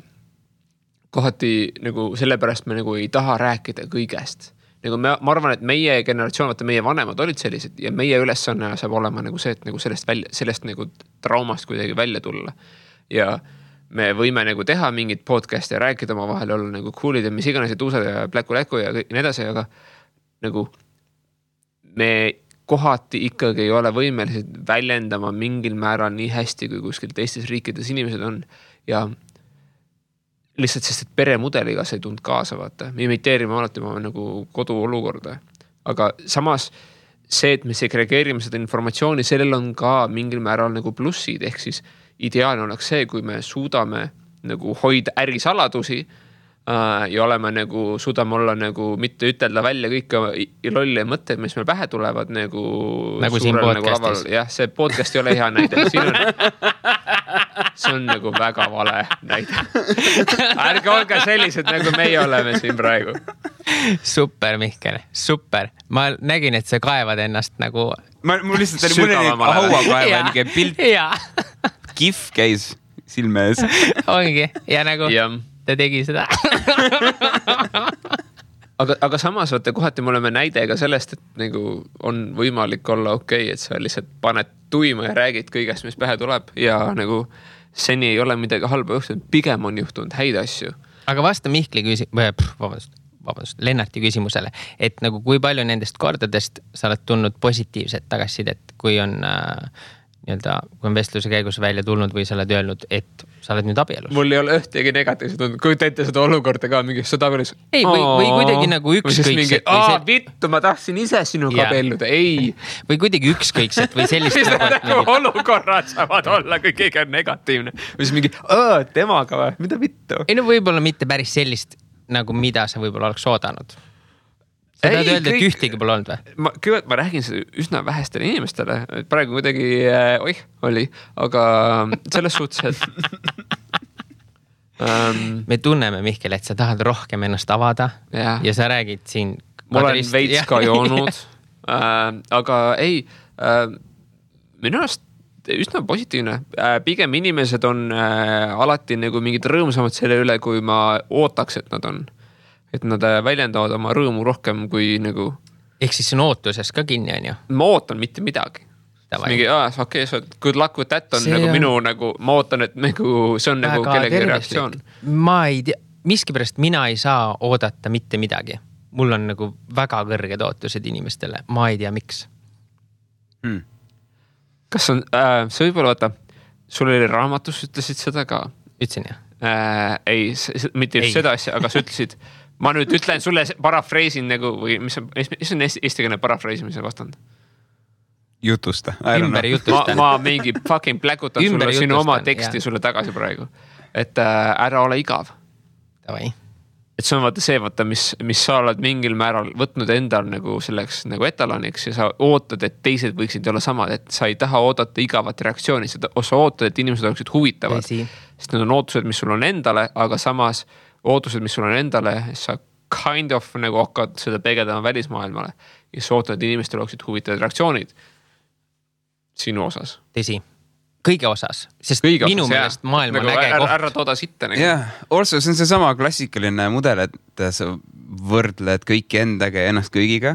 kohati nagu sellepärast me nagu ei taha rääkida kõigest. Nagu ma arvan, et meie generatsioon, vaata meie vanemad olid sellised ja meie ülesanne saab olema nagu see, et nagu sellest nagu traumast kuidagi välja tulla. Ja me võime nagu teha mingit podcasti ja rääkida oma vahel olla nagu coolid ja mis iganes ja tuusad ja pläku ja nii edasi, aga nagu me kohati ikkagi ei ole võimelised väljendama mingil määral nii hästi, kui kuskil teistes riikides inimesed on. Ja lihtsalt sest, et peremudeliga see ei tund kaasa, vaata. Me imiteerime alati oma nagu koduolukorda. Aga samas see, et me segregeerime seda informatsiooni, sellel on ka mingil määral nagu plussid. Ehk siis ideaalne oleks see, kui me suudame nagu hoida ärisaladusi ja oleme nagu, suudame olla nagu mitte ütelda välja kõike lolli mõtted, mis meil pähe tulevad nagu siin podcastis. Jah, see podcast ei ole hea näide. See on nagu väga vale näide. Ärge olge sellised, nagu meie oleme siin praegu. Super, Mihkel, super. Ma nägin, et sa kaevad ennast nagu... Mul lihtsalt oli mõne hauakaeva pilt. Kif käis silme ees. Ongi, ja nagu... ta tegi seda. aga samas vaata kohati me oleme näide ka sellest, et nagu on võimalik olla okei, et sa lihtsalt paned tuima ja räägid kõigest, mis pähe tuleb ja nagu seni ei ole midagi halba juhtunud, pigem on juhtunud häid asju. Aga vasta Mihkli vabandust, Lennarti küsimusele, et nagu kui palju nendest kordadest sa oled tulnud positiivset tagasisidet, kui on kui on vestluse käigus välja tulnud või sa oled öelnud, et sa oled nüüd abielus. Mul ei ole ühtegi negatiivset olnud. Kui teete seda olukorda ka mingi sõda abielus. Ei, või kuidagi nagu ükskõikset. Vittu, ma tahtsin ise sinuga abielluda. Ei. Või kuidagi ükskõikset või sellist. Nagu olukorrad saavad olla, kui keegi on negatiivne. Või siis mingi, temaga või? Mida vittu? Ei no võib-olla mitte päris sellist, nagu mida sa võib-olla oleks oodanud. Sa tahad öelda, et ühtegi pole olnud või? Kõigepealt ma räägin seda üsna vähestele inimestele. Praegu kuidagi, oli, aga selles suhtes, et me tunneme, Mihkel, et sa tahad rohkem ennast avada ja sa räägid siin. Ma olen veits ka joonud, aga ei, minu arust üsna positiivne. Pigem inimesed on alati nagu mingid rõõmsamad selle üle, kui ma ootaks, et nad on. Et nad väljendavad oma rõõmu rohkem kui nagu... Ehk siis on ootuses ka kinni, on ju? Ma ootan mitte midagi. Mingi, okei, good luck with that on see nagu minu nagu, ma ootan, et nagu, see on nagu kellegi reaktsioon. Ma ei tea, miskipärast mina ei saa oodata mitte midagi. Mul on nagu väga kõrged ootused inimestele. Ma ei tea, miks. Kas on, see võib-olla vaata, sul oli raamatus, ütlesid seda ka? Ütlesin, jah. Ei, mitte just seda asja, aga sa ütlesid, ma nüüd ütlen sulle parafreisin nagu, või mis on eestikeelne parafreisimise vastand? Jutusta. Ümber jutusta. Ma mingi fucking pläkutan sulle sinu oma teksti sulle tagasi praegu. Et ära ole igav. Tavai. Et see on vaata see, mis sa oled mingil määral võtnud endal nagu selleks nagu etaloniks ja sa ootad, et teised võiksid olla samad, et sa ei taha oodata igavat reaktsiooni, sa ootad, et inimesed oleksid huvitavad. Sest need on ootused, mis sul on endale, aga samas ootused, mis sul on endale, sa kind of nagu hakkad seda peegeldama välismaailmale ja sa ootad, et inimestel oleksid huvitavad reaktsioonid sinu osas. Tõsi. Kõige osas, sest minu meelest maailm on nagu äge koht. Ära tooda sitta. Jah, also see on see sama klassikaline mudel, et sa võrdled kõiki endaga ja ennast kõigiga.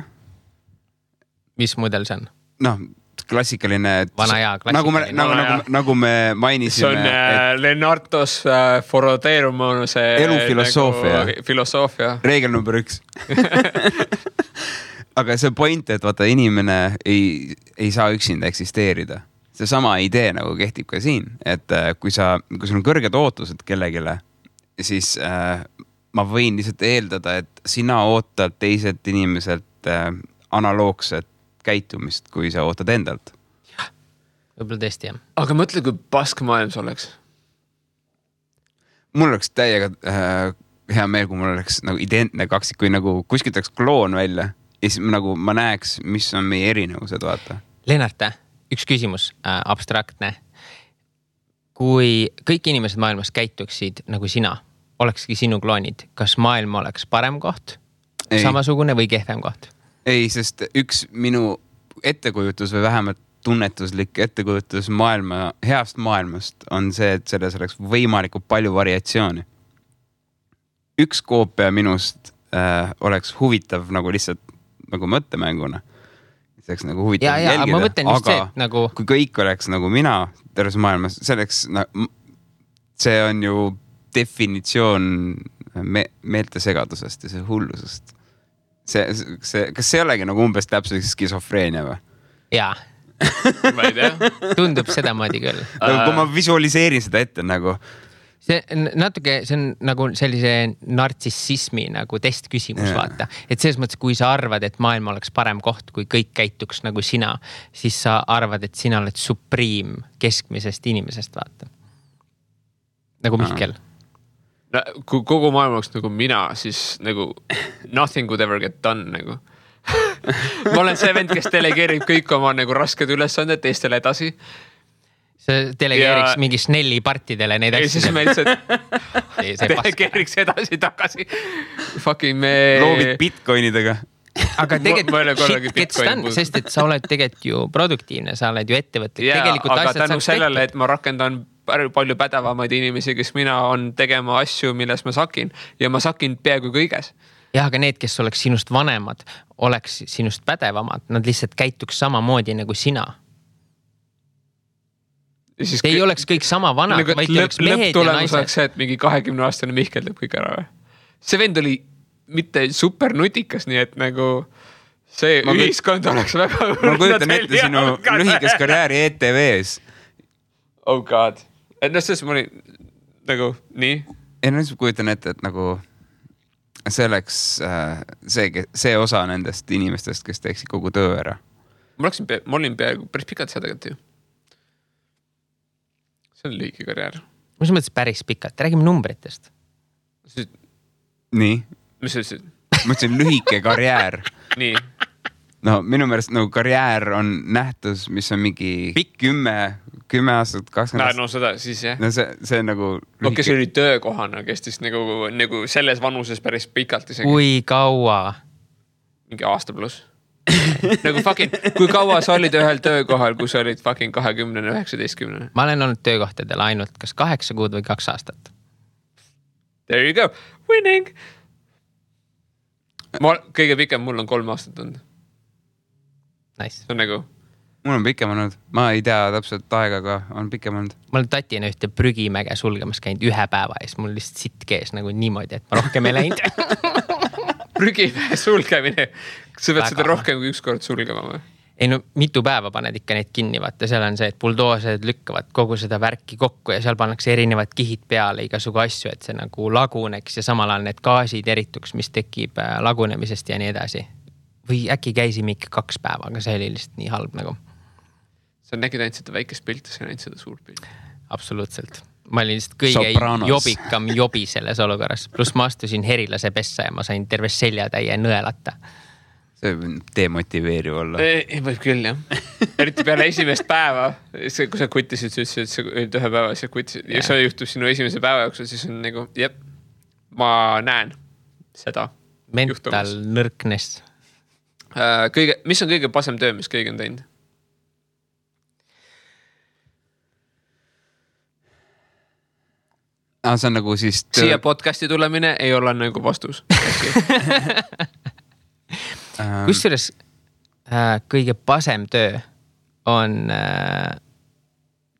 Mis mudel see on? Noh, klassikaline. Vana ja klassikaline. Nagu me mainisime. See on Lennartos foroteerumunuse elufilosoofia. Nagu filosoofia. Reegel number 1. Aga see point, et vaata inimene ei saa üksinda eksisteerida. See sama idee nagu kehtib ka siin, et kui sul on kõrged ootused kellegile, siis ma võin lihtsalt eeldada, et sina ootad teiselt inimeselt analoogset käitumist, kui sa ootad endalt. Võib-olla tõesti, jah. Aga mõtle, kui pask maailm see oleks. Mul oleks täiega hea meel, kui mul oleks nagu identne kaksik, kui nagu kuskilt oleks kloon välja ja siis nagu ma näeks, mis on meie erinevused, vaata. Lennart, üks küsimus, abstraktne. Kui kõik inimesed maailmas käituksid nagu sina, olekski sinu kloonid, kas maailm oleks parem koht, samasugune või kehvem koht? Ei, sest üks minu ettekujutus või vähemalt tunnetuslik ettekujutus heast maailmast on see, et selles oleks võimalikult palju variatsiooni. Üks koopia minust oleks huvitav nagu lihtsalt nagu mõttemänguna. See oleks nagu huvitav jälgida. Ma mõtlen just see, et nagu... Kui kõik oleks nagu mina terves maailmas, see on ju definitsioon meeltesegadusest ja see hullusest. Kas see olegi nagu umbes täpselt skisofreenia või? Jaa. Ma ei tea. Tundub seda moodi küll. Kui ma visualiseerin seda ette nagu... See on nagu sellise nartsissismi nagu testküsimus, vaata. Et selles mõttes, kui sa arvad, et maailm oleks parem koht, kui kõik käituks nagu sina, siis sa arvad, et sina oled supriim keskmisest inimesest, vaata. Nagu Mihkel. No, kui kogu maailm oleks nagu mina, siis nagu nothing would ever get done nagu. Ma olen see vend, kes delegeerib kõik oma nagu rasked ülesanded teistele edasi. See delegeeriks mingi Snelli partidele neid asju. Ja siis me lihtsalt delegeeriks edasi tagasi. Fucking me... Loovid bitcoinidega. Aga tegelikult gets done, sest et sa oled tegelikult ju produktiivne, sa oled ju ettevõtlik. Aga tänu sellele, et ma rakendan palju pädevamaid inimesi, kes mina on tegema asju, milles ma sakin. Ja ma sakin peaaegu kõiges. jah, aga need, kes oleks sinust vanemad, oleks sinust pädevamad, nad lihtsalt käituks samamoodi nagu sina. Te ei oleks kõik sama vanad, nagu, vaid te oleks mehed ja naised. Oleks see, et mingi 20-aastane Mihkel teeb kõik ära või? See vend oli mitte super nutikas, nii et nagu see ühiskond oleks väga... Ma kujutan ette sinu lühikest karjääri ETV-s. Oh god. Et selles ma olin nagu nii. Ja nüüd kujutan ette, et nagu see oleks see osa nendest inimestest, kes teeksid kogu töö ära. Ma olin peaaegu päris pikalt seda tegelikult ju. See on lühike karjäär. Mis mõttes päris pikalt? Räägime numbritest. Nii? Mis sa ütlesid? Ma ütlesin lühike karjäär. Nii. No minu meelest nagu karjäär on nähtus, mis on mingi 10 aastat, 20 aastat. No seda siis jah. No see on nagu lühike. Kes oli töökohana, kestis nagu selles vanuses päris pikalt isegi. Kui kaua? Mingi aasta pluss. Nagu fucking, kui kaua sa olid ühel töökohal, kui sa olid fucking 20, 19? Ma olen olnud töökohtadel ainult kas 8 kuud või 2 aastat. There you go. Winning! Kõige pikem mul on 3 aastat olnud. Nice. See on nagu... Mul on pikem olnud. Ma ei tea täpselt aega, aga on pikem olnud. Ma olen tatina ühte prügimäge sulgemas käinud 1 päeva ees. Mul lihtsalt sitt kees nagu niimoodi, et ma rohkem ei läinud. Prügimäe sulgemine. Sa pead seda rohkem kui 1 kord sulgema või? Ei no mitu päeva paned ikka neid kinni, vaata seal on see, et buldoosed lükkavad kogu seda värki kokku ja seal pannakse erinevad kihid peale igasugu asju, et see nagu laguneks ja samal ajal need gaasid erituks, mis tekib lagunemisest ja nii edasi. Või äkki käisime ikka 2 päeva, aga see oli lihtsalt nii halb nagu. Sa nägid ainult seda väikest pilti, sa nägid seda suurt pilti. Absoluutselt. Ma olin lihtsalt kõige jobikam jobi selles olukorras. Plus ma astusin herilase pessa ja ma sain terve seljatäie nõelata. See demotiveeriv olla. Võib küll, jah. Eriti peale esimest päeva, kui sa kutisid, sa ütlesid, et sa olid 1 päeva, sa kutisid. Ja see juhtub sinu esimese päeva jooksul, siis on nagu, jep, ma näen seda. Mental nõrknes. Mis on kõige pasem töö, mis kõige on teinud? See on nagu siis... Siia podcasti tulemine ei ole nagu vastus. Kusjuures kõige pasem töö on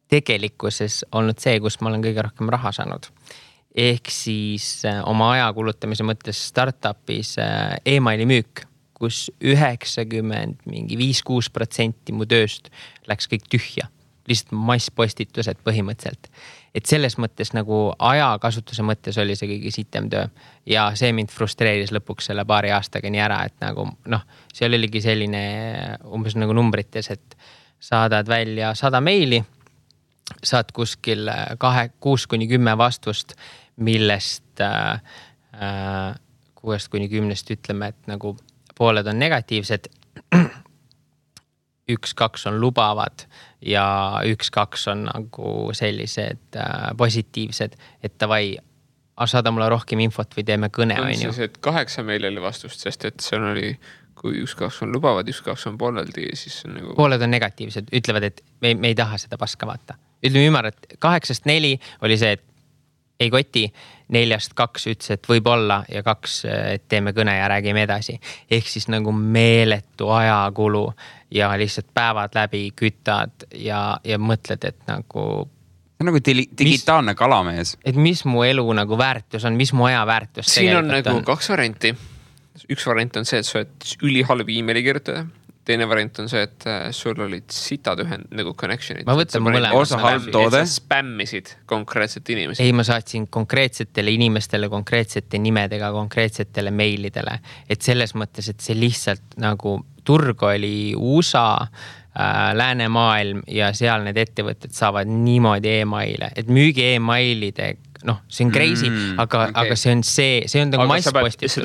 tegelikkuses olnud see, kus ma olen kõige rohkem raha saanud. Ehk siis oma aja kulutamise mõttes startupis e-maili müük, kus 95-6% mu tööst läks kõik tühja. Lihtsalt masspostitused põhimõtteliselt. Et selles mõttes nagu ajakasutuse mõttes oli see kõige sitem töö. Ja see mind frustreeris lõpuks selle 2 aastaga nii ära, et nagu seal oligi selline umbes nagu numbrites, et saadad välja 100 meili, saad kuskil 6-10 vastust, millest 6-10 ütleme, et nagu pooled on negatiivsed, 1-2 on lubavad ja 1-2 on nagu sellised positiivsed, et tavai, saada mulle rohkem infot või teeme kõne. On siis, et 8 meil oli vastust, sest et seal oli, kui 1-2 on lubavad, 1-2 on pooleldi, siis on nagu... Pooled on negatiivsed, ütlevad, et me ei taha seda paska vaata. Ütleme ümar, et 8-4 oli see, et ei koti, 4-2 ütles, et võib olla ja 2, et teeme kõne ja räägime edasi. Ehk siis nagu meeletu ajakulu ja lihtsalt päevad läbi kütad ja mõtled, et nagu... See on nagu digitaalne kalamees. Et mis mu elu nagu väärtus on, mis mu aja väärtus siin on nagu 2 varianti. Üks variant on see, et sa oled ülihalb e-maili kirjutada. Teine variant on see, et sul olid sitad nagu connectionid. Ma võtan mõlemad. Osa halb toode. Et sa spämmisid konkreetsete inimesi. Ei, ma saatsin konkreetsetele inimestele, konkreetsete nimedega, konkreetsetele meilidele. Et selles mõttes, et see lihtsalt nagu turg oli USA, läänemaailm ja seal need ettevõtted saavad niimoodi e-maile. Et müügi e-mailide, see on crazy, aga see on nagu masspostitus.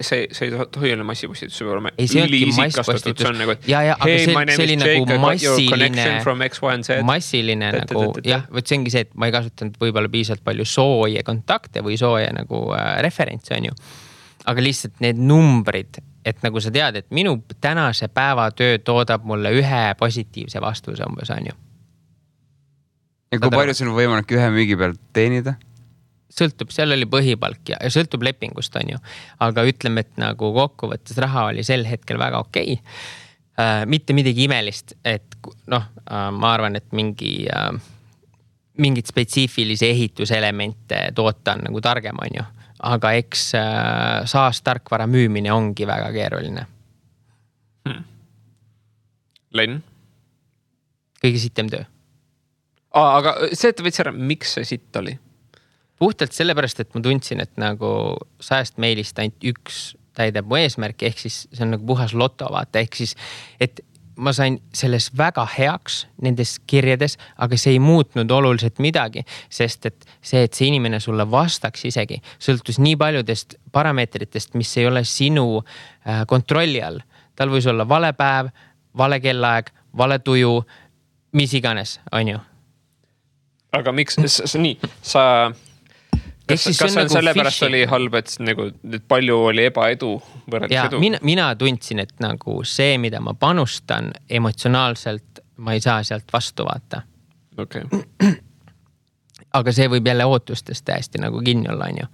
See ei tohi olla massipostitus, see peab olema üliisikastatud. Aga see oli nagu massiline nagu, jah, võt see ongi see, et ma ei kasutanud võib-olla piisavalt palju sooje kontakte või sooje nagu referentsi on ju. Aga lihtsalt need numbrid, et nagu sa tead, et minu tänase päeva töö toodab mulle 1 positiivse vastuse umbes on ju. Ja kui palju sul on võimalik 1 müügi pealt teenida? sõltub, seal oli põhipalk ja sõltub lepingust, on ju. Aga ütleme, et nagu kokkuvõttes raha oli sel hetkel väga okei. Mitte midagi imelist, et noh, ma arvan, et mingid spetsiifilisi ehituselemente toota on nagu targem, on ju. Aga eks SaaS-tarkvara müümine ongi väga keeruline. Len? Kõige sitem töö. Aga see, et võid ära, miks see sitt oli? Puhtalt sellepärast, et ma tundsin, et nagu 100 meilist ainult üks täidab mu eesmärki, ehk siis see on nagu puhas loto, vaata, ehk siis, et ma sain selles väga heaks nendes kirjades, aga see ei muutnud oluliselt midagi, sest et see inimene sulle vastaks isegi, sõltus nii paljudest parameetritest, mis ei ole sinu kontrolli all. Tal võis olla vale päev, vale kellaeg, vale tuju, mis iganes, on ju. Aga miks, nii, kas see on nagu sellepärast oli halb, et nagu palju oli ebaedu võrreldes edu? Mina tundsin, et nagu see, mida ma panustan emotsionaalselt, ma ei saa sealt vastu vaata. Okay. Aga see võib jälle ootustest täiesti nagu kinni olla, on ju.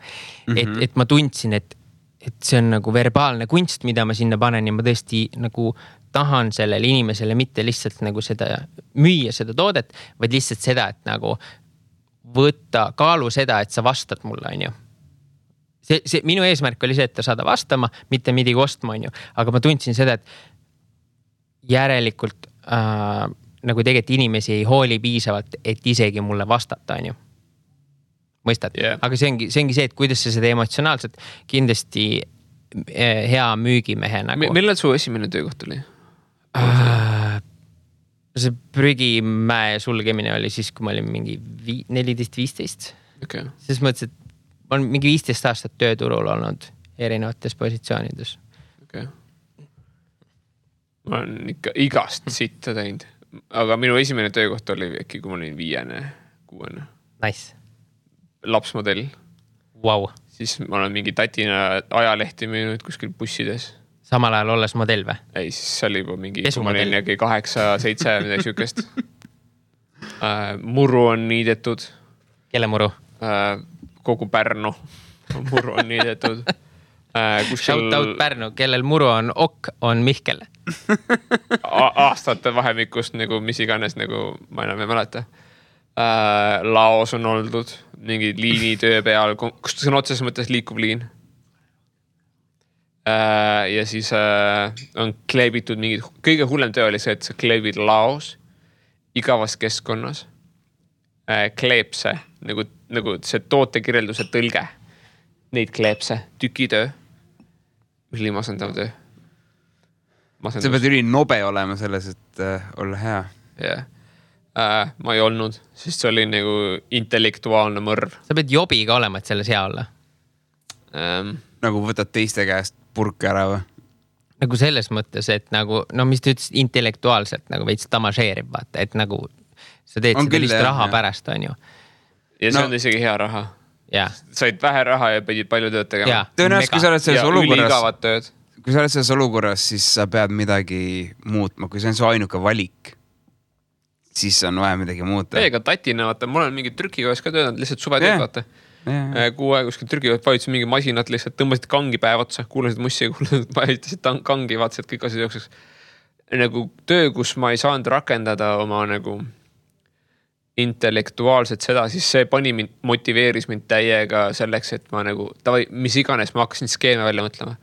Et ma tundsin, et see on nagu verbaalne kunst, mida ma sinna panen ja ma tõesti nagu tahan sellele inimesele mitte lihtsalt nagu seda müüa seda toodet, vaid lihtsalt seda, et nagu võtta kaalu seda, et sa vastad mulle, on ju. See minu eesmärk oli see, et ta saada vastama, mitte midagi ostma, on ju. Aga ma tundsin seda, et järelikult nagu tegelikult inimesi ei hooli piisavalt, et isegi mulle vastata, on ju. Mõistad? Yeah. Aga see ongi see, et kuidas sa seda emotsionaalselt kindlasti hea müügimehe nagu. Millal su esimene töökoht oli? See prügimäe sulgemine oli siis, kui ma olin mingi 14-15. Okay. Siis mõttes, et ma olen mingi 15 aastat tööturul olnud erinevates positsioonides. Okay. Ma olen ikka igast sitta teinud. Aga minu esimene töökoht oli äkki, kui ma olin 5-6. Nice. Lapsmodell. Wow. Siis ma olen mingi tatina ajalehti müünud kuskil bussides. Samal ajal olles modell või? Ei, siis see oli juba mingi, kui ma olin 8-7 midagi sükest. Muru on niidetud. Kelle muru? Kogu Pärnu muru on niidetud. Shout out Pärnu, kellel muru on ok, on Mihkel. Aastate vahemikust, nagu, mis iganes, nagu, ma enam ei mäleta. Laos on oldud, mingi liinitöö peal, kus see on otseses mõttes liikuv liin. Ja siis on kleebitud mingid, kõige hullem töö oli see, et sa kleebid laos igavas keskkonnas kleeb see, nagu see tootekirjelduse tõlge. Neid kleeb see tükitöö. Mis oli masendav töö? Sa pead üli nobe olema selles, et olla hea. Yeah. Ma ei olnud, sest see oli nagu intellektuaalne mõrv. Sa pead jobiga olema, et selles hea olla. Nagu võtad teiste käest purk ära või? Nagu selles mõttes, et nagu, no mis ta ütles intellektuaalselt, nagu veits tamažeerib, vaata, et nagu sa teed seda lihtsalt raha pärast, on ju. Ja see on isegi hea raha. Yeah. Said vähe raha ja pidid palju tööd tegema. Yeah, tõenäoliselt, kui sa oled selles olukorras, kui sa oled selles olukorras, siis sa pead midagi muutma. Kui see on su ainuke valik, siis on vaja midagi muuta. Ega tatina, vaata, mul on mingi trükikojas ka töötanud, lihtsalt suvetööd, vaata. Kuu aeg kuskil trükikojas vajutasid mingi masinat, lihtsalt tõmbasid kangi päev otsa, kuulasid mussi ja vajutasid kangi, vaatasid kõik asjad jookseks. Nagu töö, kus ma ei saanud rakendada oma nagu intellektuaalselt seda, siis see motiveeris mind täiega selleks, et ma nagu, mis iganes, ma hakkasin skeeme välja mõtlema.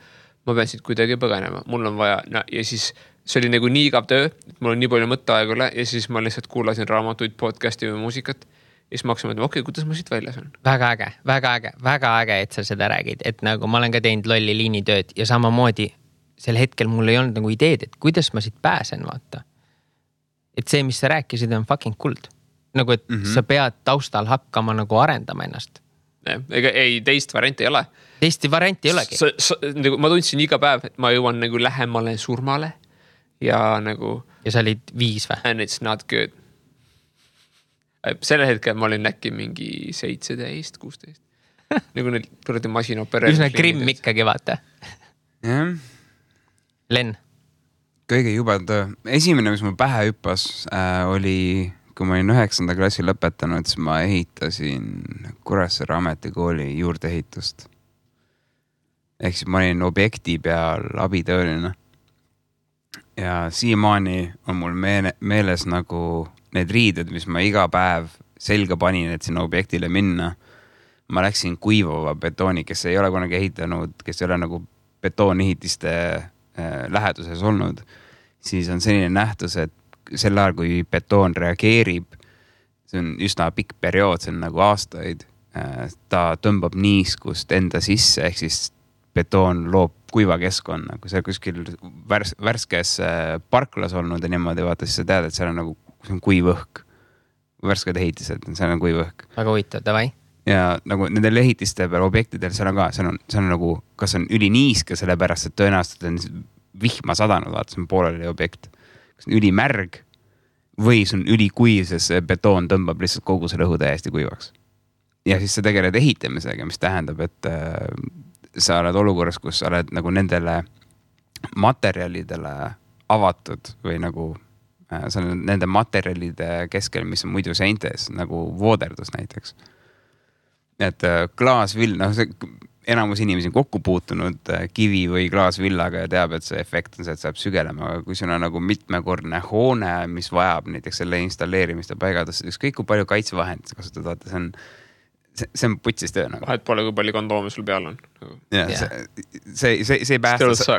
Ma pean siit kuidagi põgenema, mul on vaja, ja siis see oli nagu nii igav töö, et mul on nii palju mõtteaeg üle ja siis ma lihtsalt kuulasin raamatuid, podcasti või muusikat ja siis ma hakkasin mõtlema, okei, kuidas ma siit väljas on? Väga äge, et sa seda räägid, et nagu ma olen ka teinud lolli liinitööd ja samamoodi sel hetkel mul ei olnud nagu ideed, et kuidas ma siit pääsen, vaata. Et see, mis sa rääkisid, on fucking kuld. Nagu, et sa pead taustal hakkama nagu arendama ennast. Ega ei, teist varianti ei ole. Teist varianti ei olegi. Nagu, ma tundsin iga päev, et ma jõuan nagu lähemale surmale ja nagu... Ja sa olid 5 või? And it's not good. Selle hetkel ma olin äkki mingi 17, 16. Nagu need kuradi masinopereerimisliinid. Üsna grimm ikkagi, vaata. Jah. Len. Kõige jubedam töö. Esimene, mis mul pähe hüppas, oli kui ma olin 9. klassi lõpetanud, siis ma ehitasin Kuressaare ametikooli juurdeehitust. Ehk siis ma olin objekti peal abitööline. Ja siiamaani on mul meeles nagu need riided, mis ma iga päev selga panin, et sinna objektile minna. Ma läksin kuivava betooni, kes ei ole kunagi ehitanud, kes ei ole nagu betoonehitiste läheduses olnud, siis on selline nähtus, et sel ajal, kui betoon reageerib, see on üsna pikk periood, see on nagu aastaid, ta tõmbab niiskust enda sisse, ehk siis betoon loob kuiva keskkonna, kui sa kuskil värskes parklas olnud ja niimoodi vaata, siis sa tead, et seal on nagu see on kuiv õhk, värsked ehitised, seal on kuiv õhk. Väga huvitav, davai. Ja nagu nendel ehitiste peal objektidel seal on ka, seal on nagu, kas on üliniiske, sellepärast, et tõenäoliselt on vihma sadanud, vaata, see on pooleli objekt. Kas on ülimärg või see on ülikuiv, sest see betoon tõmbab lihtsalt kogu selle õhu täiesti kuivaks. Ja siis sa tegeled ehitamisega, mis tähendab, et sa oled olukorras, kus sa oled nagu nendele materjalidele avatud või nagu sa oled nende materjalide keskel, mis on muidu seintes, nagu vooderdus näiteks. Et klaasvill, enamus inimesi on kokku puutunud kivi või klaasvillaga ja teab, et see efekt on see, et saab sügelema, aga kui sul on nagu mitmekordne hoone, mis vajab näiteks selle installeerimist ja paigaldust, ükskõik kui palju kaitsevahendid sa kasutad, vaata, see on putsis töö nagu. Vahet pole, kui palju kondoomi sul peal on. Ja, see ei päästa.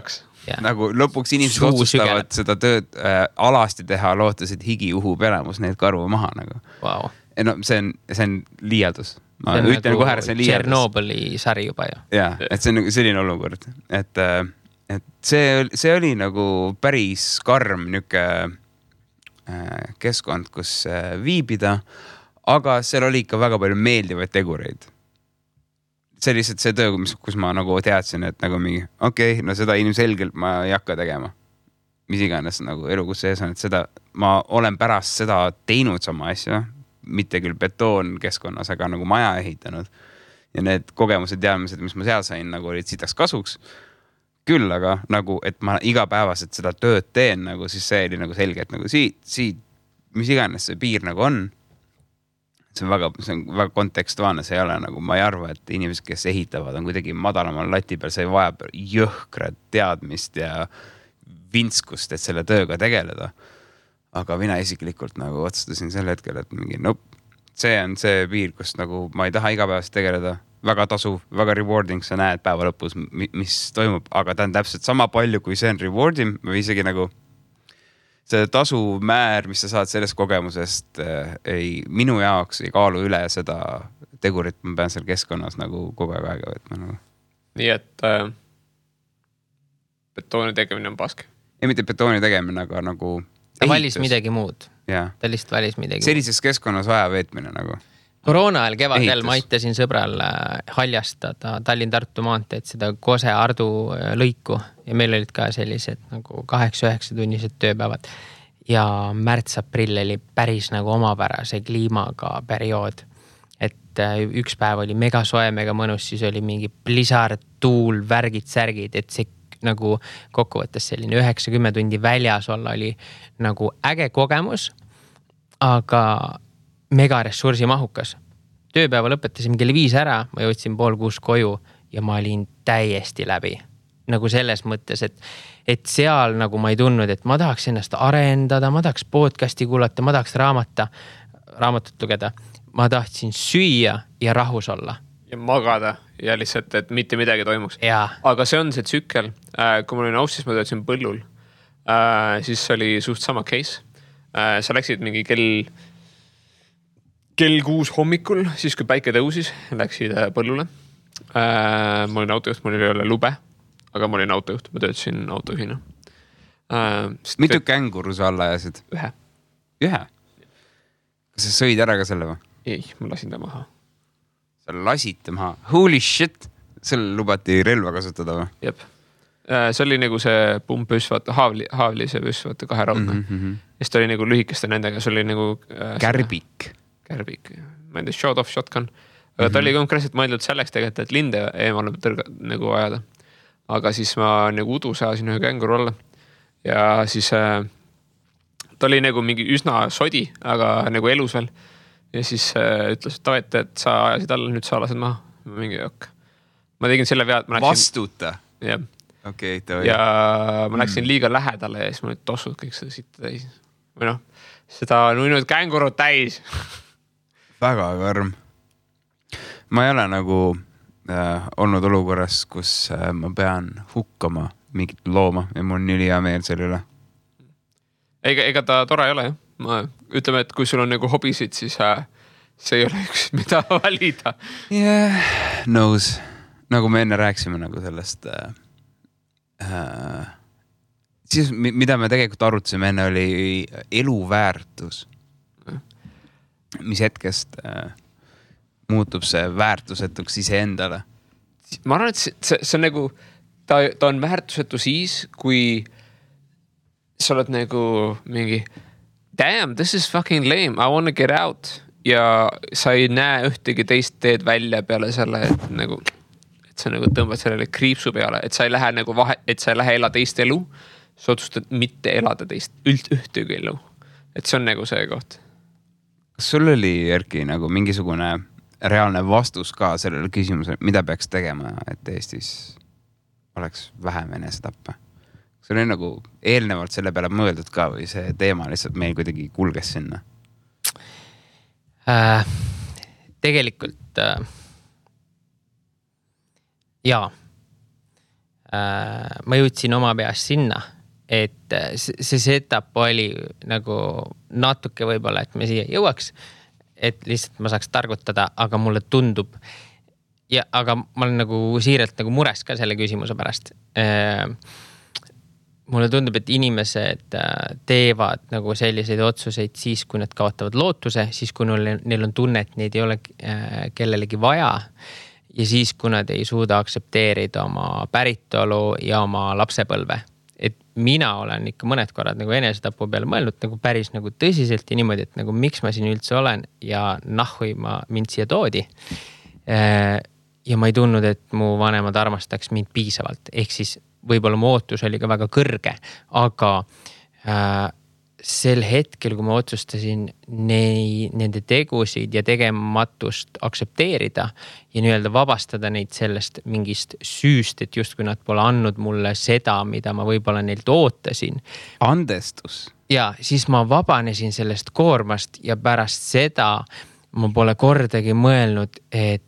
Nagu lõpuks inimesed otsustavad seda tööd alasti teha, lootes, et higi uhub elamus neid karvu maha nagu. Wow. No, see on liialdus. Ma ütlen kohe, see on liialdus. Tšernobõli sari juba ju. Ja, et see on nagu selline olukord. Et see oli nagu päris karm niuke keskkond, kus viibida, aga seal oli ikka väga palju meeldivaid tegureid. See lihtsalt see töö, kus ma nagu teadsin, et nagu mingi, okei, no seda ilmselgelt ma ei hakka tegema. Mis iganes nagu elu, kus sees on, et seda, ma olen pärast seda teinud sama asja, mitte küll betoon keskkonnas, aga nagu maja ehitanud. Ja need kogemused, teadmised, mis ma seal sain, nagu olid sitaks kasuks. Küll, aga nagu, et ma igapäevaselt seda tööd teen, nagu siis see oli nagu selge, et nagu siit, mis iganes see piir nagu on, see on väga kontekstuaalne, see ei ole nagu, ma ei arva, et inimesed, kes ehitavad, on kuidagi madalamal lati peal, see vajab jõhkrat teadmist ja vinskust, et selle tööga tegeleda. Aga mina isiklikult nagu otsustasin sel hetkel, et mingi, see on see piir, kus nagu ma ei taha igapäevast tegeleda, väga tasuv, väga rewarding, sa näed päeva lõpus, mis toimub, aga ta on täpselt sama palju, kui see on rewarding või isegi nagu see tasumäär, mis sa saad sellest kogemusest, minu jaoks ei kaalu üle seda tegurit, ma pean seal keskkonnas nagu kogu aega võtma. Nagu. Nii et betooni tegemine on pask. Ei, mitte betooni tegemine, aga nagu ta valis midagi muud. Ja. Ta lihtsalt valis midagi sellises keskkonnas aja veetmine nagu. Koroona ajal kevadel ma aitasin sõbral haljastada Tallinn-Tartu maanteed seda Kose-Ardu lõiku ja meil olid ka sellised nagu 8-9 tunnised tööpäevad ja märts-aprill oli päris nagu omapärase kliimaga periood, et üks päev oli mega soe, mega mõnus, siis oli mingi blizzard, tuul, värgid, särgid, et see nagu kokkuvõttes selline 90 tundi väljas olla oli nagu äge kogemus, aga mega ressursi mahukas. Tööpäeva lõpetasin kell 5 ära, ma jõudsin 5:30 koju ja ma olin täiesti läbi. Nagu selles mõttes, et seal nagu ma ei tundnud, et ma tahaks ennast arendada, ma tahaks podcasti kuulata, ma tahaks raamatut lugeda. Ma tahtsin süüa ja rahus olla. Ja magada ja lihtsalt, et mitte midagi toimuks. Ja. Aga see on see tsükkel. Kui ma olin Aussis, ma töötasin põllul. Siis oli suht sama case. Sa läksid mingi kell 6 hommikul, siis kui päike tõusis, läksid põllule. Ma olin autojuht, mul ei ole lube, aga ma olin autojuht, ma töötasin autojuhina. Mitu känguru sa alla ajasid? Ühe? Kas sa sõid ära ka selle või? Ei, ma lasin ta maha. Sa lasid ta maha? Holy shit! Seal lubati relva kasutada või? Jep. See oli nagu see pumpüss, vaata, haavli see püss, vaata, 2 raudne. Ja siis ta oli nagu lühikeste nendega, see oli nagu... Kärbik. Ma ei tea, shot off shotgun. Aga ta oli konkreetselt mõeldud selleks tegelikult, et linde eemale nagu ajada. Aga siis ma nagu udus ajasin ühe känguru alla. Ja siis ta oli nagu mingi üsna sodi, aga nagu elus veel. Ja siis ütles, et sa ajasid alla, nüüd sa lased maha. Mingi jokk. Ma tegin selle vead. Vastuta? Jah. Okay, ja ma läksin liiga lähedale ja siis ma nüüd tossud kõik seda sitta täis. Või noh, seda nuinud kängurud täis. Väga karm. Ma ei ole nagu olnud olukorras, kus ma pean hukkama mingit looma ja mul on nii hea meel selle üle. Ega ta tore ei ole, jah. Ütleme, et kui sul on nagu hobisid, siis see ei ole üks, mida valida. Yeah, nõus. Nagu me enne rääksime nagu sellest siis, mida me tegelikult arutasime enne, oli eluväärtus. Mis hetkest muutub see väärtusetuks iseendale? Ma arvan, et see on nagu, ta on väärtusetu siis, kui sa oled nagu mingi damn, this is fucking lame, I wanna get out. Ja sa ei näe ühtegi teist teed välja peale selle, et nagu sa nagu tõmbad sellele kriipsu peale, et sa ei lähe nagu et sa ei lähe ela teist elu, sa otsustad mitte elada teist ühtegi elu. Et see on nagu see koht. Kas sul oli, Erki, nagu mingisugune reaalne vastus ka sellele küsimusele, mida peaks tegema, et Eestis oleks vähem enesetappe? See oli nagu eelnevalt selle peale mõeldud ka või see teema lihtsalt meil kuidagi kulges sinna? Tegelikult jaa. Ma jõudsin oma peast sinna, et see setup oli nagu natuke võib-olla, et me siia jõuaks, et lihtsalt ma saaks targutada, aga mulle tundub aga ma olen nagu siiralt nagu mures ka selle küsimuse pärast. Mulle tundub, et inimesed teevad nagu selliseid otsuseid siis, kui nad kaotavad lootuse, siis kui neil on tunne, et neid ei ole kellelegi vaja ja siis, kui nad ei suuda aksepteerida oma päritolu ja oma lapsepõlve. Et mina olen ikka mõned korrad nagu enesetapu peale mõelnud nagu päris nagu tõsiselt ja niimoodi, et nagu miks ma siin üldse olen ja nahhui mind siia toodi. Ja ma ei tundnud, et mu vanemad armastaks mind piisavalt. Ehk siis võib-olla mu ootus oli ka väga kõrge, aga sel hetkel, kui ma otsustasin nende tegusid ja tegematust aksepteerida ja nii-öelda vabastada neid sellest mingist süüst, et just kui nad pole andnud mulle seda, mida ma võib-olla neilt ootasin. Andestus. Ja siis ma vabanesin sellest koormast ja pärast seda ma pole kordagi mõelnud, et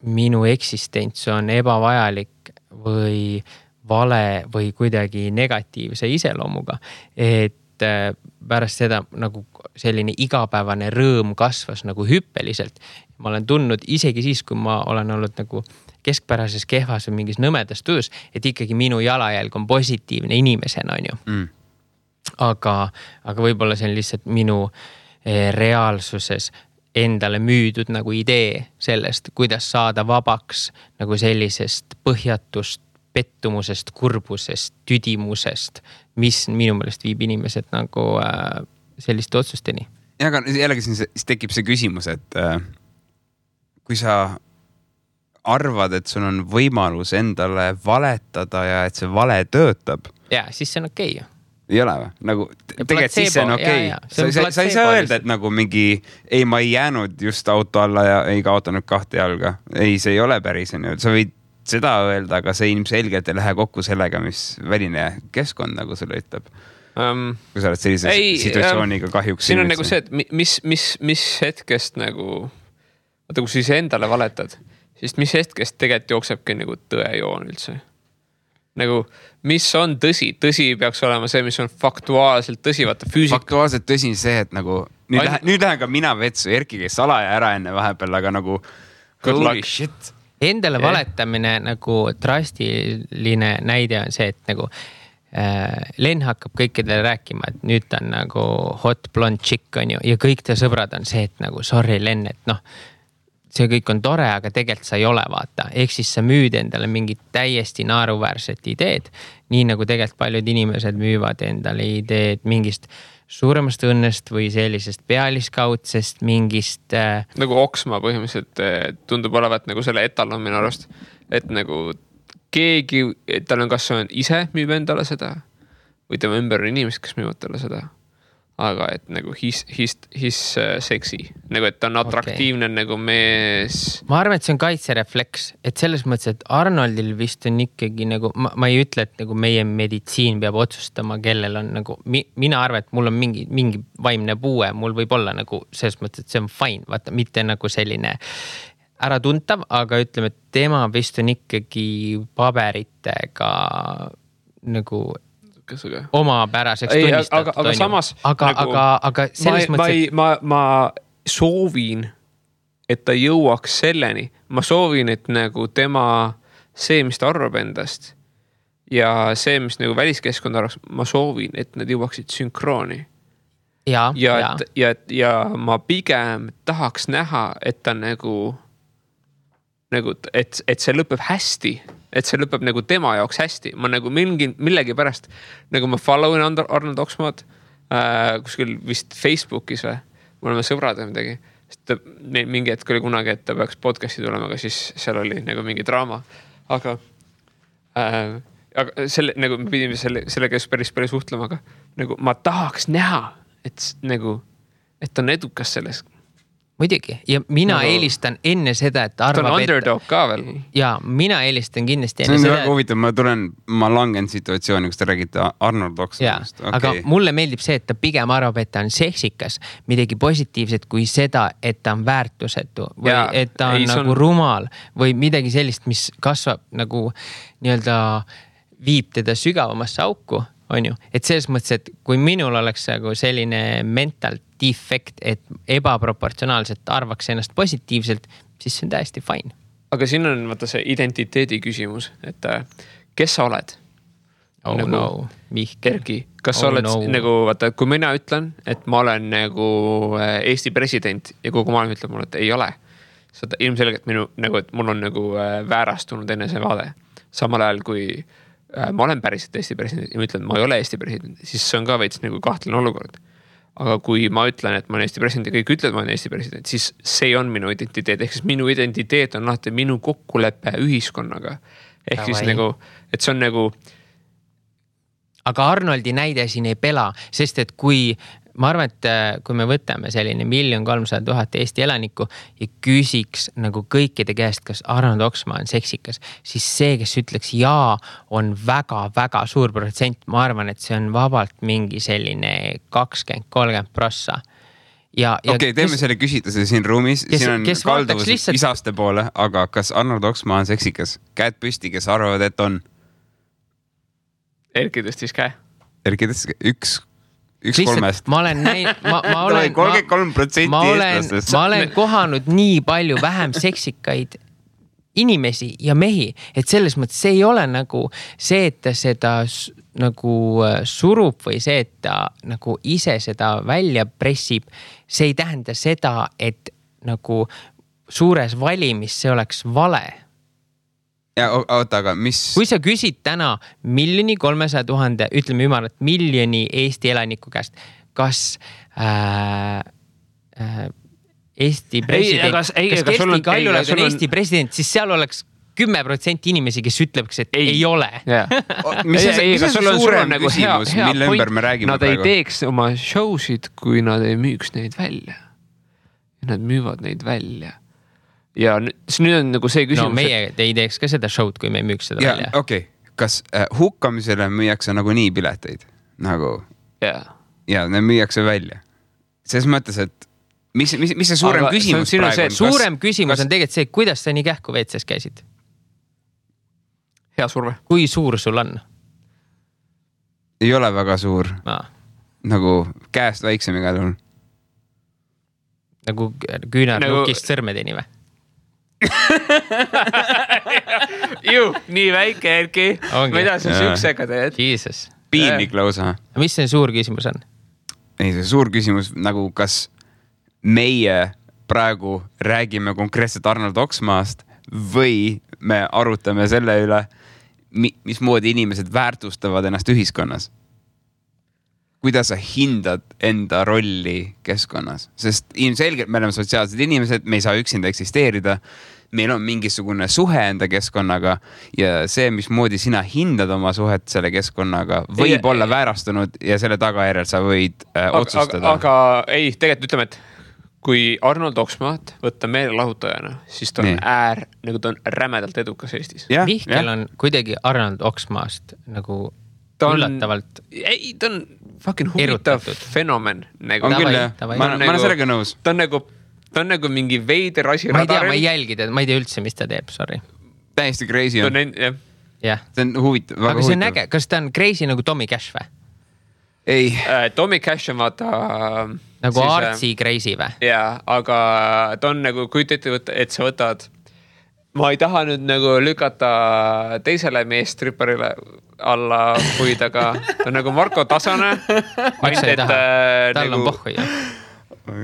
minu eksistents on ebavajalik või vale või kuidagi negatiivse iseloomuga. Et pärast seda nagu selline igapäevane rõõm kasvas nagu hüppeliselt. Ma olen tundnud isegi siis, kui ma olen olnud nagu keskpärases kehvas või mingis nõmedas töös, et ikkagi minu jalajälg on positiivne inimesena, on ju. Aga võib-olla see on lihtsalt minu reaalsuses endale müüdud nagu idee sellest, kuidas saada vabaks nagu sellisest põhjatust, pettumusest, kurbusest, tüdimusest, mis minu meelest viib inimesed nagu selliste otsusteni. Ja, aga jällegi siis tekib see küsimus, et kui sa arvad, et sul on võimalus endale valetada ja et see vale töötab. Ja, siis see on okei. Ei ole või? Nagu, tegelikult siis see on okei. Sa ei saa öelda, et nagu mingi, ei, ma ei jäänud just auto alla ja ei kaotanud 2 jalga. Ei, see ei ole päris. Sa võid seda öelda, aga see ilmselgelt ei lähe kokku sellega, mis väline keskkond nagu sulle ütleb. Kui sa oled sellise situatsiooniga kahjuks. Siin on nagu see, et mis hetkest nagu, vaata, kui siis endale valetad, siis mis hetkest tegelikult jooksebki nagu tõejoon üldse. Nagu, mis on tõsi? Tõsi peaks olema see, mis on faktuaalselt tõsi. Faktuaalselt tõsi on see, et nagu nüüd lähen ka mina vetsu, Erki käis salaja ära enne vahepeal, aga nagu holy shit. Endale valetamine nagu drastiline näide on see, et nagu Len hakkab kõikidele rääkima, et nüüd ta on nagu hot blonde chick on ju ja kõik ta sõbrad on see, et nagu sorry Len, et noh, see kõik on tore, aga tegelikult sa ei ole vaata. Ehk siis sa müüd endale mingit täiesti naeruväärset ideed, nii nagu tegelikult paljud inimesed müüvad endale ideed mingist suuremast õnnest või sellisest pealiskaudsest mingist... Nagu Oksma põhimõtteliselt tundub olevat nagu selle etalon minu arust, et nagu keegi, tal on kas on ise müüb endale seda või tema ümber on inimesed, kes müüvad talle seda. aga et nagu his seksi, nagu et ta on atraktiivne nagu mees. Ma arvan, et see on kaitserefleks, et selles mõttes, et Arnoldil vist on ikkagi nagu, ma ei ütle, et nagu meie meditsiin peab otsustama, kellel on nagu, mina arvan, et mul on mingi vaimne puue, mul võib olla nagu selles mõttes, et see on fine, vaata, mitte nagu selline äratuntav, aga ütleme, et tema vist on ikkagi paberitega nagu omapäraseks tunnistatud. Aga samas aga selles mõttes, ma soovin, et ta jõuaks selleni. Ma soovin, et nagu tema see, mis ta arvab endast ja see, mis nagu väliskeskkond arvaks, ma soovin, et nad jõuaksid sünkrooni. Ja ma pigem tahaks näha, et ta nagu et see lõpeb hästi. Et see lõpeb nagu tema jaoks hästi. Ma nagu millegi pärast, nagu ma followin Arnold Oxmaad kuskil vist Facebookis või, me oleme sõbrad või midagi. Sest mingi hetk oli kunagi, et ta peaks podcasti tulema, aga siis seal oli nagu mingi draama. Aga selle, nagu me pidime selle käes päris palju suhtlema, aga nagu ma tahaks näha, et nagu, et on edukas selles. Muidugi, ja mina eelistan enne seda, et arvab, ta on underdog ka veel. Ja mina eelistan kindlasti enne seda. See on väga huvitav, ma langen situatsiooni, kus te räägite Arnold Oxmanist. Okay. Aga mulle meeldib see, et ta pigem arvab, et ta on seksikas, midagi positiivset kui seda, et ta on väärtusetu või et ta on nagu rumal või midagi sellist, mis kasvab nagu nii-öelda viib teda sügavamasse auku, on ju. Et selles mõttes, et kui minul oleks nagu selline mental defekt, et ebaproportsionaalselt arvaks ennast positiivselt, siis see on täiesti fine. Aga siin on vaata see identiteedi küsimus, et kes sa oled? Erki, kas sa oled nagu, vaata, kui mina ütlen, et ma olen nagu Eesti president ja kogu maailm ütleb mulle, et ei ole. Seda ilmselgelt minu, nagu, et mul on nagu väärastunud enne see vaade. Samal ajal, kui ma olen päriselt Eesti president ja ma ütlen, et ma ei ole Eesti president, siis see on ka veits nagu kahtlane olukord. Aga kui ma ütlen, et ma olen Eesti president ja kõik ütlevad, et ma olen Eesti president, siis see on minu identiteet. Ehk siis minu identiteet on alati minu kokkulepe ühiskonnaga. Ehk siis nagu, et see on nagu... Aga Arnoldi näide siin ei pela, sest et kui... Ma arvan, et kui me võtame selline 1 300 000 Eesti elanikku ja küsiks nagu kõikide käest, kas Arnold Oxmaa on seksikas, siis see, kes ütleks jaa, on väga-väga suur protsent. Ma arvan, et see on vabalt mingi selline 20-30%. Okei, teeme selle küsitluse siin ruumis. Siin on kalduvus isaste poole, aga kas Arnold Oxmaa on seksikas? Käed püsti, kes arvavad, et on? Erki tõstis käe. Erki tõstis käe. Üks kolmest. Ma olen 33% eestlastest. Ma olen kohanud nii palju vähem seksikaid inimesi ja mehi, et selles mõttes see ei ole nagu see, et ta seda nagu surub või see, et ta nagu ise seda välja pressib. See ei tähenda seda, et nagu suures valimis see oleks vale. Ja oota, aga mis... Kui sa küsid täna 1 300 000, ütleme ümarat, 1 miljoni Eesti elaniku käest, kas Eesti president, kas Kersti Kaljulaid on Eesti president, siis seal oleks 10% inimesi, kes ütleks, et ei ole. Mis on suurem küsimus, mille ümber me räägime praegu? Nad ei teeks oma showsid, kui nad ei müüks neid välja. Nad müüvad neid välja. Ja nüüd on nagu see küsimus... No meie ei teeks ka seda showd, kui me ei müüks seda välja. Okei. Kas hukkamisele müüakse nagu nii pileteid? Nagu... Ja ne müüakse välja. Selles mõttes, et mis see suurem küsimus praegu on? Suurem küsimus on tegelikult see, kuidas sa nii kähku WC-s käisid? Hea surve. Kui suur sul on? Ei ole väga suur. Nagu käest väiksem igal juhul. Nagu küünarnukist sõrmedeni või? Nii väike, Erki. Mida sa süksega teed? Jesus. Piinlik lausa. Mis see suur küsimus on? Ei, see suur küsimus, nagu kas meie praegu räägime konkreetselt Arnold Oxmaast või me arutame selle üle, mismoodi inimesed väärtustavad ennast ühiskonnas? kuidas sa hindad enda rolli keskkonnas, sest ilmselgelt me oleme sotsiaalsed inimesed, me ei saa üksinda eksisteerida. Meil on mingisugune suhe enda keskkonnaga ja see, mismoodi sina hindad oma suhet selle keskkonnaga, võib olla väärastunud ja selle tagajärjel sa võid otsustada. Aga ei, tegelikult ütleme, et kui Arnold Oksmaat võtta meelelahutajana, siis ta on nagu ta on rämedalt edukas Eestis. Mihkel on kuidagi Arnold Oksmaast nagu üllatavalt. Ei, ta on fucking huvitav fenomen. Nagu. On küll, ma olen sellega nõus. Ta on nagu mingi veider asi radaril. Ma ei jälgi teda, ma ei tea üldse, mis ta teeb, sorry. Täiesti crazy on. Jah. See on huvitav. Aga see on äge, kas ta on crazy nagu Tommy Cash või? Ei. Tommy Cash on vaata... Nagu artsi crazy või? Jaa, aga ta on nagu, kui ette võtta, et sa võtad... Ma ei taha nüüd nagu lükata teisele meestripparile alla puid, aga ta on nagu Marko Tasane. Miks sa ei taha? Tal on pohhu ju.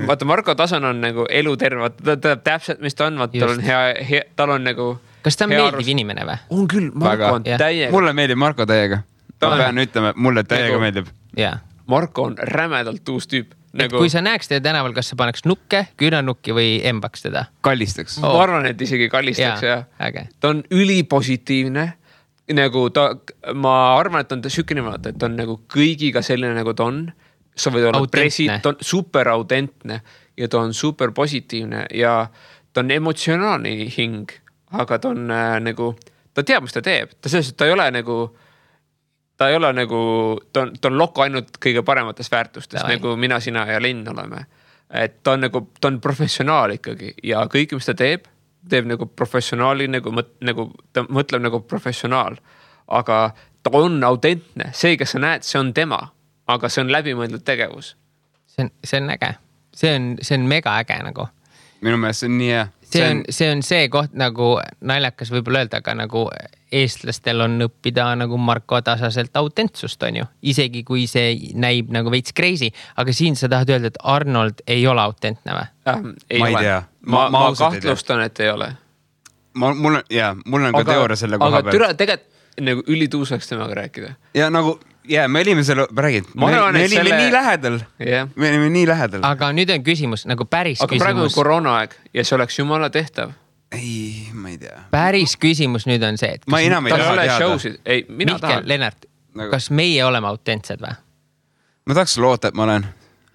Vaata, Marko Tasane on nagu eluterve. Ta teab täpselt, mis ta on. Tal on hea, tal on nagu... Kas ta on meeldiv inimene või? On küll, Marko on täiega. Mulle meeldib Marko täiega. Ma pean ütlema, mulle täiega meeldib. Marko on rämedalt uus tüüp. Nagu... Kui sa näeks teda tänaval, kas sa paneks nukke, küünanukki või embaks teda? Kallistaks. Ma arvan, et isegi kallistaks. Ta on ülipositiivne. Nagu ma arvan, et on ta sükene vaata, et on nagu kõigiga selline nagu ta on. Sa võid olla president, ta on super autentne ja ta on super positiivne ja ta on emotsionaalne hing, aga ta on nagu, ta teab, mis ta teeb. Ta selles, et ta ei ole nagu... Ta ei ole nagu, ta on lokku ainult kõige paremates väärtustes, nagu mina, sina ja Linn oleme. Et ta on nagu, ta on professionaal ikkagi ja kõik, mis ta teeb nagu professionaali, nagu ta mõtleb nagu professionaal. Aga ta on autentne. See, kes sa näed, see on tema, aga see on läbimõeldud tegevus. See on äge. See on mega äge nagu. Minu meelest see on nii hea. See on see koht nagu naljakas võib-olla öelda, aga nagu eestlastel on õppida nagu Marko Tasaselt autentsust on ju. Isegi kui see näib nagu veits crazy, aga siin sa tahad öelda, et Arnold ei ole autentne või? Ma ei tea. Ma kahtlustan, et ei ole. Mul on ka teooria selle koha peal. Aga tegelikult nagu ülituusaks temaga rääkida. Ja nagu... me olime selle, räägid, me olime nii lähedal. Me olime nii lähedal. Aga nüüd on küsimus, nagu päris küsimus. Aga praegu on koroonaaeg ja see oleks jumala tehtav. Ei, ma ei tea. Päris küsimus nüüd on see, et... Ma enam ei taha teada. Mihkel, Lennart, kas meie oleme autentsed või? Ma tahaks loota, et ma olen.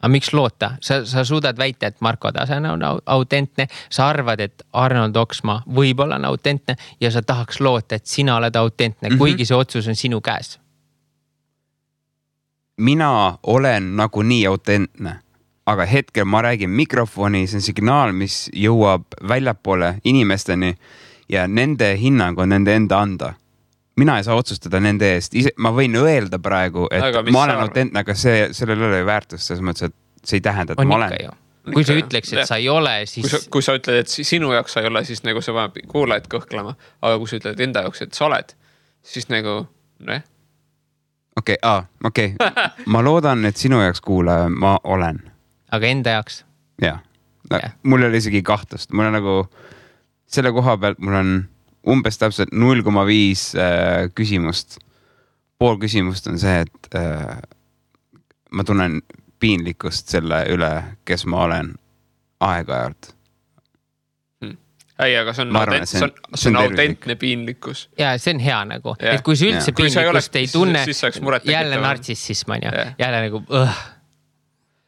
Aga miks loota? Sa suudad väita, et Marko Tasane on autentne, sa arvad, et Arnold Oksmaa võib-olla on autentne ja sa tahaks loota, et sina oled autentne, kuigi see otsus on sinu käes. Mina olen nagu nii autentne, aga hetkel ma räägin mikrofoni, see on signaal, mis jõuab väljapoole inimesteni ja nende hinnang on nende enda anda. Mina ei saa otsustada nende eest. Ma võin öelda praegu, et ma olen autentne, aga sellel ei ole väärtust, selles mõttes, et see ei tähenda, et ma olen. Kui sa ütleks, et sa ei ole, siis... Kui sa ütled, et sinu jaoks sa ei ole, siis nagu sa paneb kuulajad kõhklema. Aga kui sa ütled enda jaoks, et sa oled, siis nagu... Okei. Ma loodan, et sinu jaoks kuulaja ma olen. Aga enda jaoks? Jah. Mul oli isegi kahtlust. Mul on nagu selle koha pealt, mul on umbes täpselt 0,5 küsimust. Pool küsimust on see, et ma tunnen piinlikkust selle üle, kes ma olen aeg-ajalt. Ei, aga see on autentne piinlikkus. Ja see on hea nagu. Et kui sa üldse piinlikkust ei tunne, jälle nartsissism on ju. Jälle nagu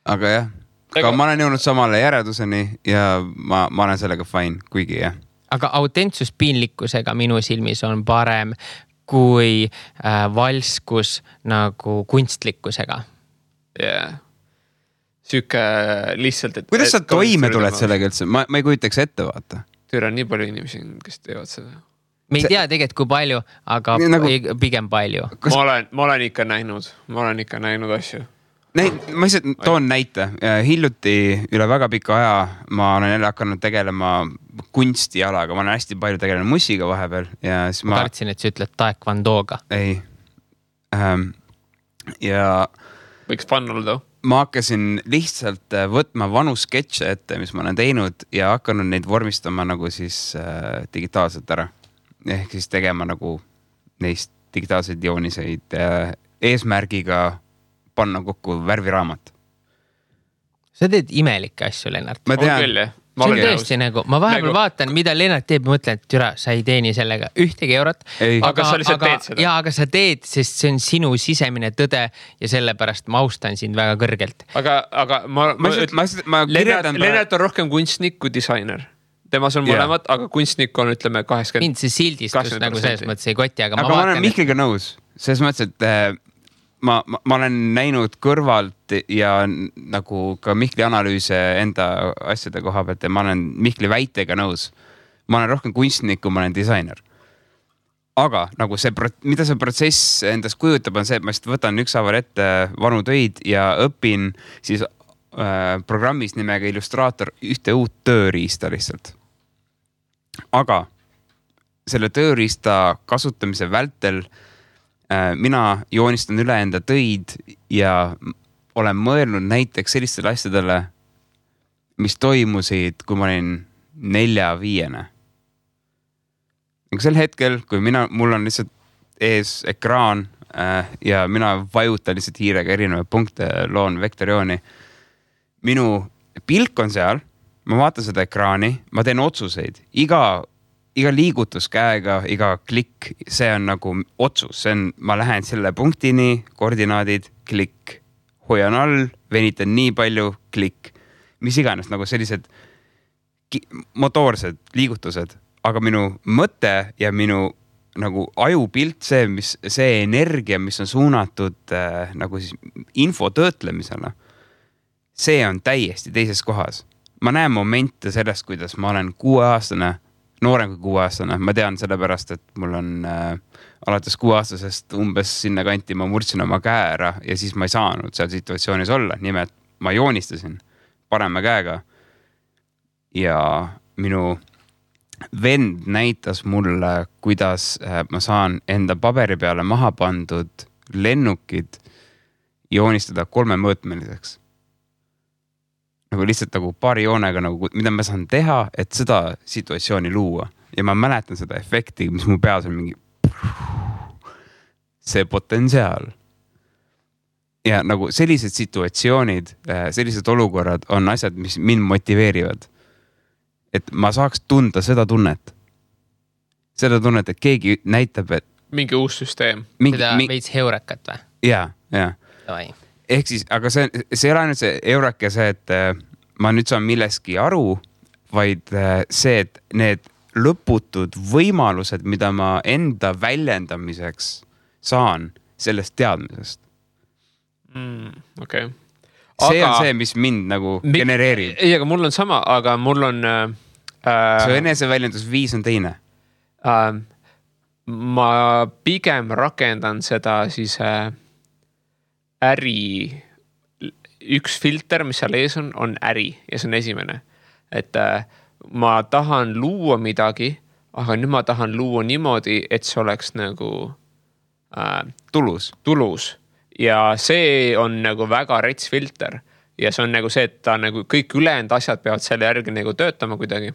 Aga jah. Aga ma olen jõudnud samale järeduseni ja ma olen sellega fine, kuigi jah. Aga autentsus piinlikkusega minu silmis on parem kui valskus nagu kunstlikkusega. Jah. Süüke lihtsalt, et... Kuidas sa toime tuled sellega üldse? Ma ei kujutaks ette vaata. Tüür on nii palju inimesi, kes teevad seda. Me ei tea tegelikult kui palju, aga pigem palju. Ma olen ikka näinud asju. Ma lihtsalt toon näite. Hiljuti üle väga pika aja ma olen jälle hakanud tegelema kunstijalaga. Ma olen hästi palju tegelenud mussiga vahepeal. Ma kartsin, et sa ütled taekwondoga. Ei. Ja... Võiks fun olla. Ma hakkasin lihtsalt võtma vanu sketše ette, mis ma olen teinud ja hakanud neid vormistama nagu siis digitaalselt ära. Ehk siis tegema nagu neist digitaalseid jooniseid eesmärgiga panna kokku värviraamat. Sa teed imelikke asju, Lennart. Ma tean. On küll, jah. See on tõesti nagu, ma vahepeal vaatan, mida Lennart teeb ja mõtlen, et türa, sa ei teeni sellega ühtegi eurot. Aga sa lihtsalt teed seda. Jaa, aga sa teed, sest see on sinu sisemine tõde ja sellepärast ma austan sind väga kõrgelt. Aga Lennart on rohkem kunstnik kui disainer. Temas on mõlemad, aga kunstnik on, ütleme, 80%. Mind see sildistus nagu selles mõttes ei koti, aga ma olen Mihkliga nõus. Selles mõttes, et ma olen näinud kõrvalt ja nagu ka Mihkli analüüse enda asjade koha pealt ja ma olen Mihkli väitega nõus. Ma olen rohkem kunstnik, kui ma olen disainer. Aga nagu mida see protsess endast kujutab, on see, et ma lihtsalt võtan ükshaaval ette vanu töid ja õpin siis programmis nimega Illustraator ühte uut tööriista lihtsalt. Aga selle tööriista kasutamise vältel mina joonistan üle enda töid ja olen mõelnud näiteks sellistele asjadele, mis toimusid, kui ma olin 4-5. Sel hetkel, kui mul on lihtsalt ees ekraan ja mina vajutan lihtsalt hiirega erinevaid punkte, loon vektoriooni. Minu pilk on seal, ma vaatan seda ekraani, ma teen otsuseid. Iga liigutus käega, iga klikk, see on nagu otsus. Ma lähen selle punktini, koordinaadid, klikk. Hoian all, venitan nii palju, klikk. Mis iganes, nagu sellised motoorsed liigutused. Aga minu mõte ja minu nagu ajupilt, see energia, mis on suunatud nagu siis info töötlemisele, see on täiesti teises kohas. Ma näen momente sellest, kuidas ma olen 6-aastane, noorem kui 6-aastane. Ma tean sellepärast, et mul on alates 6-aastasest umbes sinna kanti ma murdsin oma käe ära ja siis ma ei saanud seal situatsioonis olla. Nimelt ma joonistasin parema käega ja minu vend näitas mulle, kuidas ma saan enda paberi peale maha pandud lennukid joonistada 3-mõõtmeliseks. Nagu lihtsalt nagu paari joonega, nagu, mida ma saan teha, et seda situatsiooni luua. Ja ma mäletan seda efekti, mis mu peas on mingi see potentsiaal. Ja nagu sellised situatsioonid, sellised olukorrad on asjad, mis mind motiveerivad. Et ma saaks tunda seda tunnet. Seda tunnet, et keegi näitab, et mingi uus süsteem. Seda veits heurekat või? Jaa. Ehk siis, aga see ei ole ainult see eurake see, et ma nüüd saan milleski aru, vaid see, et need lõputud võimalused, mida ma enda väljendamiseks saan sellest teadmisest. Okay. See on see, mis mind nagu genereerib. Ei, aga mul on sama, aga mul on... see eneseväljendusviis on teine. Ma pigem rakendan seda siis... äri, üks filter, mis seal ees on äri ja see on esimene. Et ma tahan luua midagi, aga nüüd ma tahan luua niimoodi, et see oleks nagu tulus. Ja see on nagu väga rets filter. Ja see on nagu see, et ta nagu kõik ülejäänud asjad peavad selle järgi nagu töötama kuidagi.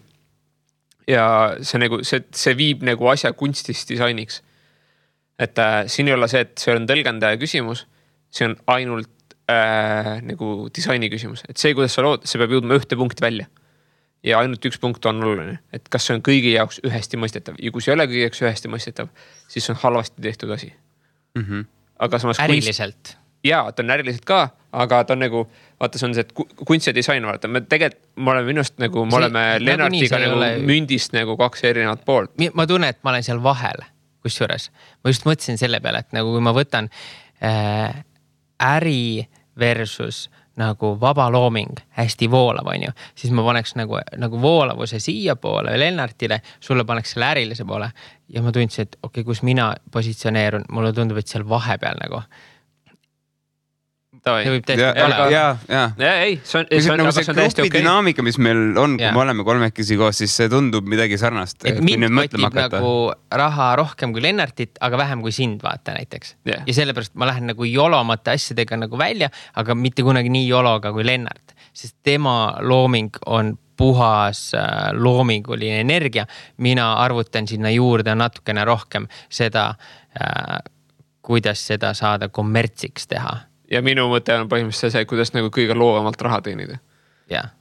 Ja see, nagu, see viib nagu asja kunstist disainiks. Et siin ei ole see, et see on tõlgendaja küsimus. See on ainult nagu disaini küsimus. Et see, kuidas sa lood, see peab jõudma ühte punkti välja. Ja ainult üks punkt on oluline. Et kas see on kõigi jaoks ühesti mõistetav. Ja kui see ei ole kõigi jaoks ühesti mõistetav, siis see on halvasti tehtud asi. Aga samas äriliselt. Jaa, ta on äriliselt ka, aga ta on nagu, vaata, see on see, et kunst ja disain, vaata. Me oleme minust nagu, me oleme Lennartiga nagu mündist nagu 2 erinevat poolt. Ma tunnen, et ma olen seal vahel, kusjuures. Ma just mõtlesin selle peale, et nagu kui ma võtan äri versus nagu vaba looming, hästi voolav, on ju, siis ma paneks nagu voolavuse siia poole Lennartile, sulle paneks selle ärilise poole ja ma tundsin, et okei, kus mina positsioneerun, mulle tundub, et seal vahepeal nagu. See võib täiesti olla. See grupi dünaamika, mis meil on, kui me oleme kolmekesi koos, siis see tundub midagi sarnast. Et mind mõtleb nagu raha rohkem kui Lennartit, aga vähem kui sind, vaata näiteks. Ja sellepärast ma lähen nagu jolomate asjadega nagu välja, aga mitte kunagi nii jologa kui Lennart. Sest tema looming on puhas loominguline energia. Mina arvutan sinna juurde natukene rohkem seda, kuidas seda saada kommertsiks teha. ja minu mõte on põhimõtteliselt see, kuidas nagu kõige loovamalt raha teenida. jah.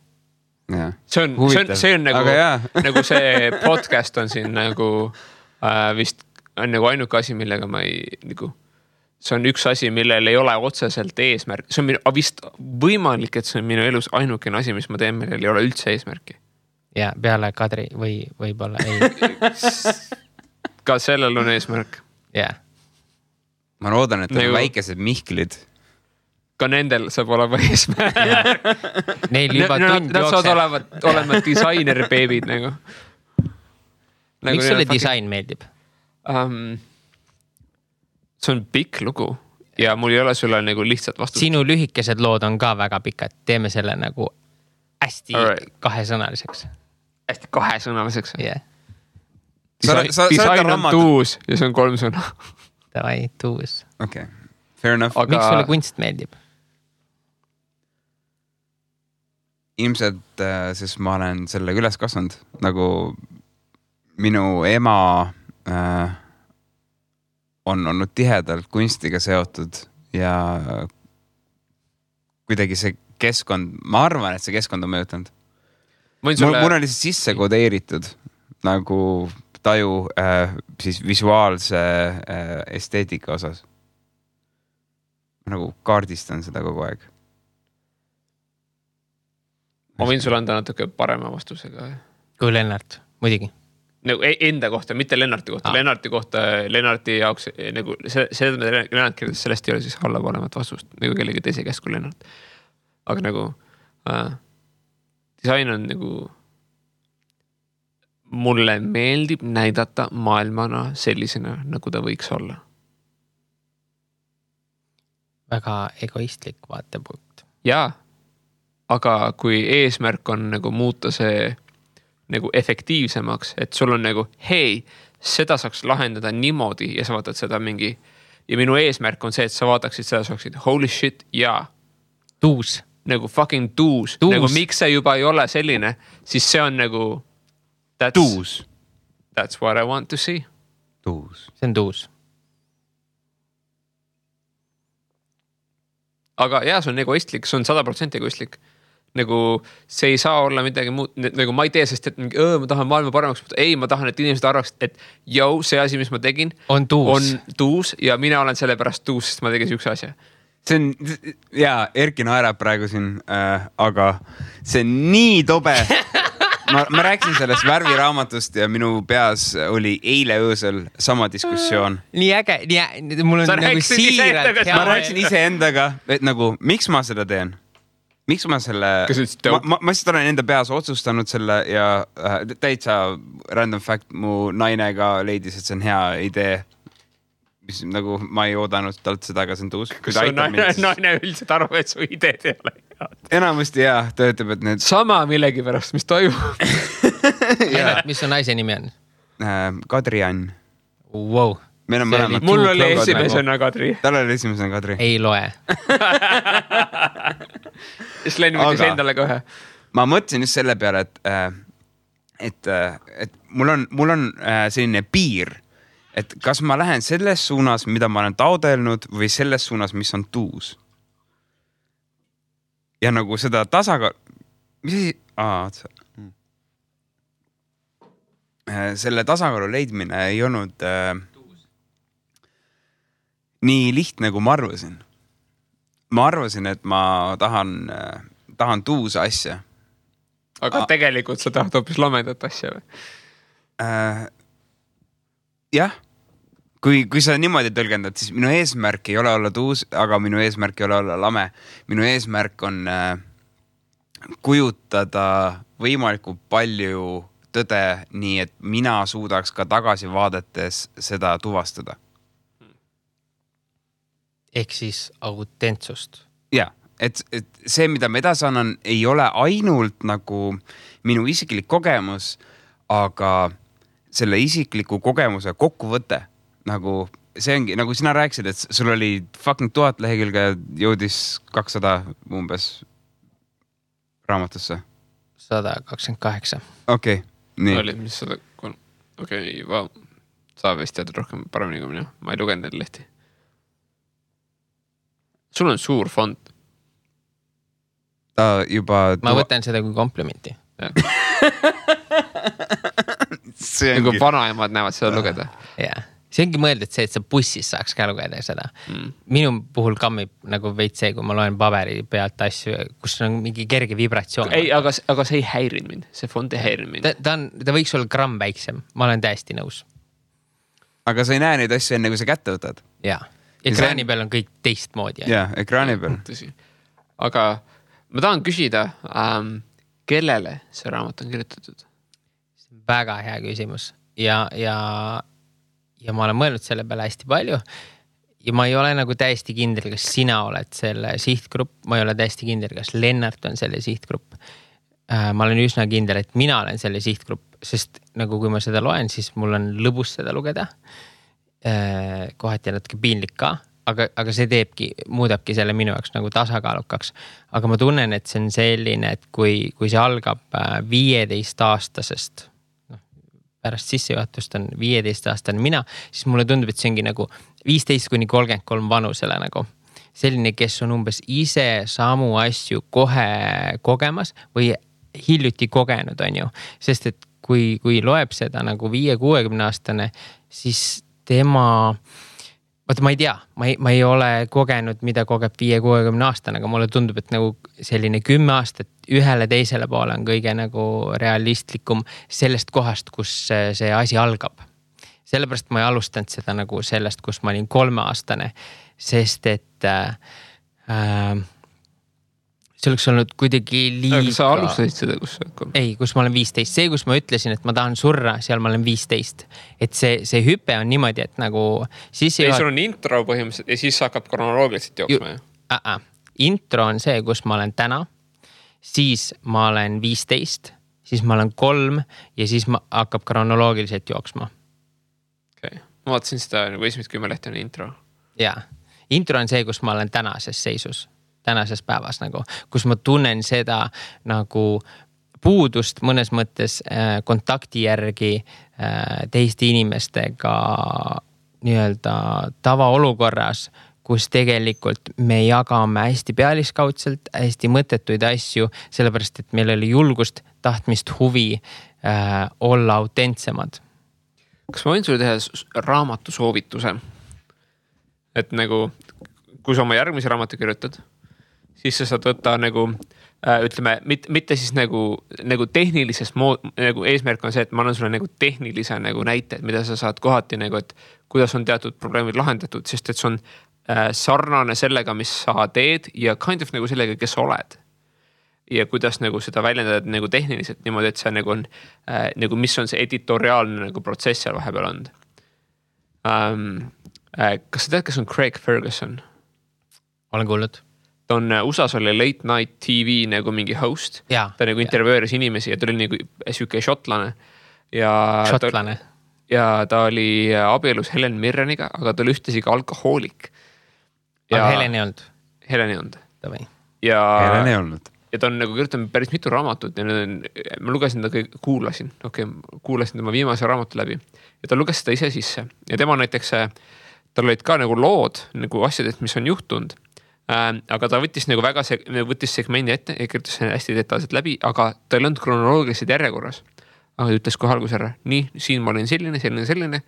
See on nagu see podcast on siin nagu vist on nagu ainuke asi, millega ma ei nagu, see on üks asi, millel ei ole otseselt eesmärk. See on vist võimalik, et see on minu elus ainukene asi, mis ma teen, millel ei ole üldse eesmärki. Ja peale Kadri või võib-olla ei. Ka sellel on eesmärk. jah. Ma loodan, et nagu väikesed Mihklid. Ka nendel saab olema eesmärk. Neil juba tund nad saavad olema disainer-beebid nagu. Miks sulle disain meeldib? See on pikk lugu ja mul ei ole sulle nagu lihtsalt vastust. Sinu lühikesed lood on ka väga pikad. Teeme selle nagu hästi kahesõnaliseks. Hästi kahesõnaliseks? jah. Disain on tuus ja see on 3 sõna. Davai, tuus. Okei, fair enough. Miks sulle kunst meeldib? Ilmselt, sest ma olen sellega üles kasvanud. Nagu minu ema on olnud tihedalt kunstiga seotud ja kuidagi see keskkond, ma arvan, et see keskkond on mõjutanud. Mul on lihtsalt sisse kodeeritud nagu taju siis visuaalse esteetika osas. Ma nagu kaardistan seda kogu aeg. Ma võin sulle anda natuke parema vastusega. Kui Lennart, muidugi. Nagu enda kohta, mitte Lennarti kohta. Lennarti jaoks, nagu Lennart kirjutas, sellest ei ole siis allapolemat vastust, nagu kellegi teise käest kui Lennart. Aga nagu disain on nagu mulle meeldib näidata maailmana sellisena, nagu ta võiks olla. Väga egoistlik vaatepunkt. Jaa, aga kui eesmärk on nagu muuta see nagu efektiivsemaks, et sul on nagu, hei, seda saaks lahendada niimoodi ja sa vaatad seda mingi, ja minu eesmärk on see, et sa vaataksid seda, saaksid holy shit, jaa. Tuus. Nagu fucking tuus. Nagu miks see juba ei ole selline, siis see on nagu tuus. That's what I want to see. Tuus. See on tuus. Aga jah, see on egoistlik, see on 100% egoistlik. Nagu see ei saa olla midagi muud, nagu ma ei tee, sest et ma tahan maailma paremaks, ei, ma tahan, et inimesed arvaks, et see asi, mis ma tegin, on tuus ja mina olen selle pärast tuus, sest ma tegin üks asja. See on, jaa, Erki naerab praegu siin, aga see on nii tobe. Ma rääksin sellest värviraamatust ja minu peas oli eile öösel sama diskussioon. Nii äge, mul on nagu siiralt. Ma rääksin iseendaga, et nagu, miks ma seda teen? Miks ma selle, ma siis olen enda peas otsustanud selle ja täitsa random fact, mu naine ka leidis, et see on hea idee. Mis nagu ma ei oodanud talt seda, aga see on tuus. Kas on naine üldiselt arvab, et su ideed ei ole head? Enamasti jah, ta ütleb, et need... Sama millegi pärast, mis toimub. Mis on naise nimi on? Kadri Ann. Wow. Mul oli esimesena Kadri. Tal oli esimesena Kadri. Ei loe. Siis Len võttis endale kohe. Ma mõtlesin just selle peale, et mul on selline piir, et kas ma lähen selles suunas, mida ma olen taodelnud või selles suunas, mis on tuus. Ja nagu seda tasakaal... Mis asi? Selle tasakaalu leidmine ei olnud nii lihtne, kui ma arvasin. Ma arvasin, et ma tahan tuusa asja. Aga tegelikult sa tahad hoopis lamedat asja või? Jah. Kui sa niimoodi tõlgendad, siis minu eesmärk ei ole olla tuus, aga minu eesmärk ei ole olla lame. Minu eesmärk on kujutada võimalikult palju tõde nii, et mina suudaks ka tagasi vaadates seda tuvastada. Ehk siis autentsust. Ja, et see, mida ma edasi annan, ei ole ainult nagu minu isiklik kogemus, aga selle isikliku kogemuse kokkuvõte. Nagu see ongi, nagu sina rääkisid, et sul oli fucking 1000 lehekülge jõudis 200 umbes raamatusse. 128. Okei, nii. Oli mis 103. Okei, vau. Sa vist tead rohkem paremini kui mina. Ma ei lugenud neid lehti. sul on suur fond. Ta juba... Ma võtan seda kui komplimenti. Nagu vanaemad näevad seda lugeda. Jah. See ongi mõeldud see, et sa bussis saaks ka lugeda seda. Minu puhul kammib nagu veits see, kui ma loen paberi pealt asju, kus on mingi kerge vibratsioon. Ei, aga see ei häirinud mind. See fond ei häirinud mind. Ta võiks olla gramm väiksem. Ma olen täiesti nõus. Aga sa ei näe neid asju enne, kui sa kätte võtad. Jaa. Ekraani peal on kõik teistmoodi. Jaa, ekraani peal. Tõsi. Aga ma tahan küsida, kellele see raamat on kirjutatud? Väga hea küsimus. Ja ma olen mõelnud selle peale hästi palju ja ma ei ole nagu täiesti kindel, kas sina oled selle sihtgrupp, ma ei ole täiesti kindel, kas Lennart on selle sihtgrupp. Ma olen üsna kindel, et mina olen selle sihtgrupp, sest nagu kui ma seda loen, siis mul on lõbus seda lugeda. Kohati natuke piinlik ka, aga see muudabki selle minu jaoks nagu tasakaalukaks. Aga ma tunnen, et see on selline, et kui see algab 15-aastasest, pärast sissejuhatust on 15-aastane mina, siis mulle tundub, et see ongi nagu 15-33 vanusele nagu. Selline, kes on umbes ise samu asju kohe kogemas või hiljuti kogenud, on ju. Sest et kui loeb seda nagu 5-60-aastane, siis tema... Vaata, ma ei tea, ma ei ole kogenud, mida kogeb 5-60-aastane, aga mulle tundub, et nagu selline 10 aastat ühele teisele poole on kõige nagu realistlikum sellest kohast, kus see asi algab. Sellepärast ma ei alustanud seda nagu sellest, kus ma olin 3-aastane, sest et see oleks olnud kuidagi liiga... Aga sa alustasid seda, kus sa... Ei, kus ma olen 15. See, kus ma ütlesin, et ma tahan surra, seal ma olen 15. Et see hüpe on niimoodi, et nagu... Sul on intro põhimõtteliselt ja siis hakkab kronoloogiliselt jooksma. Intro on see, kus ma olen täna, siis ma olen 15, siis ma olen 3 ja siis hakkab kronoloogiliselt jooksma. Okay. Ma vaatasin seda nagu esimest 10 lehti on intro. Jaa. Intro on see, kus ma olen tänases seisus. Tänases päevas nagu, kus ma tunnen seda nagu puudust mõnes mõttes kontakti järgi teiste inimestega nii-öelda tavaolukorras, kus tegelikult me jagame hästi pealiskaudselt, hästi mõttetuid asju, sellepärast, et meil oli julgust, tahtmist, huvi olla autentsemad. Kas ma võin sulle teha raamatu soovituse? Et nagu, kui sa oma järgmise raamatu kirjutad, siis sa saad võtta nagu, ütleme, mitte siis nagu tehnilises nagu eesmärk on see, et ma annan sulle nagu tehnilise nagu näite, mida sa saad kohati nagu, et kuidas on teatud probleemid lahendatud, sest et see on sarnane sellega, mis sa teed ja kind of nagu sellega, kes sa oled. Ja kuidas nagu seda väljendada nagu tehniliselt niimoodi, et see nagu on, nagu mis on see editoriaalne nagu protsess seal vahepeal olnud. Kas sa tead, kes on Craig Ferguson? Olen kuulnud. Ta on USA-s oli Late Night TV nagu mingi host. Ja, ta nagu intervjueeris inimesi ja ta oli nagu siuke šotlane. Šotlane. Ja ta oli abielus Helen Mirreniga, aga ta oli ühtesi ka alkohoolik. Aga Helen ei olnud? Helen ei olnud. Helen ei olnud. Ja ta on nagu kirjutanud päris mitu raamatut ja ma lugesin ta kõik, kuulasin tema viimase raamatu läbi ja ta luges seda ise sisse. Ja tema näiteks, tal olid ka nagu lood nagu asjadest, mis on juhtunud. Aga ta võttis nagu väga võttis segmendi ette ja kirjutas hästi detailselt läbi, aga ta ei olnud kronoloogiliselt järjekorras. Aga ta ütles kohe alguses ära, nii, siin ma olin selline,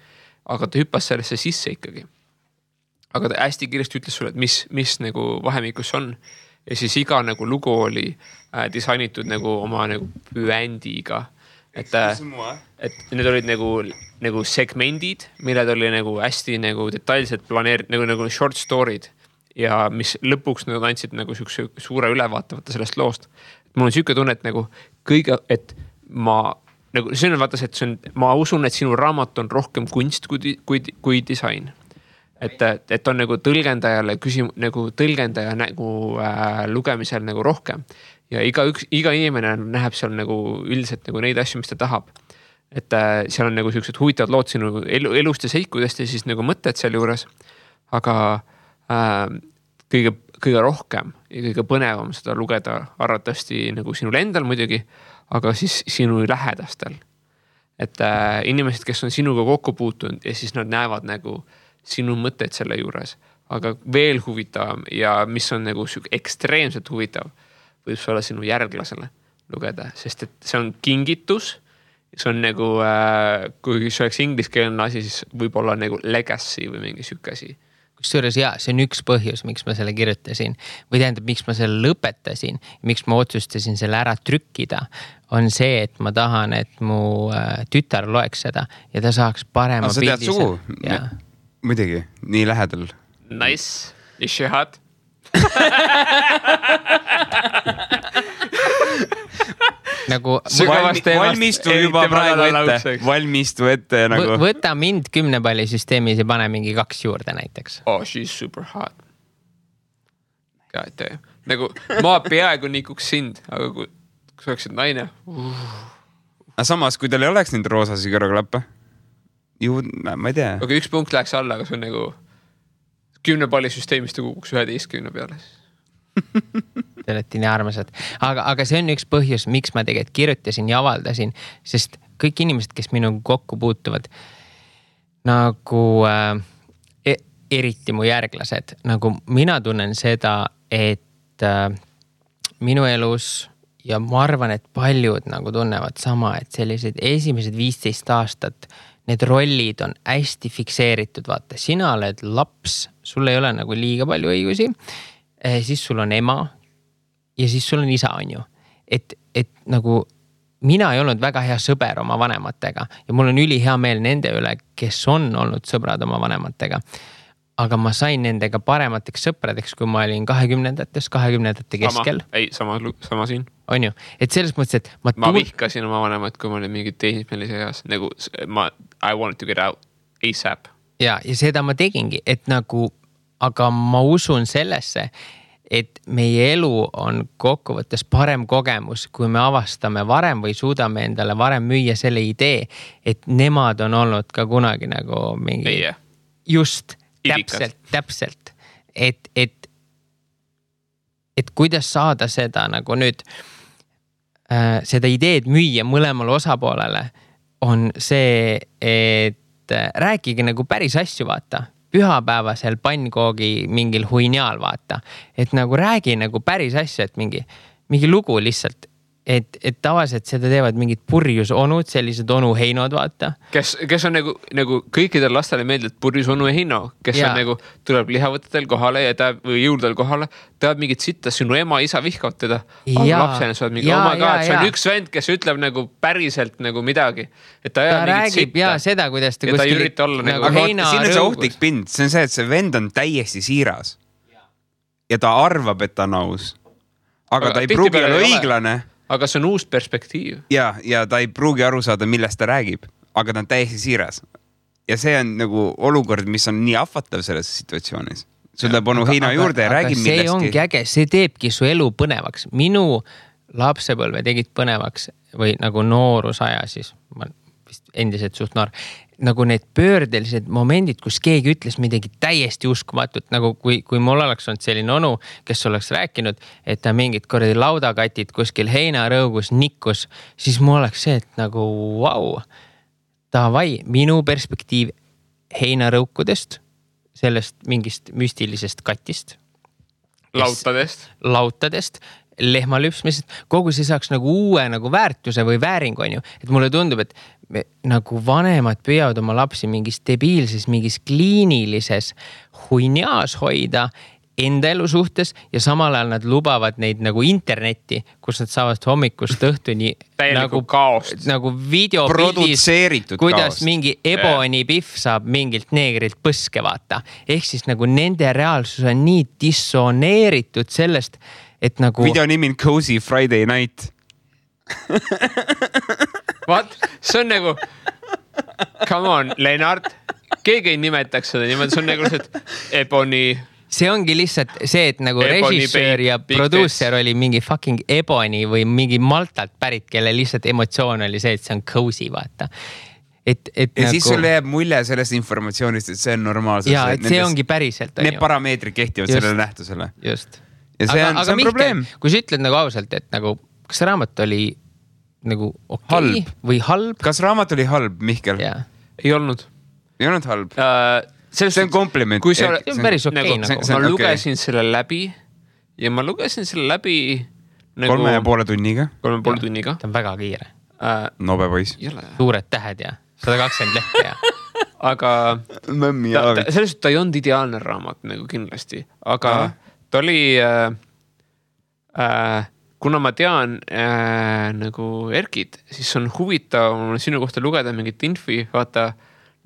aga ta hüppas sellesse sisse ikkagi. Aga ta hästi kiiresti ütles sulle, et mis nagu vahemikus on. Ja siis iga nagu lugu oli disainitud nagu oma nagu püändiga. Et need olid nagu segmendid, milled oli nagu hästi nagu detailselt planeeritud, nagu short story'd. Ja mis lõpuks nad andsid nagu suure ülevaatavata sellest loost. Mul on siuke tunne, et nagu et ma nagu, see on vaata see, et ma usun, et sinu raamat on rohkem kunst kui disain. Et on nagu tõlgendajale nagu tõlgendaja nagu lugemisel nagu rohkem. Ja iga inimene näeb seal nagu üldiselt nagu neid asju, mis ta tahab. Et seal on nagu siuksed huvitavad lood sinu elust ja seikudest ja siis nagu mõtted seal juures. Aga kõige rohkem ja kõige põnevam seda lugeda arvatavasti nagu sinul endal muidugi, aga siis sinu lähedastel. Et inimesed, kes on sinuga kokku puutunud ja siis nad näevad nagu sinu mõtted selle juures, aga veel huvitavam ja mis on nagu ekstreemselt huvitav, võib see olla sinu järglasele lugeda, sest et see on kingitus. See on nagu, kui see oleks ingliskeelne asi, siis võib olla nagu legacy või mingi siuke asi. Kusjuures see on üks põhjus, miks ma selle kirjutasin või tähendab, miks ma selle lõpetasin, miks ma otsustasin selle ära trükkida, on see, et ma tahan, et mu tütar loeks seda ja ta saaks parema pildi. Sa tead sugu? Muidugi, nii lähedal. Nice. Ishihad. nagu valmistu ette nagu. Võta mind 10 palli süsteemis ja pane mingi 2 juurde näiteks. Oh, she's super hot. God damn. Nagu ma peaaegu nikuks sind, aga kui sa oleksid naine. Aga samas, kui tal ei oleks neid roosasi kõrvaklappe, ma ei tea. Aga üks punkt läheks alla, aga see on nagu 10 palli süsteemist kukuks 11 peale. Te olete nii armasad. Aga see on üks põhjus, miks ma tegelikult kirjutasin ja avaldasin, sest kõik inimesed, kes minuga kokku puutuvad, nagu eriti mu järglased, nagu mina tunnen seda, et minu elus ja ma arvan, et paljud nagu tunnevad sama, et sellised esimesed 15 aastat need rollid on hästi fikseeritud, vaata, sina oled laps, sul ei ole nagu liiga palju õigusi, siis sul on ema ja siis sul on isa, on ju. Et nagu mina ei olnud väga hea sõber oma vanematega ja mul on ülihea meel nende üle, kes on olnud sõbrad oma vanematega. Aga ma sain nendega paremateks sõpradeks, kui ma olin 20-ndate keskel. Sama siin. On ju, et selles mõttes, et ma vihkasin oma vanemat, kui ma olin mingi teismelise eas. Nagu I wanted to get out ASAP. Ja seda ma tegingi, et nagu aga ma usun sellesse, et meie elu on kokkuvõttes parem kogemus, kui me avastame varem või suudame endale varem müüa selle idee, et nemad on olnud ka kunagi nagu mingi just täpselt. Et kuidas saada seda nagu nüüd seda ideed müüa mõlemale osapoolele on see, et rääkige nagu päris asju, vaata. Pühapäevasel pannkoogi mingil huiniaal, vaata. Et nagu räägi nagu päris asja, et mingi lugu lihtsalt. Et tavaliselt seda teevad mingid purjus onud, sellised onu heinod, vaata. Kes on nagu kõikidel lastele meeldib purjus onu heino, kes on nagu tuleb lihavõtetel kohale ja või jõudel kohale, teavad mingit sitta, sinu ema, isa vihkavad teda. Aga lapsena sa oled mingi, oh my god, see on üks vend, kes ütleb nagu päriselt nagu midagi. Et ta räägib seda, kuidas ta kuskil. Ja ta ei ürita olla nagu heina rõugus. Siin on see ohtlik pind, see on see, et see vend on täiesti siiras. Ja ta arvab, et ta on aus. Aga ta ei pruugi olla õiglane. Aga see on uus perspektiiv. Ja ta ei pruugi aru saada, millest ta räägib, aga ta on täiesti siiras. Ja see on nagu olukord, mis on nii ahvatav selles situatsioonis. Sul läheb onu heina juurde ja räägib millestki. See ongi äge, see teebki su elu põnevaks. Minu lapsepõlve tegid põnevaks või nagu noorusaja siis, ma vist endiselt suht noor, nagu need pöördelised momendid, kus keegi ütles midagi täiesti uskumatut, nagu kui mul oleks olnud selline onu, kes oleks rääkinud, et ta mingid kordi laudakatid kuskil heinarõugus nikkus, siis mul oleks see, et nagu vau, davai, minu perspektiiv heinarõukudest, sellest mingist müstilisest katist. Lautadest, lehmalüpsmisest, kogu see saaks nagu uue nagu väärtuse või vääringu, on ju. Et mulle tundub, et nagu vanemad püüavad oma lapsi mingis debiilses, mingis kliinilises huiniaas hoida enda elu suhtes ja samal ajal nad lubavad neid nagu internetti, kus nad saavad hommikust õhtuni nagu kaost. Nagu videopildis, kuidas mingi Ebony Biff saab mingilt neegrilt põske, vaata. Ehk siis nagu nende reaalsus on nii dissoneeritud sellest, et nagu video nimi on Cozy Friday Night. What? See on nagu come on, Lennart. Keegi ei nimetaks seda niimoodi, see on nagu Ebony. See ongi lihtsalt see, et nagu režissöör ja producer oli mingi fucking Ebony või mingi Maltalt pärit, kelle lihtsalt emotsioon oli see, et see on cozy, vaata. Ja nagu siis sul jääb mulje sellest informatsioonist, et see on normaalselt. Ja, et see ongi päriselt. Need parameetrid kehtivad sellele nähtusele. Just. Ja see on probleem. Kui sa ütled nagu ausalt, et nagu, kas raamat oli nagu okei või halb? Kas raamat oli halb, Mihkel? Ei olnud halb. see on kompliment. See on päris okei nagu. Ma lugesin selle läbi ja ma lugesin selle läbi nagu 3,5 tunniga. 3,5 tunniga. See on väga kiire. Nobe poiss. Suured tähed ja 120 lehte ja. Aga selles ta ei olnud ideaalne raamat nagu kindlasti. Aga ta oli, kuna ma tean nagu Erkit, siis on huvitav sinu kohta lugeda mingit infi, vaata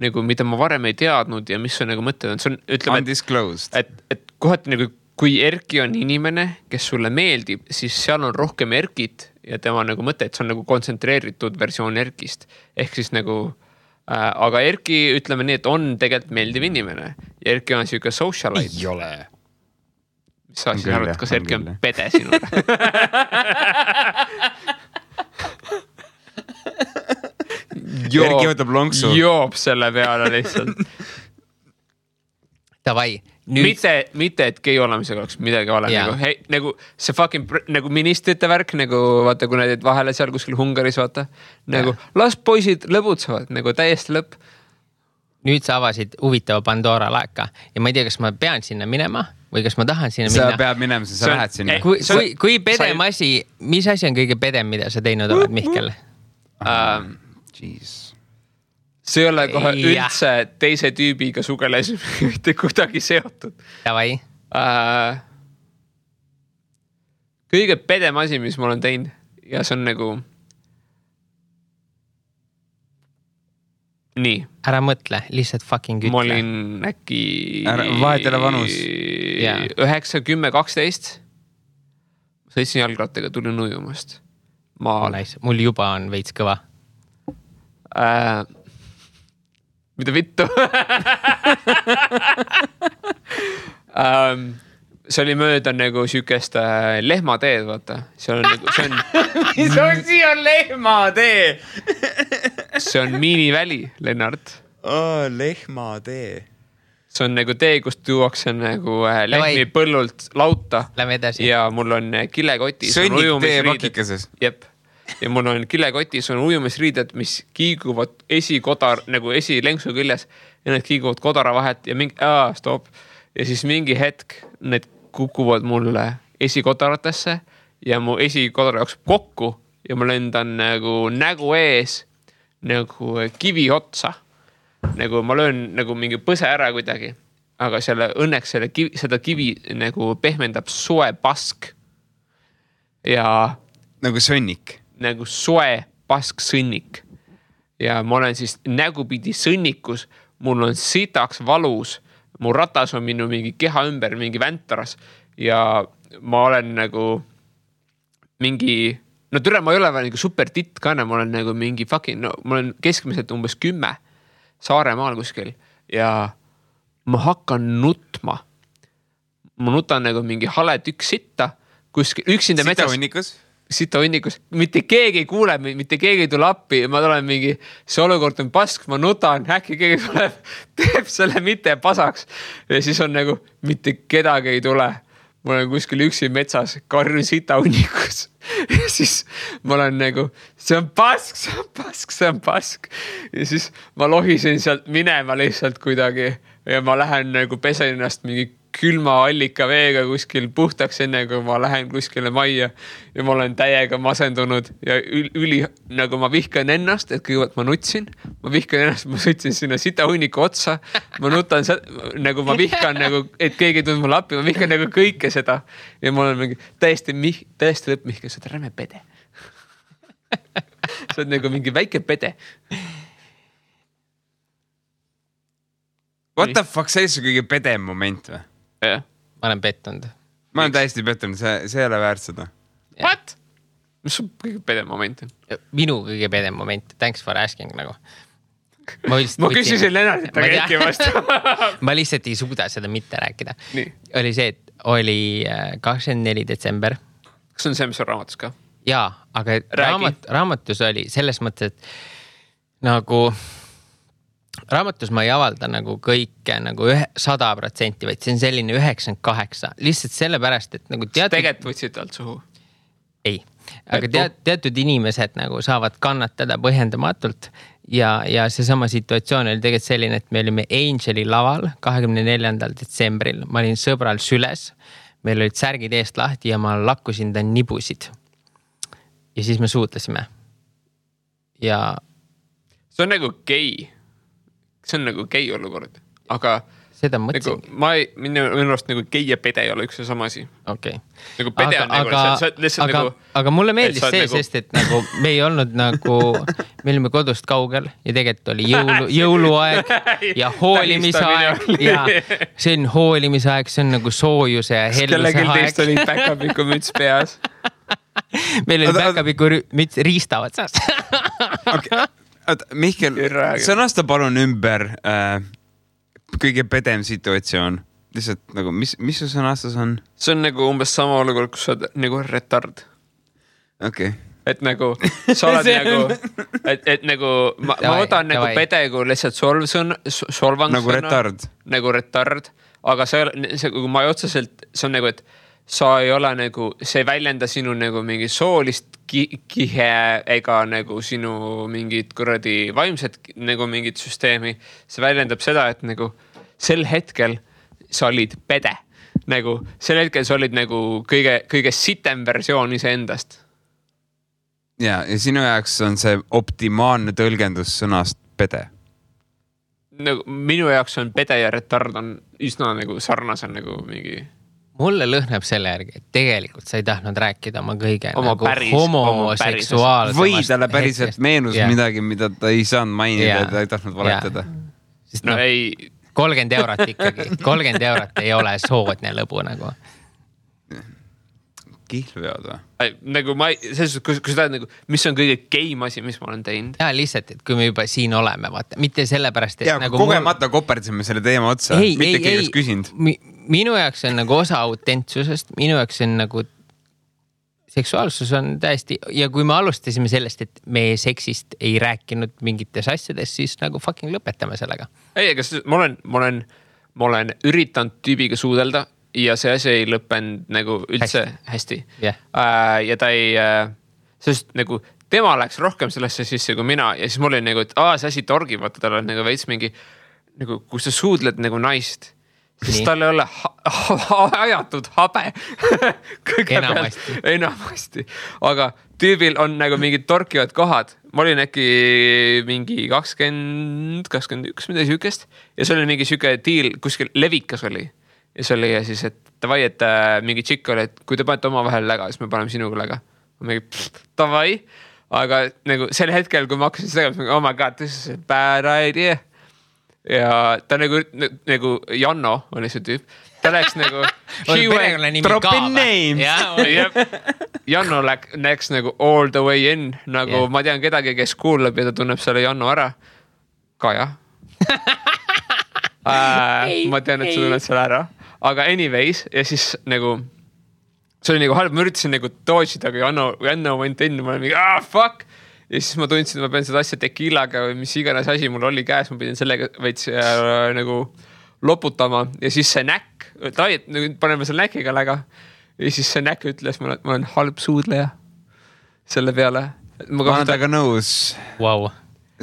nagu mida ma varem ei teadnud ja mis on nagu mõtted. See on, ütleme, undisclosed. Et kohati nagu kui Erki on inimene, kes sulle meeldib, siis seal on rohkem Erkit ja tema nagu mõte, et see on nagu kontsentreeritud versioon Erkist. Ehk siis nagu, aga Erki, ütleme nii, et on tegelikult meeldiv inimene. Ja Erki on siuke socialite. Ei ole. Mis sa siis arvad, kas Erki on pede sinule? Erki võtab lonksu. Joob selle peale lihtsalt. Davai. Mitte, et gei olemisega oleks midagi vale. Nagu, hei, nagu see fucking nagu ministrite värk, nagu vaata, kui need vahele seal kuskil Hungaris, vaata. Nagu las poisid lõbutsevad, nagu täiesti lõpp. Nüüd sa avasid huvitava Pandora laeka ja ma ei tea, kas ma pean sinna minema või kas ma tahan sinna minna. Sa pead minema, sa lähed sinna. Kui pedem asi, mis asi on kõige pedem, mida sa teinud oled, Mihkel? Jeez. See ei ole kohe üldse teise tüübiga sugeles mitte kuidagi seotud. Davai. Kõige pedem asi, mis ma olen teinud ja see on nagu nii. Ära mõtle, lihtsalt fucking ütle. Ma olin äkki vahetele vanus. 9, 10, 12. Sõitsin jalgrattaga, tulin ujumast. Mul juba on veits kõva. Mida vittu? See oli mööda nagu sükest lehmateed, vaata. See on nagu, see on... Mis on siia lehmatee? See on miiniväli, Lennart. Lehmatee. See on nagu tee, kust tuuakse nagu lehmi põllult lauta. Lähme edasi. Ja mul on kilekotis. Sõnnik tee pakikeses. Jep. Ja mul on kilekotis on ujumisriided, mis kiiguvad nagu esilenksu küljes ja need kiiguvad kodara vahet ja mingi, stop. Ja siis mingi hetk need kukuvad mulle esikodaratesse ja mu esikodara jookseb kokku ja ma lendan nagu nägu ees nagu kivi otsa. Nagu ma löön nagu mingi põse ära kuidagi, aga õnneks seda kivi nagu pehmendab soe pask ja nagu sõnnik. Nagu soe pask sõnnik. Ja ma olen siis nägupidi sõnnikus, mul on sitaks valus, mu ratas on minu mingi keha ümber, mingi väntaras ja ma olen nagu mingi, no türa, ma ei ole veel nagu super titt ka, ma olen nagu mingi fucking, no ma olen keskmiselt umbes 10 Saaremaal kuskil ja ma hakkan nutma. Ma nutan nagu mingi hale tükk sitta kuskil, üksinda metsas. Sita hunnikus, mitte keegi ei kuule, mitte keegi ei tule appi ja ma tulen mingi, see olukord on pask, ma nutan, äkki keegi tuleb, teeb selle mitte pasaks ja siis on nagu, mitte kedagi ei tule. Ma olen kuskil üksi metsas, karjun sita hunnikus ja siis ma olen nagu, see on pask ja siis ma lohisin sealt minema lihtsalt kuidagi ja ma lähen nagu pesen ennast mingi külma allika veega kuskil puhtaks enne, kui ma lähen kuskile majja ja ma olen täiega masendunud ja nagu ma vihkan ennast, et kõigepealt ma nutsin, ma sõitsin sinna sita hunniku otsa, ma nutan, nagu ma vihkan nagu, et keegi tund mulle appi, ma vihkan nagu kõike seda ja ma olen mingi täiesti lõpp Mihkel, sa oled räme pede. Sa oled nagu mingi väike pede. What the fuck, see on kõige pedem moment või? Ja. Ma olen pettunud. Ma olen täiesti pettunud, see ei ole väärt seda. What? Mis on kõige pedem moment? Minu kõige pedem moment. Thanks for asking nagu. Ma küsisin Lennartit, aga Erki vastu. Ma lihtsalt ei suuda seda mitte rääkida. Nii. Oli see, et oli 24 detsember. Kas on see, mis on raamatus ka? Jaa, aga raamatus oli selles mõttes, et nagu... Raamatus ma ei avalda nagu kõike nagu 100%, vaid see on selline 98. Lihtsalt sellepärast, et nagu teatud... Tegelikult võtsid alt suhu? Ei, aga teatud inimesed nagu saavad kannatada põhjendamatult ja seesama situatsioon oli tegelikult selline, et me olime Angeli laval 24. detsembril. Ma olin sõbral süles, meil olid särgid eest lahti ja ma lakkusin ta nibusid. Ja siis me suutlesime. Ja see on nagu gei. See on nagu gei olukord, aga seda mõtlesin. Nagu, minu arust nagu gei ja pede ei ole üks ja sama asi. Okay. Nagu pede on nagu, lihtsalt nagu... Aga mulle meeldis see, nagu... sest et nagu me ei olnud nagu, me olime kodust kaugel ja tegelikult oli jõuluaeg ja hoolimise aeg ja see on hoolimise aeg, see on nagu soojuse ja helluse aeg. Kellelgi teist oli päkapiku müts peas. Meil oli päkapiku müts riistavad saas. Okay. Mihkel, sõnasta palun ümber kõige pedem situatsioon. Lihtsalt nagu, mis su sõnastus on? See on nagu umbes sama olukord, kus sa oled nagu retard. Okay. Et nagu, sa oled nagu, et nagu, ma võtan nagu pedegu lihtsalt solvangsõna. Nagu retard. Nagu retard. Aga see ma ei otseselt, see on nagu, et sa ei ole nagu, see ei väljenda sinu nagu mingi soolist kihe ega nagu sinu mingit kuradi vaimset nagu mingit süsteemi. See väljendab seda, et nagu sel hetkel sa olid pede. Nagu sel hetkel sa olid nagu kõige sitem versioon iseendast. Ja sinu jaoks on see optimaalne tõlgendus sõnast pede. Nagu, minu jaoks on pede ja retard on üsna nagu sarnase nagu mingi... Mulle lõhneb selle järgi, et tegelikult sa ei tahtnud rääkida oma kõige nagu homoseksuaalsemast. Või talle päriselt meenus midagi, mida ta ei saanud mainida, ta ei tahtnud valetada. Sest no, ei... 30 eurot ikkagi. 30 eurot ei ole soodne lõbu nagu. Kihlveod või? Nagu ma ei... Kui sa tahad nagu... Mis on kõige geim asi, mis ma olen teinud? Ja lihtsalt, et kui me juba siin oleme, vaata. Mitte sellepärast, et... Ja nagu kogemata koperdsime selle teema otsa. Mitte keegi küsinud. Minu jaoks on nagu osa autentsusest, minu jaoks on nagu seksuaalsus on täiesti, ja kui me alustasime sellest, et me seksist ei rääkinud mingites asjades, siis nagu fucking lõpetame sellega. Ei, aga ma olen üritanud tüübiga suudelda ja see asi ei lõppenud nagu üldse hästi. Yeah. Ja ta ei, sest nagu tema läks rohkem sellesse sisse kui mina ja siis mul oli nagu, et see asi torgib, vaata tal on nagu veits mingi, nagu kus sa suudled nagu naist. Sest tal ei ole ajatud habe. Enamasti. Aga tüübil on nagu mingid torkivad kohad. Ma olin äkki mingi 20, 21 midagi sükest. Ja see oli mingi süke diil, kuskil levikas oli. Ja see oli ja siis, et tavai, et mingi tšikk oli, et kui te panete oma vahel läga, siis me paneme sinuga läga. Ma mingi, tavai. Aga nagu sel hetkel, kui ma hakkasin seda tegema, oh my god, this is a bad idea. Ja ta nagu Janno oli see tüüp. Ta läks nagu drop in name. Janno läks nagu all the way in. Nagu ma tean kedagi, kes kuulab ja ta tunneb selle Janno ära. Kaja. Ma tean, et sa tunned selle ära. Aga anyways, ja siis nagu see oli nagu halb, ma üritasin nagu dodge'ida, aga Janno went in, ma olen mingi, fuck. Ja siis ma tundsin, et ma pean seda asja tekiilaga või mis iganes asi mul oli käes, ma pidin sellega veits nagu loputama ja siis see näkk, paneme selle näkiga läga ja siis see näkk ütles, ma olen halb suudleja selle peale. Ma olen taga nõus. Wow.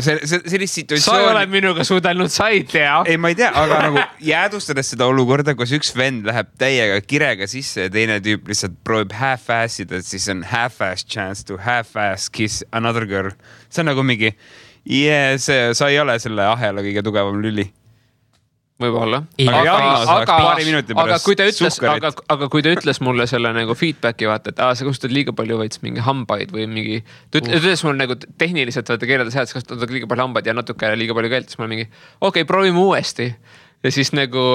Sellist situatsioon... Sa ei ole minuga suudelnud, sa ei tea. Ei, ma ei tea, aga nagu jäädustades seda olukorda, kus üks vend läheb täiega kirega sisse ja teine tüüp lihtsalt proovib half-assida, siis on half-ass chance to half-ass kiss another girl. See on nagu mingi, sa ei ole selle ahela kõige tugevam lüli. Võib-olla. Aga kui ta ütles mulle selle nagu feedbacki vaata, et sa kasutad liiga palju veits mingi hambaid või mingi, ta ütles mulle nagu tehniliselt vaata keeleda sealt, kasutad liiga palju hambaid ja natuke liiga palju keelt, siis ma mingi, okei, proovime uuesti. Ja siis nagu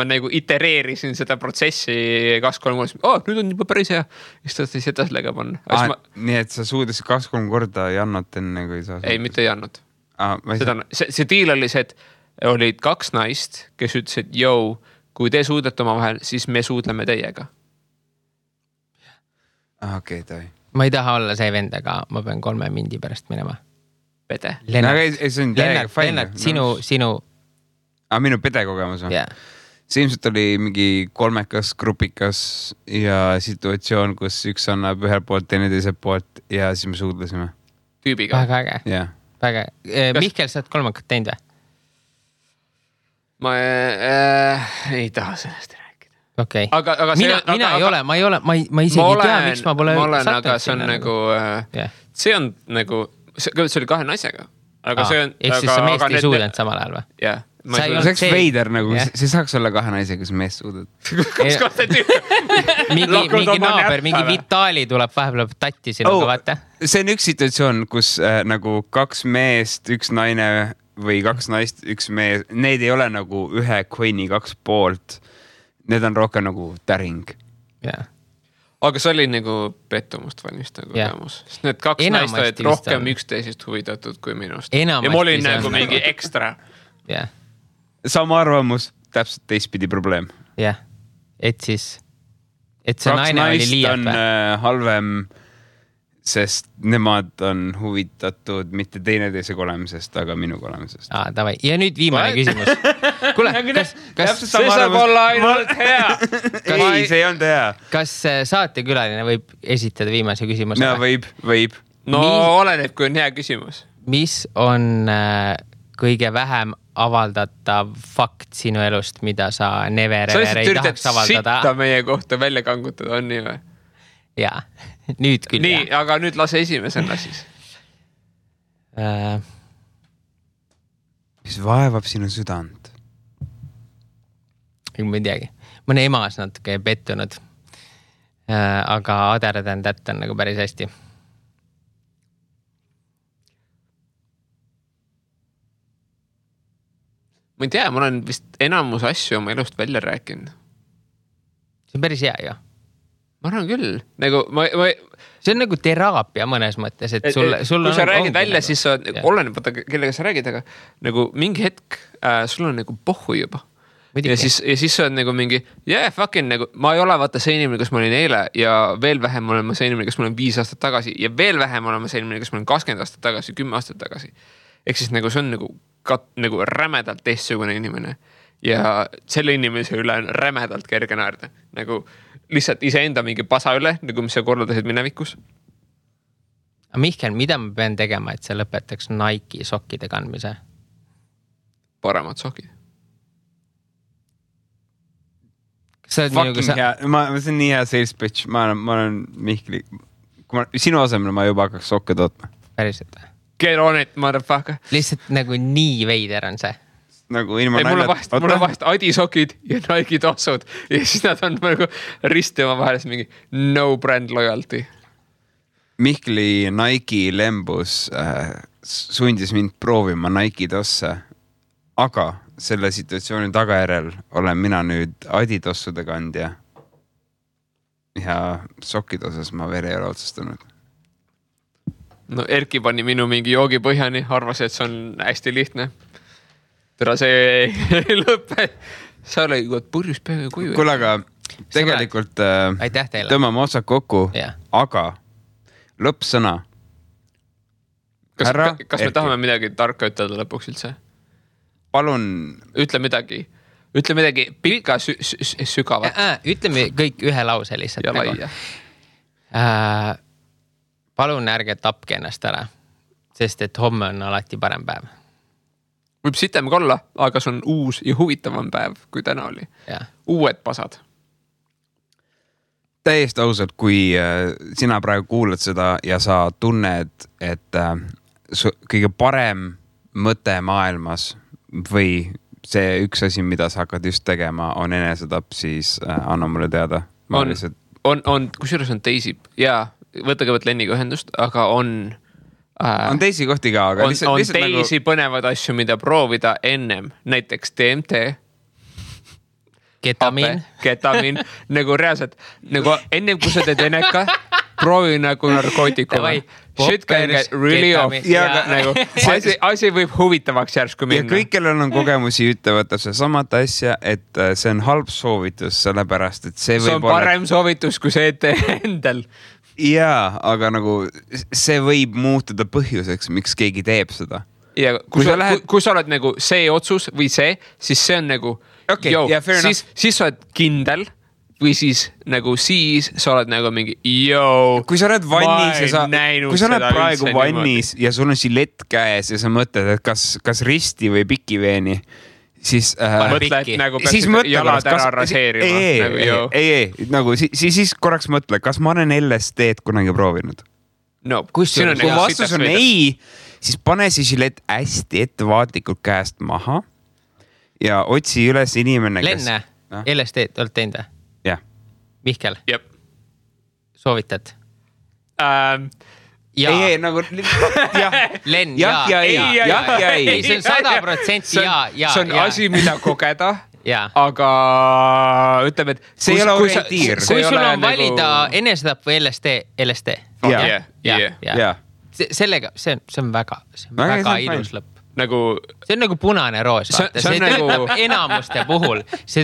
ma nagu itereerisin seda protsessi 2-3 korda, nüüd on juba päris hea. Siis ta siis edas lega panna. Nii et sa suudasid 2-3 korda Jannot enne, kui sa... Ei, mitte Jannot. See diil oli see, et olid 2 naist, kes ütlesid, kui te suudlete oma vahel, siis me suudleme teiega. Okei, toi. Ma ei taha olla see vend, aga ma pean 3 mindi pärast minema. Pede. Lennart, sinu... Minu pede kogemus on? Yeah. See ilmselt oli mingi 3 grupikas ja situatsioon, kus üks annab ühel poolt, teine teiselt poolt ja siis me suudlesime. Tüübiga. Väga äge. Yeah. väga. Mihkel, sa oled kolmandat teinud või? Ma ei taha sellest rääkida. Okay. Aga mina ei ole, ma isegi ei tea, miks ma pole sattunud. Aga see on nagu, see on nagu, see oli 2 naisega. Aga see on... Ehk siis sa meest ei suudanud samal ajal või? Jah. See oleks veider nagu, see saaks olla 2 naisega, kus meest suudad. Kas kohta mingi naaber, mingi Vitali tuleb vahepeal tatti sinuga, vaata. See on üks situatsioon, kus nagu 2 meest, 1 naine või 2 naist, 1 mees, need ei ole nagu ühe coin'i 2 poolt. Need on rohkem nagu täring. Jah. Aga see oli nagu pettumust valmistav kogemus. Sest need 2 naist olid rohkem üksteisest huvitatud kui minust. Ja ma olin nagu mingi ekstra. Jah. Sama arvamus, täpselt teistpidi probleem. Jah. Et see naine oli liialt või? Halvem, sest nemad on huvitatud mitte teineteisega olemisest, aga minuga olemisest. Davai. Ja nüüd viimane küsimus. Kuule, kas see saab olla ainult hea? Ei, see ei olnud hea. Kas saatekülaline võib esitada viimase küsimuse? No, võib. No oleneb, kui on hea küsimus. Mis on kõige vähem avaldatav fakt sinu elust, mida sa never ever ei tahaks avaldada? Sitta meie kohta välja kangutada, on nii või? Jaa, nüüd küll. Nii, aga nüüd lase esimesena siis. Mis vaevab sinu südant? Ma ei teagi. Ma olen emas natuke pettunud. Aga other than that on nagu päris hästi. Ma ei tea, ma olen vist enamus asju oma elust välja rääkinud. See on päris hea ju. Ma arvan küll. Nagu, see on nagu teraapia mõnes mõttes, et sul kui sa räägid välja, nagu, siis sa oleneb, kellega sa räägid, aga nagu mingi hetk sul on nagu pohhu juba. Ja siis sa on nagu mingi, fucking nagu, ma ei ole vaata see inimene, kus ma olin eile ja veel vähem olen ma see inimene, kus ma olen 5 aastat tagasi ja veel vähem olen ma see inimene, kus ma olen 20 aastat tagasi, 10 aastat tagasi. Ehk siis nagu see on nagu rämedalt teistsugune inimene ja selle inimese üle on rämedalt kerge naerda. Nagu lihtsalt iseenda mingi pasa üle, nagu mis sa korraldasid minevikus. Mihkel, mida ma pean tegema, et sa lõpetaks Nike sokkide kandmise? Paremad sokid. See on nii hea sales pitch. Ma olen Mihkli. Sinu asemel ma juba hakkaks sokke tootma. Päriselt või? Get on it, motherfucker. Lihtsalt nagu nii veider on see. Nagu ilma mul on vahest Adisokid ja Nike tossud ja siis nad on nagu risti oma vahelis mingi no brand loyalty. Mihkli Nike lembus sundis mind proovima Nike tosse, aga selle situatsiooni tagajärjel olen mina nüüd Adidossude kandja ja sokkide osas ma veel ei ole otsustanud. No Erki pani minu mingi joogi põhjani, arvas, et see on hästi lihtne. Tere, see ei lõppe. Sa oli purjus peaga kuju. Kuule, aga tegelikult tõmbame otsad kokku, aga lõppsõna. Kas me tahame midagi tarka ütelda lõpuks üldse? Palun. Ütle midagi pikka sügavat. Ütleme kõik ühe lause lihtsalt. Ja laia. Palun ärge tapke ennast ära, sest et homme on alati parem päev. Võib sitem ka olla, aga see on uus ja huvitavam päev, kui täna oli. Uued pasad. Täiesti ausalt, kui sina praegu kuulad seda ja sa tunned, et kõige parem mõte maailmas või see üks asi, mida sa hakkad just tegema, on enesetapp, siis anna mulle teada. Kusjuures on teisi, võta kõigepealt Lenniga ühendust, aga on teisi kohti ka, aga on teisi põnevad asju, mida proovida ennem, näiteks DMT, ketamiin, nagu reaalselt, nagu ennem kui sa teed eneka, proovi nagu narkootikume. Shit can get really off. Nagu, asi võib huvitavaks järsku minna. Ja kõik, kellel on kogemusi, ütlevad see samat asja, et see on halb soovitus, sellepärast, et see on parem soovitus, kui see ette endal. Jaa, aga nagu see võib muutuda põhjuseks, miks keegi teeb seda. Ja kui sa oled nagu see otsus või see, siis see on nagu, siis sa oled kindel või siis nagu siis sa oled nagu mingi kui sa oled vannis ja kui sa oled praegu vannis ja sul on žilett käes ja sa mõtled, et kas risti või pikiveeni, siis siis jalad ära raseerima. Siis korraks mõtle, kas ma olen LSD-d kunagi proovinud? No, kui vastus on ei, siis pane see žilett hästi ettevaatlikult käest maha ja otsi üles inimene, Lenne, LSD-d oled teinud või? Jah. Mihkel? Jep. Soovitad? Ei, nagu Len, ei. See on 100% ja. See on asi, mida kogeda, aga ütleme, et see ei ole orientiir. Kui sul on valida enesetapp või LSD. Jah. Sellega, see on väga ilus lõpp. See on nagu punane roos, vaata. See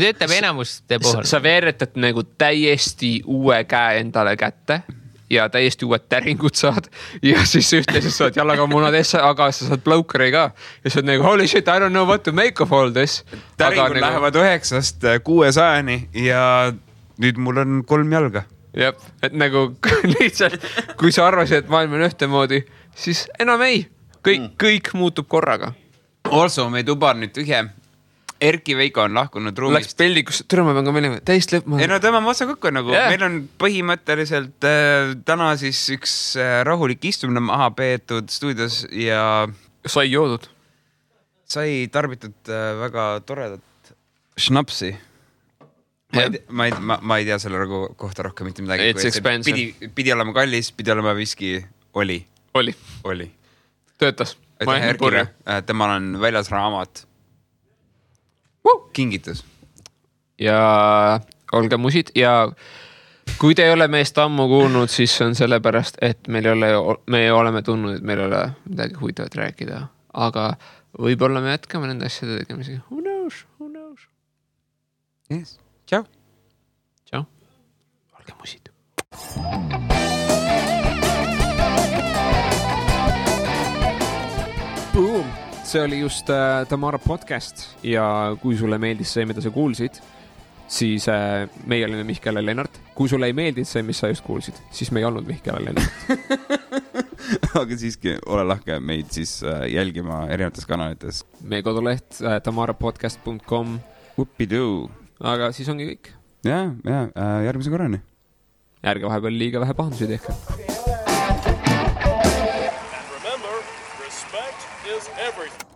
töötab enamuste puhul. Sa veeretad nagu täiesti uue käe endale kätte ja täiesti uued täringud saad ja siis ühtlaselt saad jalaga munadesse, aga sa saad bloukeri ka ja sa oled nagu holy shit, I don't know what to make of all this. Täringud lähevad 9-st 600-ni ja nüüd mul on 3 jalga. Jep, et nagu lihtsalt, kui sa arvasid, et maailm on ühtemoodi, siis enam ei. Kõik muutub korraga. Also, me tuba nüüd tühje. Erki Veiko on lahkunud ruumist. Läks peldikus, türma pean ka meelima, täist lõpp. Ei no tõmbame otsa kokku nagu. Meil on põhimõtteliselt täna siis üks rahulik istumine maha peetud stuudios ja sai joodud. Sai tarbitud väga toredat šnapsi. Ma ei tea selle kohta rohkem mitte midagi. It's expensive. Pidi olema kallis, pidi olema viski. Oli. Töötas. Temal on väljas raamat. Kingitus. Ja olge musid ja kui te ei ole meest ammu kuulnud, siis on sellepärast, et me oleme tundnud, et meil ei ole midagi huvitavat rääkida, aga võib-olla me jätkame nende asjade tegemisega. Who knows? Yes. Ciao. Olge musid. Boom! See oli just Tamara podcast ja kui sulle meeldis see, mida sa kuulsid, siis meie olime Mihkel ja Lennart. Kui sulle ei meeldid see, mis sa just kuulsid, siis me ei olnud Mihkel ja Lennart. Aga siiski ole lahke meid siis jälgima erinevates kanalites. Meie koduleht tamarapodcast.com. Whoopidoo. Aga siis ongi kõik. Ja, järgmise korrani. Ärge vahepeal liiga vähe pahandusi tehke. And remember, respect is everything.